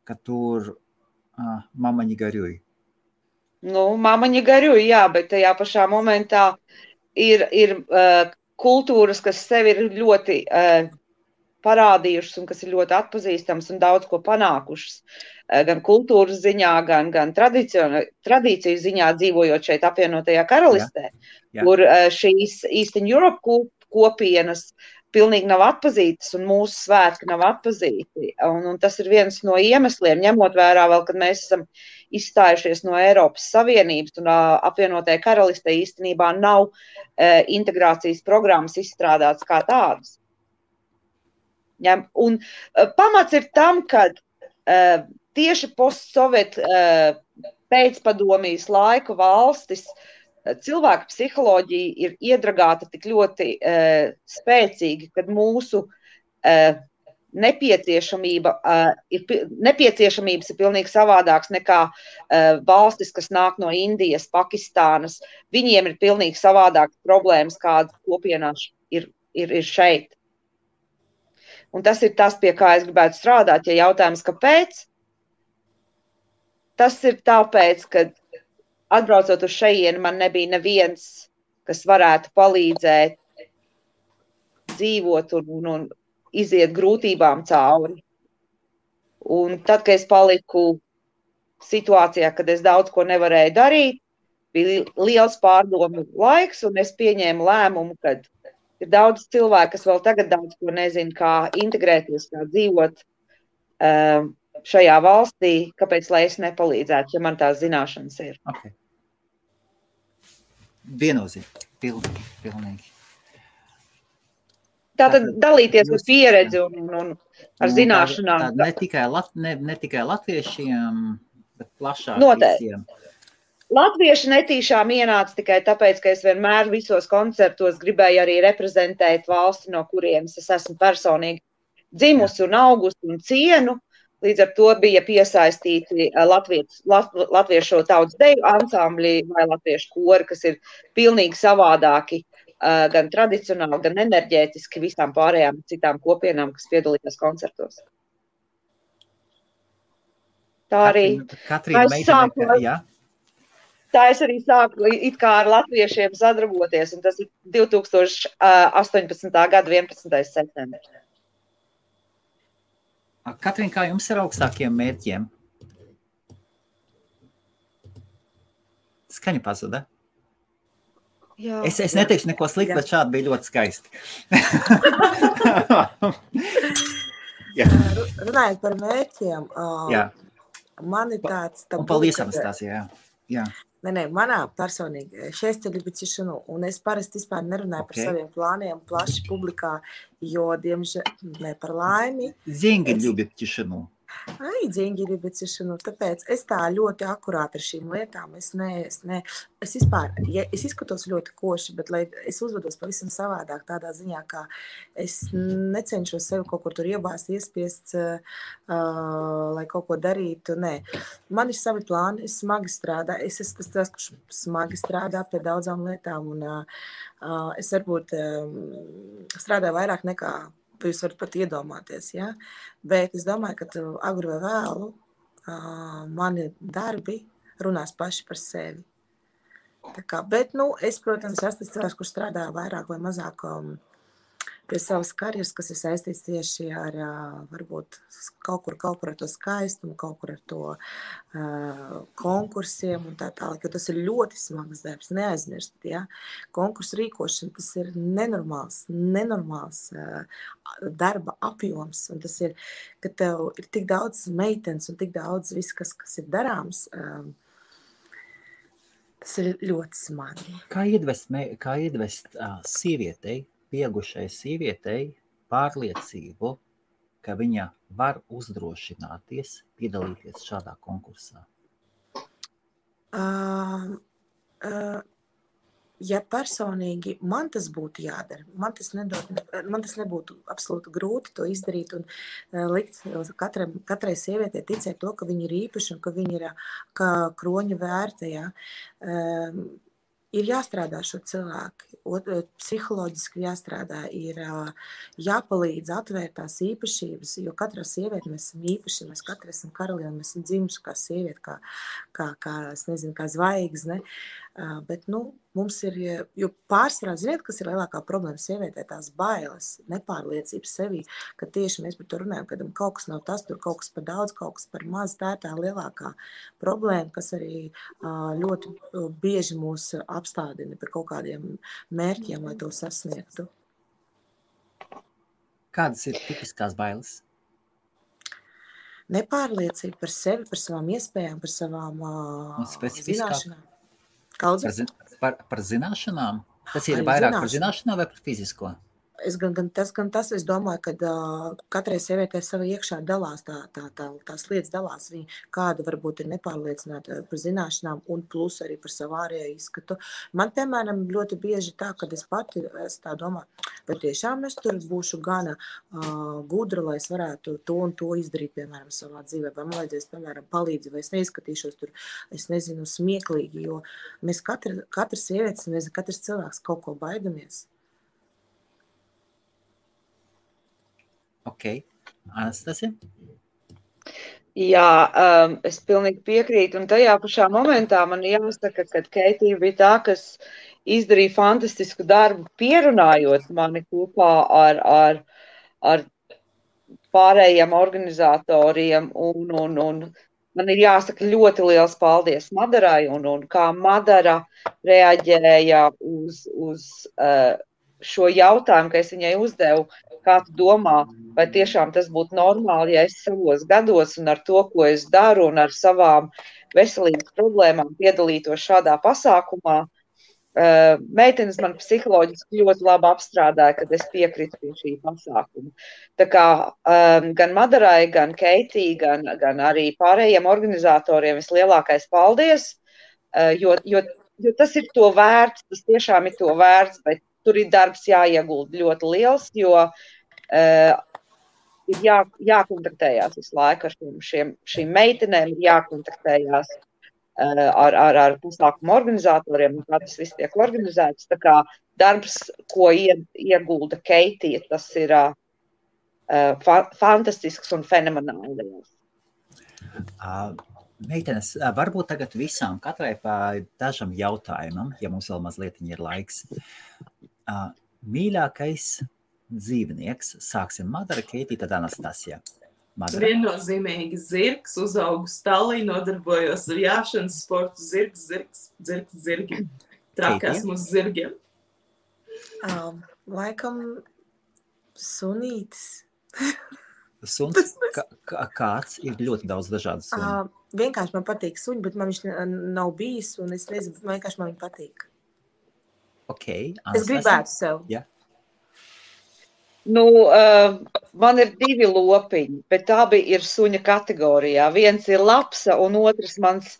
ka tur mamaņi garjuj. Mamaņi garjuj, jā, bet tajā pašā momentā ir kultūras, kas sevi ir ļoti parādījušas un kas ir ļoti atpazīstams un daudz ko panākušas. Gan kultūras ziņā, gan tradīciju ziņā dzīvojot šeit apvienotajā karalistē, kur šīs Eastern Europe kopienas pilnīgi nav atpazītas un mūsu svētki nav atpazīti. Un tas ir viens no iemesliem, ņemot vērā vēl, kad mēs esam izstājušies no Eiropas Savienības un apvienotajā karalistē īstenībā nav integrācijas programmas izstrādātas kā tādas. Un pamats ir tam, ka tieši postsovietu pēcpadomijas laika valstis cilvēka psiholoģija ir iedragāta tik ļoti spēcīgi, kad mūsu nepieciešamības ir pilnīgi savādāks nekā valstis, kas nāk no Indijas, Pakistānas. Viņiem ir pilnīgi savādākas problēmas, kādas kopienās ir šeit. Un tas ir tas, pie kā es gribētu strādāt, ja jautājums, kāpēc? Tas ir tāpēc, ka atbraucot uz šejieni, man nebija neviens, kas varētu palīdzēt dzīvot un iziet grūtībām cauri. Un tad, kad es paliku situācijā, kad es daudz ko nevarēju darīt, bija liels pārdomu laiks, un es pieņēmu lēmumu, ka ir daudz cilvēku, kas vēl tagad daudz ko nezina, kā integrēties, kā dzīvot šajā valstī, kāpēc, lai es nepalīdzētu, ja man tās zināšanas ir. Okay. Viennozīmīgi, pilnīgi. Tātad dalīties ar pieredzi un ar zināšanām. Ne tikai latviešiem, Bet plašāk Noteikti. visiem. Latvieši netīšām ienāca tikai tāpēc, ka es vienmēr visos koncertos gribēju arī reprezentēt valsti, no kurienes es esmu personīgi dzimusi un augusi un cienu. Līdz ar to bija piesaistīti latviešu tautas deju ansambļi vai latviešu kori, kas ir pilnīgi savādāki, gan tradicionāli, gan enerģētiski visām pārējām citām kopienām, kas piedalījās koncertos. Tā arī Katrīna, tā es arī sāku it kā ar latviešiem sadarboties, un tas ir 2018. gada 11. septembris. Katrīna, kā jums ir augstākiem mērķiem? Skaņa pazuda. Jā, Es neteikšu neko sliktu, bet šādi bija ļoti skaisti. Runājot par mērķiem, Jā. man ir tāds... Un paldies, Anastasija. Jā. Nē, manā personīgi 6 ceļu tишину, un es parasti vispār nerunāju par saviem plāniem plaši publikā, jo, diemžēl, par laimi... Деньги любят тишину. Деньги любят тишину, tāpēc es tā ļoti akurāti ar šīm lietām, es vispār, es izskatos ļoti koši, bet lai es uzvedos pavisam savādāk tādā ziņā, kā es necenšos sevi kaut kur tur iebāzt, iespiest, lai kaut ko darītu, nē. Man ir savi plāni, es smagi strādāju, es esmu tas, kurš smagi strādā pie daudzām lietām, un es varbūt strādāju vairāk nekā jūs varat pat iedomāties, ja? Bet es domāju, ka agru vai vēlu mani darbi runās paši par sevi. Tā kā, bet, es, protams, esmu tas cilvēks, kurš strādā vairāk vai mazāk pie savas karjeras, kas ir saistīts tieši ar, varbūt, kaut kur ar to skaistumu, kaut kur ar to konkursiem un tā tālāk, jo tas ir ļoti smags darbs, neaizmirst, ja? Konkursu rīkošana, tas ir nenormāls darba apjoms, un tas ir, ka tev ir tik daudz meitenes un tik daudz viss, kas ir darāms, tas ir ļoti smagi. Kā iedvest sievietei, pieaugušai sievietei pārliecību, ka viņa var uzdrošināties piedalīties šādā konkursā? Ja personīgi man tas būtu jādara, man tas nebūtu absolūti grūti to izdarīt un likt katrai sievietei ticēt to, ka viņa ir īpaša un ka viņa ir kā kroņa vērta, ja. Ir jāstrādā šo cilvēku, psiholoģiski jāstrādā, ir jāpalīdz atvērt tās īpašības, jo katrā sieviete mēs esam īpaši, mēs katrs esam karalieni, mēs esam dzimuši kā sieviete, es nezinu, kā zvaigzne, bet, mums ir, jo pārsvarā, ziniet, kas ir lielākā problēma sievietē, tās bailes, nepārliecības sevī, ka tieši mēs par to runājam, kad kaut kas nav tas, tur kaut kas par daudz, kaut kas par maz, tā ir tā lielākā problēma, kas arī ļoti bieži mūs apstādina pie kaut kādiem mērķiem, lai to sasniegtu. Kādas ir tipiskās bailes? Nepārliecība par sevi, par savām iespējām, par savām zināšanām. Par zināšanām? Tas ir vairāk par zināšanām vai par fizisko? Tas, es domāju, ka katrai sievietei sava iekšā dalās, tās lietas dalās. Viņa kāda varbūt ir nepārliecināta par zināšanām un plus arī par savu ārējo izskatu. Man, piemēram, ļoti bieži tā, kad es pati tā domāju, vai tiešām es tur būšu gana gudra, lai es varētu to un to izdarīt, piemēram, savā dzīvē, vai man vajadzēs, piemēram, palīdzi, vai es neizskatīšos tur, es nezinu, smieklīgi, jo mēs katrs sievietes, katrs cilvēks kaut ko baidamies. Ok. Anastasija? Jā, es pilnīgi piekrītu, un tajā pašā momentā man jāsaka, ka Keitija bija tā, kas izdarīja fantastisku darbu, pierunājot mani kopā ar pārējiem organizatoriem, un man ir jāsaka ļoti liels paldies Madarai, un kā Madara reaģēja uz šo jautājumu, ka es viņai uzdevu, kā tu domā, vai tiešām tas būtu normāli, ja es savos gados un ar to, ko es daru un ar savām veselības problēmām piedalītos šādā pasākumā. meitenes man psiholoģiski ļoti labi apstrādāja, kad es piekritu pie šī pasākuma. Tā kā gan Madarai, gan Keitī, gan arī pārējiem organizatoriem vislielākais paldies, jo tas ir to vērts, tas tiešām ir to vērts, bet tur ir darbs jāiegulda ļoti liels, jo ir jākontaktējās visu laiku ar šīm meitenēm, ir jākontaktējās ar pasākumu organizatoriem, un kā tas viss tiek organizēts. Tā kā darbs, ko iegulda Keitija, tas ir fantastisks un fenomenāli liels. Meitenes, varbūt tagad visām katrai pa dažam jautājumam, ja mums vēl mazliet ir laiks. Mīļākais dzīvnieks, sāksim Madara, Keitija, tad Anastasija. Viennozīmīgi zirgs, uzaugu stalī, nodarbojos ar jāšanas sportu, zirgi. Traki esmu uz zirgiem. Laikam sunītis. Suns? Kāds? Ir ļoti daudz dažādu sunu. Vienkārši man patīk suņi, bet man viņš nav bijis, un es nezinu, vienkārši man viņi patīk. Ok, Es gribētu sev. Jā. Nu, man ir 2 lopiņi, bet abi ir suņa kategorijā. Viens ir lapsa, un otrs mans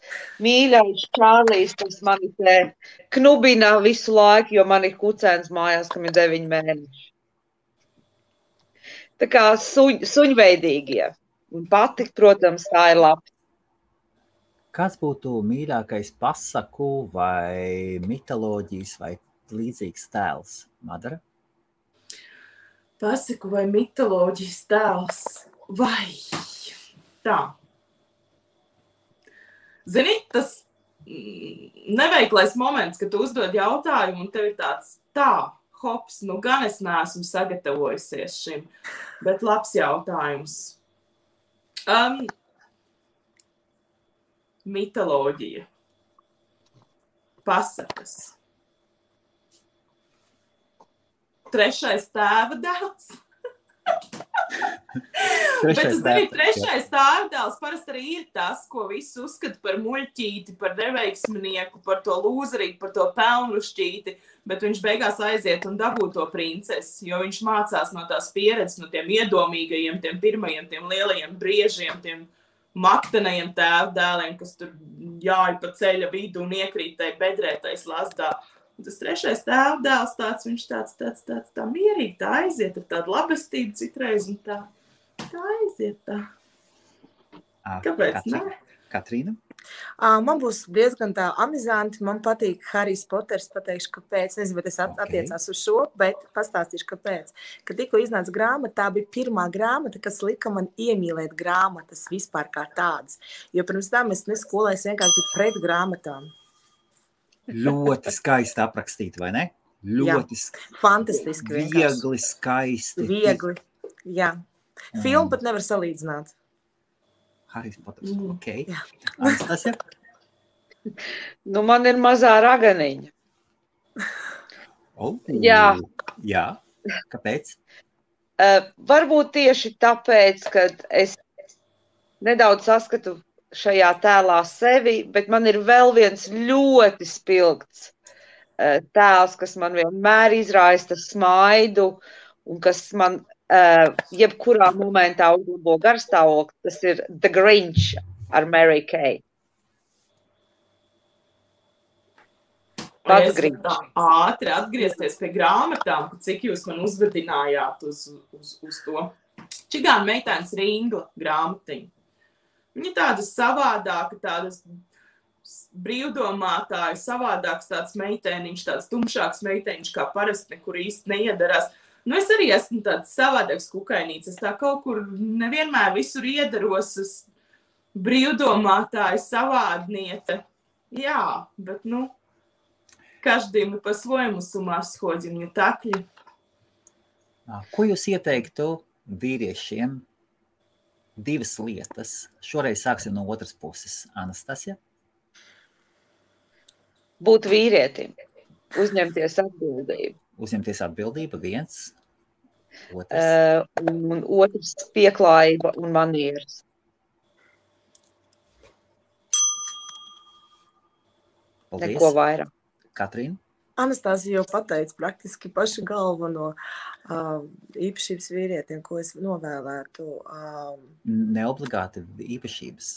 mīļais Čārlijs, kas mani te knubina visu laiku, jo man ir kucēns mājās, kam ir 9 mēneši. Tā kā suņveidīgie. Un patik, protams, tā ir lapsa. Kāds būtu mīļākais pasaku vai mitoloģijas vai līdzīgs tēls, Madara? Pasaku vai mitoloģijas tēls, vai tā. Zini, tas neveiklais moments, kad tu uzdod jautājumu un tev ir tāds hops, nu gan es neesmu sagatavojusies šim, bet labs jautājums. Mitoloģija. Pasakas. 3. tēva dēls. Bet tu zini, 3. tēva dēls parasti arī ir tas, ko visi uzskata par muļķīti, par neveiksminieku, par to lūzerīgu, par to pelnrušķīti, bet viņš beigās aiziet un dabū to princesi, jo viņš mācās no tās pieredzes, no tiem iedomīgajiem, tiem pirmajiem, tiem lielajiem briežiem, tiem maktenajiem tēva dēliem, kas tur jāj pa ceļa vidu un iekrīt tai bedrētais lasdā. Un tas 3. tēva dēls tāds, viņš tāds tā mierīgi, tā aiziet ar tādu labestību citreiz un tā aiziet tā. Kāpēc ne? Katrīna? Man būs diezgan tā amizanti, man patīk Harijs Poters, pateikšu, kāpēc, nezinu, bet es attiecās uz šo, bet pastāstīšu, kāpēc. Kad tikko iznāca grāmata, tā bija pirmā grāmata, kas lika man iemīlēt grāmatas vispār kā tādas, jo pirms tam es neskolēju, vienkārši biju pret grāmatām. Ļoti skaisti aprakstīt, vai ne? Ļoti fantastiski vienkārši. Viegli, skaisti. Viegli, jā. Filmu pat nevar salīdzināt. Harijs Poters, ok. Anastasija? Nu, man ir mazā raganiņa. Jā. Kāpēc? Varbūt tieši tāpēc, ka es nedaudz saskatu šajā tēlā sevi, bet man ir vēl viens ļoti spilgts tēls, kas man vienmēr izraista smaidu un kas man jebkurā momentā uzlabo garstāvokli, tas ir The Grinch ar Mary Kay. Es varu tā ātri atgriezties pie grāmatām, cik jūs man uzvedinājāt uz to. Čigāna meitenes Ringla grāmatiņa. Viņa tāda savādāka, tādas brīvdomātāja, savādāks tāds meitēniņš, tāds tumšāks meitēniņš, kā parasti nekur īsti neiedarās. Nu, es arī esmu tāds savādāks kukainīts. Es tā kaut kur nevienmēr visur iedaros uz brīvdomātāju savādniece. Jā, bet, каждый мы по-своему с ума сходим, не так ли? Ko jūs ieteiktu vīriešiem? 2 lietas. Šoreiz sāksim no otras puses. Anastasija? Būt vīrietim. Uzņemties atbildību. Uzņemties atbildību, 1. Otrs. Un otrs pieklājība un manieres. Paldies. Neko vairāk. Katrīna? Anastāzija jau pateica praktiski pašu galveno īpašības vīrietim, ko es novēlētu. Neobligāti īpašības.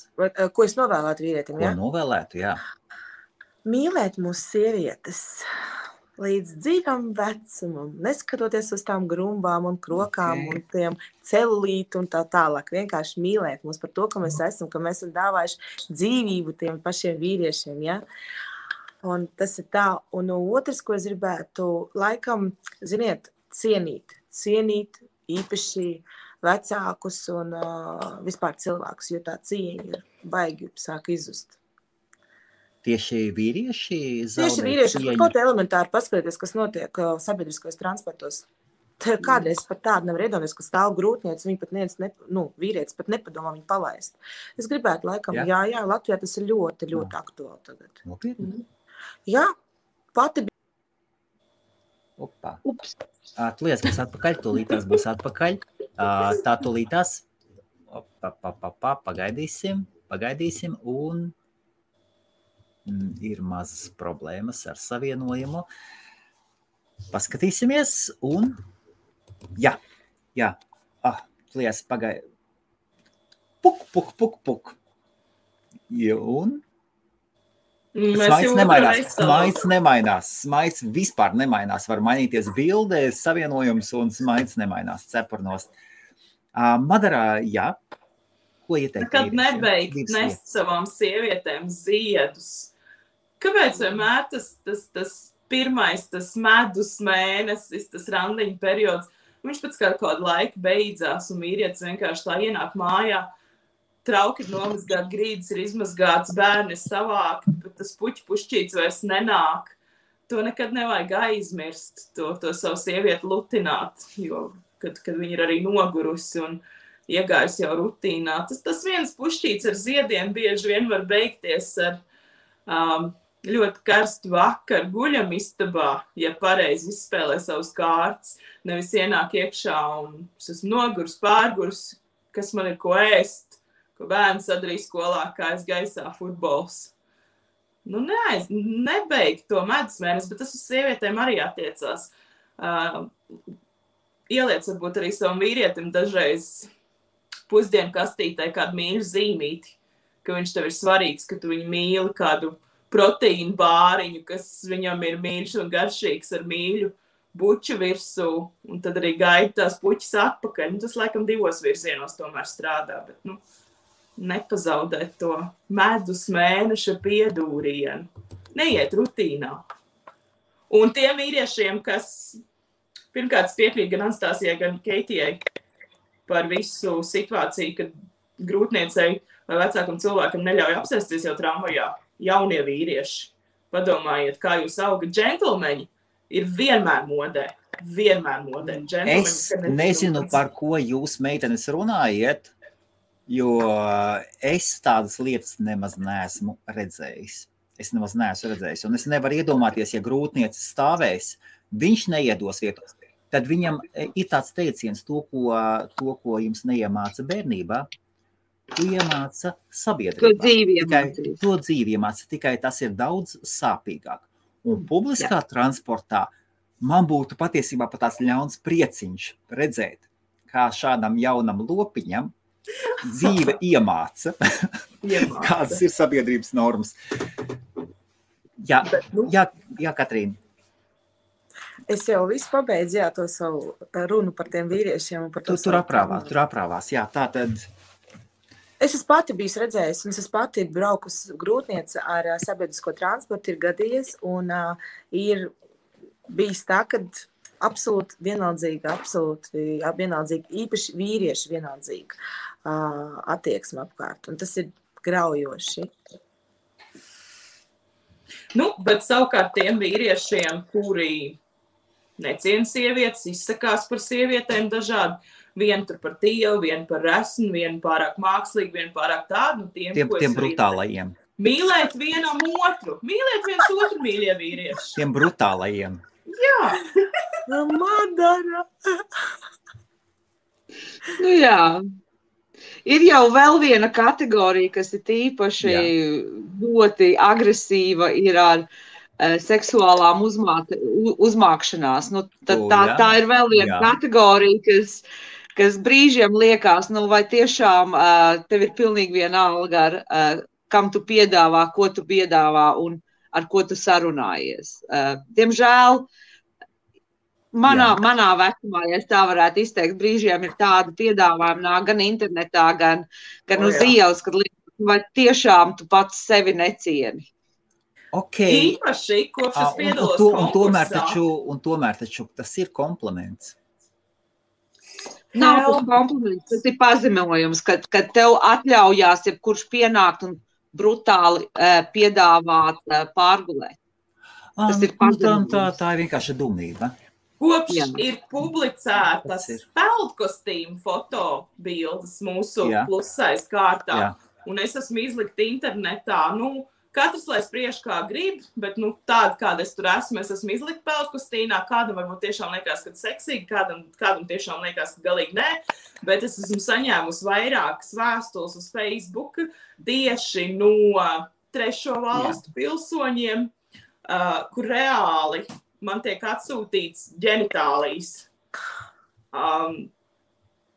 Ko es novēlētu vīrietim, Ko jā? novēlētu, jā. Mīlēt mūsu sievietes līdz dzīvam vecumam, neskatoties uz tām grumbām un krokām un tiem celulītu un tā tālāk. Vienkārši mīlēt mūs par to, ka mēs esam dāvājuši dzīvību tiem pašiem vīriešiem, ja? Un tas ir tā. Un otrs, ko es gribētu, laikam, ziniet, cienīt īpaši vecākus un vispār cilvēkus, jo tā cieņa ir baigi sāk izzust. Tieši vīrieši zaudē Tieši vīrieši, cieņu. kaut elementāri paskatīties, kas notiek sabiedriskos transportos. Kādreiz par tādu nevar iedomāties, ka stāv grūtniec, viņi pat vīrietis pat nepadomā viņu palaist. Es gribētu laikam, jā, Latvijā tas ir ļoti, ļoti aktuāli tagad. Nopietni? Jā, pati bija. Opa. Tu liec, mēs atpakaļ, tūlītās būs atpakaļ. Tā tūlītās. Pagaidīsim un ir mazas problēmas ar savienojumu. Paskatīsimies un jā. Liec, pagaid. Puk. Un smaids nemainās. Smaids vispār nemainās. Var mainīties bilde, savienojums un smaids nemainās cepurnos. Madarā, jā. Ko ieteikt? Kad nebeigt nest savām sievietēm ziedus. Kāpēc vienmēr tas pirmais, tas medus mēnesis, tas randiņu periods, viņš pēc kādu laiku beidzās un vīrietis vienkārši tā ienāk mājā, trauki ir nomazgāt, grīdas ir izmazgāts, bērni ir savākti, bet tas pušķīts vairs nenāk. To nekad nevajag aizmirst, to savu sievieti lutināt, jo kad viņi ir arī nogurusi un iegājusi jau rutīnā. Tas viens pušķīts ar ziediem bieži vien var beigties ar ļoti karstu vakaru guļamistabā, ja pareizi izspēlē savus kārtas, nevis ienāk iekšā un es esmu nogurs, pārgurs, kas man ir ko ēst, ko bērns sadarīja skolā, kā es gaisā futbols. Nebeigt to medus mēnesi, bet tas uz sievietēm arī attiecās. Ieliec varbūt arī savam vīrietim dažreiz pusdienu kastītē kādu mīļu zīmīti, ka viņš tev ir svarīgs, ka tu viņu mīli kādu proteīnu bāriņu, kas viņam ir mīļš un garšīgs ar mīļu buču virsū, un tad arī gaida tās puķis atpakaļ. Tas laikam 2 virzienos tomēr strādā, bet nepazaudēt to medus mēneša piedūrienu. Neiet rutīnā. Un tiem vīriešiem, kas pirmkārt piekrīt gan Anastāzijai, gan Keitijai par visu situāciju, kad grūtniecei vai vecākam cilvēkam neļauj apsēsties jau tramvajā, jaunie vīrieši. Padomājiet, kā jūs augat. Džentlmeņi ir vienmēr modē. Es nezinu, par ko jūs, meitenes, runājiet, jo es tādas lietas nemaz neesmu redzējis. Un es nevaru iedomāties, ja grūtniece stāvēs, viņš neiedos vietu. Tad viņam ir tāds teiciens, to, ko jums neiemāca bērnībā, to iemāca sabiedrībā. To dzīvi iemāca, tikai tas ir daudz sāpīgāk. Un publiskā transportā man būtu patiesībā pat tāds ļauns prieciņš redzēt, kā šādam jaunam lopiņam dzīve iemāca. Kādas ir sabiedrības normas. Jā, Katrīna. Es jau visu pabeidzu, to savu runu par tiem vīriešiem. Tur aprāvās, jā, tā tad. Es esmu pati bijis redzējis, un es pati braukus grūtniece ar sabiedrisko transportu, ir gadījies, un ir bijis tā, kad absolūti vienaldzīgi, īpaši vīrieši vienaldzīgi attieksme apkārt, un tas ir graujoši. Bet savukārt tiem vīriešiem, kuri neciena sievietes, izsakās par sievietēm dažādi, vienu tur par tievu, vienu par resnu, vienu pārāk mākslīgu, vienu pārāk tādu. Tiem brutālajiem. Mīlēt vienam otru. Mīlēt viens otru, mīļie vīrieši. Tiem brutālajiem. Jā. Madara. Jā. Ir jau vēl viena kategorija, kas ir īpaši ļoti agresīva, ir ar seksuālām uzmākšanās. Nu, tad tā ir vēl viena kategorija, kas brīžiem liekas, nu vai tiešām tev ir pilnīgi vienalga, kam tu piedāvā, ko tu piedāvā un ar ko tu sarunājies. Diemžēl manā vecumā, ja es tā varētu izteikt, brīžiem ir tāda piedāvājuma nāk gan internetā, gan uz ielas, kad liekas, vai tiešām tu pats sevi necieni. Okay. Īpaši, kopš es piedalos konkursā. Un tomēr taču tas ir kompliments. Nav tas kompliments, tas ir pazemojums, kad tev atļaujās jebkurš pienākt un brutāli piedāvāt pārgulēt. Tas ir pazemojums. Tā ir vienkārši dumība. Kopš ir publicētas peldkostīmu fotobildes mūsu plusais kārtā, un es esmu izlikta internetā, katrs, lai spriež kā grib, bet tāda, kāda es tur esmu, es esmu izlikta peldkostīnā, kādam varbūt tiešām liekas, ka seksīgi, kādam tiešām liekas, ka galīgi nē, bet es esmu saņēmusi vairākas vēstules uz Facebook tieši no trešo valstu pilsoņiem, kur reāli man tiek atsūtīts ģenitālijas.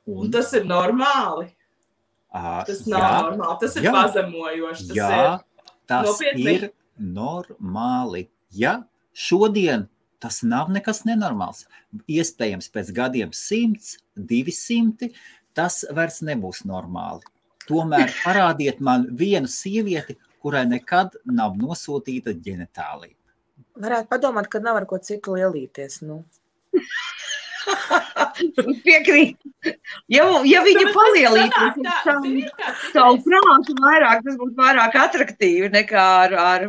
Un tas ir normāli. Tas nav normāli, tas ir pazemojoši. Tas ir normāli. Ja šodien tas nav nekas nenormāls, iespējams pēc gadiem 100, 200, tas vairs nebūs normāli. Tomēr parādiet man vienu sievieti, kurai nekad nav nosūtīta ģenitālija. Varētu padomāt, ka nav ar ko citu lielīties, Piekrīt. Ja viņa palielītos savu prātu vairāk, tas būtu vairāk atraktīvi nekā ar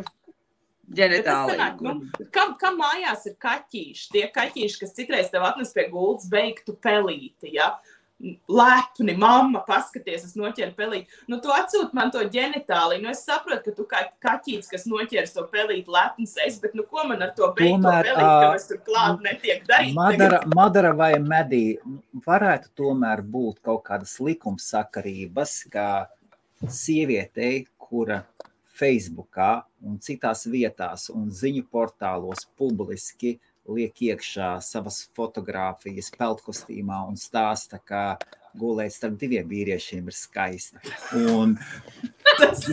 ģenitāliju. Kam mājās ir kaķīši? Tie kaķīši, kas citreiz tev atnes pie gultas beigtu pelīti, ja? Lepni, mamma, paskaties, es noķeru pelīti. Tu atsūt man to ģenitāliju. Es saprotu, ka tu kā kaķīts, kas noķers to pelīti lepns es, bet ko man ar to beigto pelīti, ka es tur klāt netiek darīt? Madara vai Medī, varētu tomēr būt kaut kādas likumsakarības, kā sievietei, kura Facebookā un citās vietās un ziņu portālos publiski liek iekšā savas fotogrāfijas peldkostīmā un stāsta, ka gulēt starp diviem vīriešiem ir skaisti. Un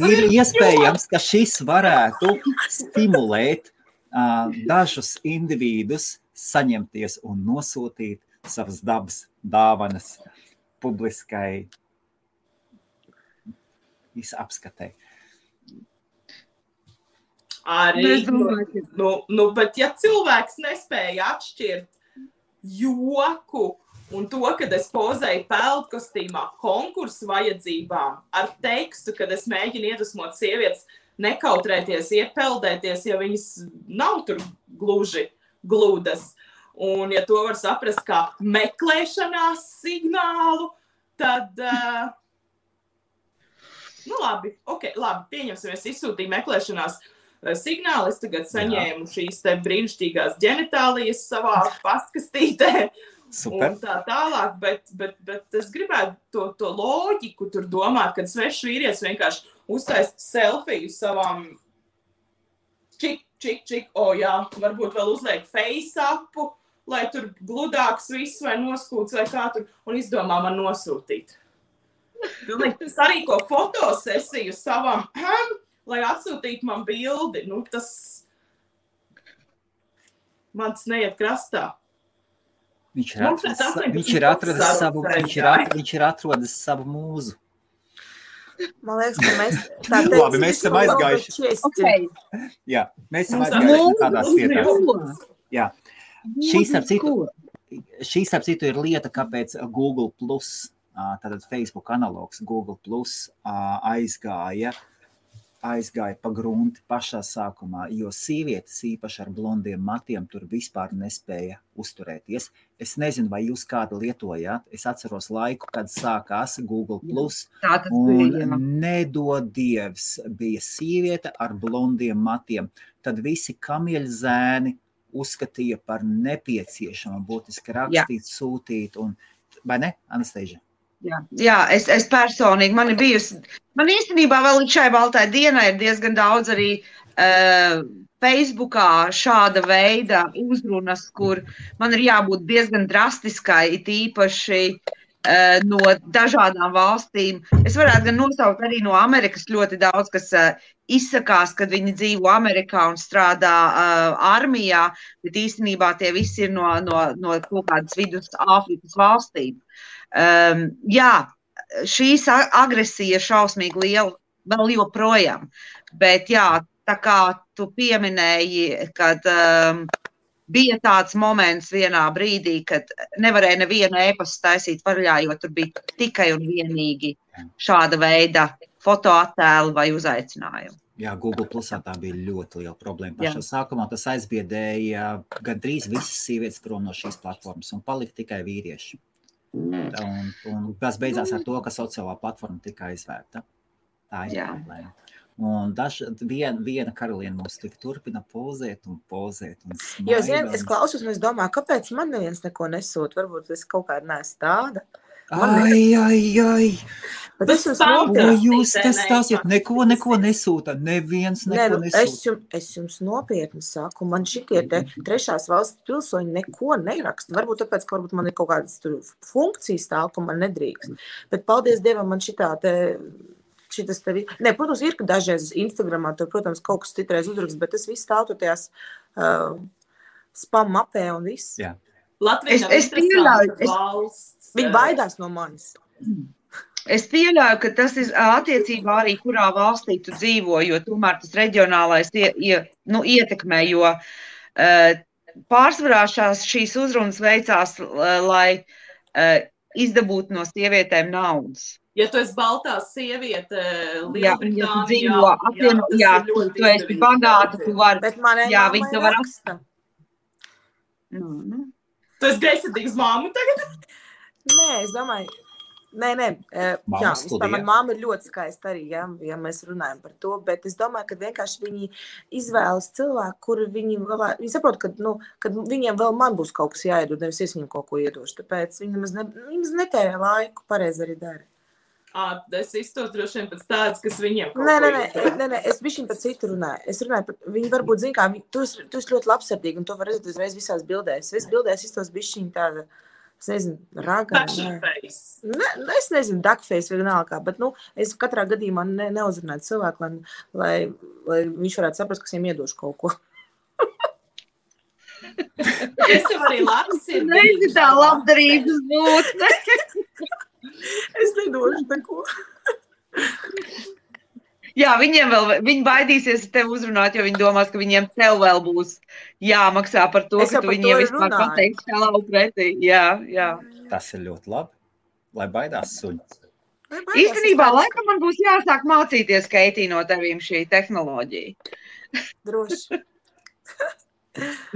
ir iespējams, ka šis varētu stimulēt dažus individus saņemties un nosūtīt savas dabas dāvanas publiskai apskatei. Arī, bet ja cilvēks nespēja atšķirt joku un to, kad es pozēju peldkostīmā konkursu vajadzībām ar tekstu, kad es mēģinu iedvesmot sievietes nekautrēties, iepeldēties, ja viņas nav tur gluži gludas. Un ja to var saprast kā meklēšanās signālu, tad, labi, pieņemsim, es izsūtīju meklēšanās signāli, es tagad saņēmu šīs te brīnišķīgās ģenitālijas savā pastkastītē. Super. Un tā tālāk, bet es gribētu to loģiku tur domāt, kad svešs vīrietis vienkārši uztaist selfiju savām čik, varbūt vēl uzliek face-upu, lai tur gludāks viss vai noskūts vai kā tur, un izdomā man nosūtīt. Sarīko fotosesiju savam lai atsūtītu man bildi, tas man tas neiet krastā. Viņš ir atrodis savu mūzu. Man liekas, ka mēs esam aizgājuši. Jā, mēs esam aizgājuši tādās vietās. Jā. Šī starp citu ir lieta, kāpēc Google+, tātad Facebook analogs Google+, aizgāja pa grunti pašā sākumā, jo sievietes īpaši ar blondiem matiem tur vispār nespēja uzturēties. Es nezinu, vai jūs kādu lietojāt. Es atceros laiku, kad sākās Google+, un nedod dievs bija sieviete ar blondiem matiem. Tad visi kamieļzēni uzskatīja par nepieciešamu būtiski rakstīt, sūtīt, un, vai ne, Anastasia? Jā, es personīgi, man īstenībā vēl līdz šai baltai dienai ir diezgan daudz arī Facebookā šāda veida uzrunas, kur man ir jābūt diezgan drastiskai, it īpaši no dažādām valstīm. Es varētu gan nosaukt arī no Amerikas ļoti daudz, kas izsakās, kad viņi dzīvo Amerikā un strādā armijā, bet īstenībā tie visi ir no kaut kādas vidus Āfrikas valstīm. Jā, šīs agresija ir šausmīgi liela vēl joprojām, bet jā, tā kā tu pieminēji, kad bija tāds moments vienā brīdī, kad nevarēja nevienu e-pastu taisīt vaļā, jo tur bija tikai un vienīgi šāda veida fotoattēli vai uzaicinājumi. Jā, Google Plusā tā bija ļoti liela problēma. Pašā sākumā tas aizbiedēja gandrīz visas sievietes prom no šīs platformas un palika tikai vīrieši. Un tas beidzās ar to, ka sociālā platforma tika aizvērta. Tā ir problēma. Un viena karaliene mums tik turpina pozēt un smaida. Jo, es klausos un es domāju, kāpēc man neviens neko nesūt? Varbūt es kaut kādā neesmu tāda. Ai. Bet es jūs te stāsiet, neko nesūta, neviens neko nesūta. Es jums nopietni saku, man šitie te trešās valsts pilsoņi neko neraksta. Varbūt tāpēc, ka varbūt man ir kaut kādas funkcijas tāl, ka man nedrīkst. Bet paldies Dievam, man šitas tevi... Nē, protams, ir, ka dažreiz Instagramā tur, protams, kaut kas citreiz uzrakst, bet tas viss stāv tur tajās spam mapē un viss. Jā. Latvija nav interesanta valsts. Viņi baidās no manis. Es pieļauju, ka tas ir attiecībā arī, kurā valstī tu dzīvo, jo tomēr tas reģionālais ietekmē, jo pārsvarā šīs uzrunas veicās, lai izdabūtu no sievietēm naudas. Ja tu esi baltā sieviete Lielbritānijā, tu esi bagāta, tu vari. Bet manai māmai raksta. Tu esi greizsirdīgs māmu tagad? Nē, es domāju, jā, vispār man māma ir ļoti skaista arī, ja mēs runājam par to, bet es domāju, ka vienkārši viņi izvēlas cilvēku, kuru viņi saprot, kad viņiem vēl man būs kaut kas jāiedod, nevis es viņiem kaut ko iedošu, tāpēc viņi nemaz netērē laiku, pareizi arī dara. Es iztos droši vien pēc tādas, kas viņiem kaut ko iedod. Nē, es bišķiņ par citu runāju. Es runāju par, viņi varbūt zin kā, tu esi ļoti labsirdīgi, un to var redzēt uzreiz visās bildēs. Es bildēs iztos bišķiņ tāda, es nezinu, raga. Duckface. Es nezinu, duckface vienalga, bet, es katrā gadījumā neuzrunāju cilvēku, lai viņš varētu saprast, kas viņam iedošu kaut ko. Es jau arī labsirdīgi. Neizi tā labdarības būtne. Es nedošu neko. Jā, viņi baidīsies tevi uzrunāt, jo viņi domās, ka viņiem tev vēl būs jāmaksā par to, ka tu viņiem vispār pateiksi šālau pretī. Jā. Tas ir ļoti labi, lai baidās suņi. Īstenībā, laikam man būs jāsāk mācīties, Keitī, no tevīm šī tehnoloģija. Droši.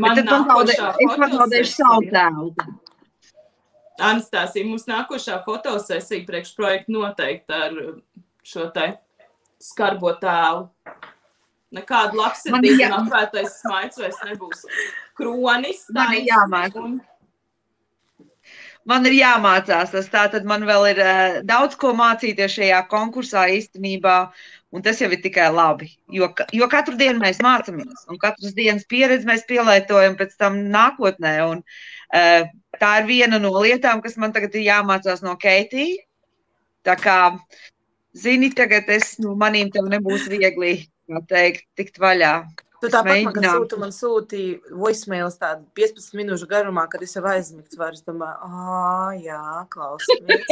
Man es pazaudēšu savu tēlu. Anastāsija, mums nākošā fotosesija priekšprojekta noteikti ar šo te skarbo tēlu. Nekādu labsirdīgu un apvērtais smaids vairs nebūs. Kronis. Man ir jāmācās tas, tātad man vēl ir daudz ko mācīties šajā konkursā īstenībā, un tas jau ir tikai labi, jo katru dienu mēs mācamies, un katras dienas pieredzi mēs pielietojam pēc tam nākotnē, un tā ir viena no lietām, kas man tagad ir jāmācās no Keitī, tā kā, zini, tagad manīm tev nebūs viegli, kā teikt, tikt vaļā. Tu tāpat man sūtīja voicemails tādu 15 minūšu garumā, kad es jau aizmigts varu. Es domāju, jā, klausamies.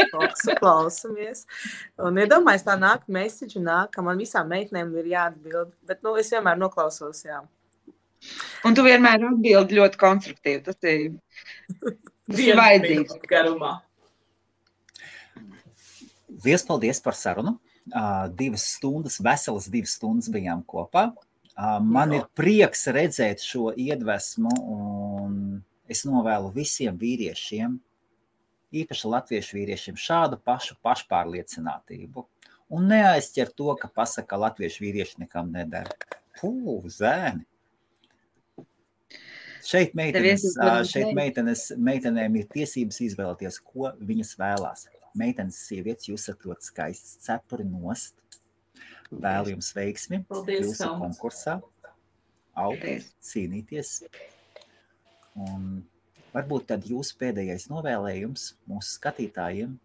Un iedomājies tā nāk message un nāk, ka man visām meitnēm ir jāatbild. Bet, es vienmēr noklausos, jā. Un tu vienmēr atbildi ļoti konstruktīvi. Tas ir vajadzīgs. Garumā. Paldies par sarunu. 2 stundas, veselas 2 stundas bijām kopā. Man ir prieks redzēt šo iedvesmu, un es novēlu visiem vīriešiem, īpaši latviešu vīriešiem, šādu pašu pašpārliecinātību. Un neaizķer to, ka pasaka, latviešu vīrieši nekam nedara. Zēni! Šeit meitenēm ir tiesības izvēlēties, ko viņas vēlās. meitenes sievietes, jūs esat ļoti skaists, cepuri nost. Vēlu jums veiksmi Paldies, jūsu Helma. konkursā. Augt, Paldies. cīnīties. Un varbūt tad jūsu pēdējais novēlējums mūsu skatītājiem.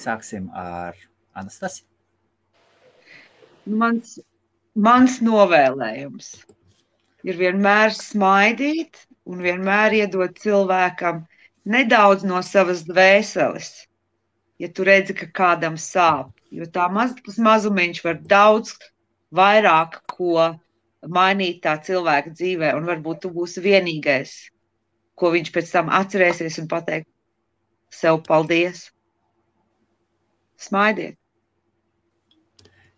Sāksim ar Anastasiju. Mans novēlējums ir vienmēr smaidīt un vienmēr iedot cilvēkam nedaudz no savas dvēseles, ja tu redzi, ka kādam sāp. Jo tas mazumiņš var daudz vairāk ko mainīt tā cilvēka dzīvē, un varbūt tu būsi vienīgais, ko viņš pēc tam atcerēsies un pateikt sev paldies. Smaidiet.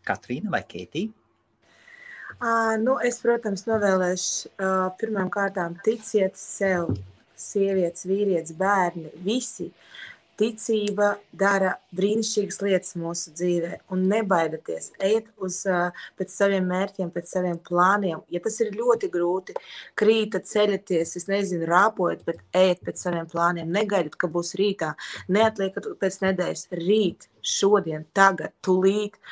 Katrīna vai Keitija? Es, protams, novēlēšu pirmām kārtām ticiet sev, sievietes, vīrietis, bērni, visi. Ticība dara brīnišķīgas lietas mūsu dzīvē un nebaidieties, ejiet pēc saviem mērķiem, pēc saviem plāniem. Ja tas ir ļoti grūti, krītat, ceļaties, es nezinu, rāpojat, bet ejiet pēc saviem plāniem. Negaidiet, ka būs rītā, neatliekat pēc nedēļas, rīt, šodien, tagad, tulīt.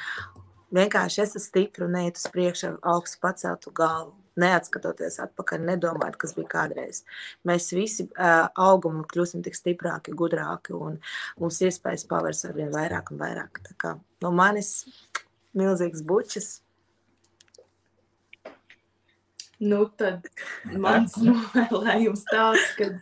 Vienkārši esat stipri un neiet uz priekšu ar augstu paceltu galvu. Neatskatoties atpakaļ, nedomājot, kas bija kādreiz. Mēs visi augam un kļūsim tik stiprāki, gudrāki un mums iespējas pavērs arvien vairāk un vairāk. Tā kā no manis milzīgs bučas. Nu, tad mans novēlējums tāds, ka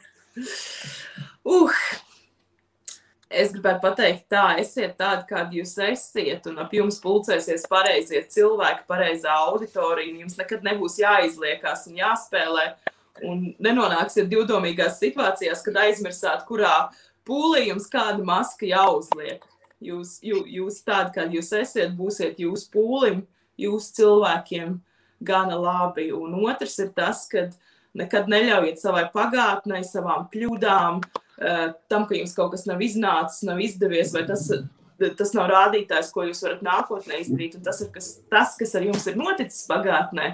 es gribētu pateikt tā, esiet tādi, kādi jūs esiet, un ap jums pulcēsies pareizie cilvēki, pareizā auditorija, un jums nekad nebūs jāizliekās un jāspēlē, un nenonāksiet divdomīgās situācijās, kad aizmirsāt, kurā pūlī jums kāda maska jāuzliek. Jūs tādi, kādi jūs esiet, būsiet jūs pūlim, jūs cilvēkiem gana labi, un otrs ir tas, kad nekad neļaujiet savai pagātnei, savām kļūdām, tam, ka jums kaut kas nav iznācis, nav izdevies, vai tas nav rādītājs, ko jūs varat nākotnē izdarīt, un tas, kas ar jums ir noticis pagātnē,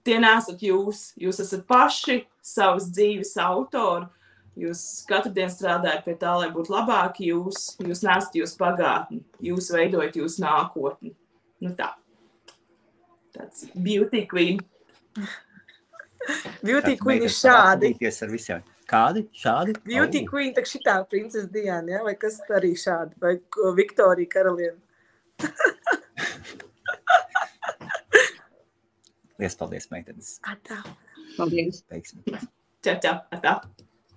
tie nesat jūs. Jūs esat paši savas dzīves autori, jūs katru dienu strādājat pie tā, lai būtu labāki jūs nesat jūs pagātni, jūs veidojat jūs nākotni. Nu tā. Tāds beauty queen. Beauty queen ir šādi. Ar visiem. Kādi? Šādi? Beauty queen, tak šitā princesa Diana, ja? Vai kas arī šādi? Vai Viktorija karaliene? Liels paldies, meitenes. Atā. Paldies. Veiksmi. Čau, atā.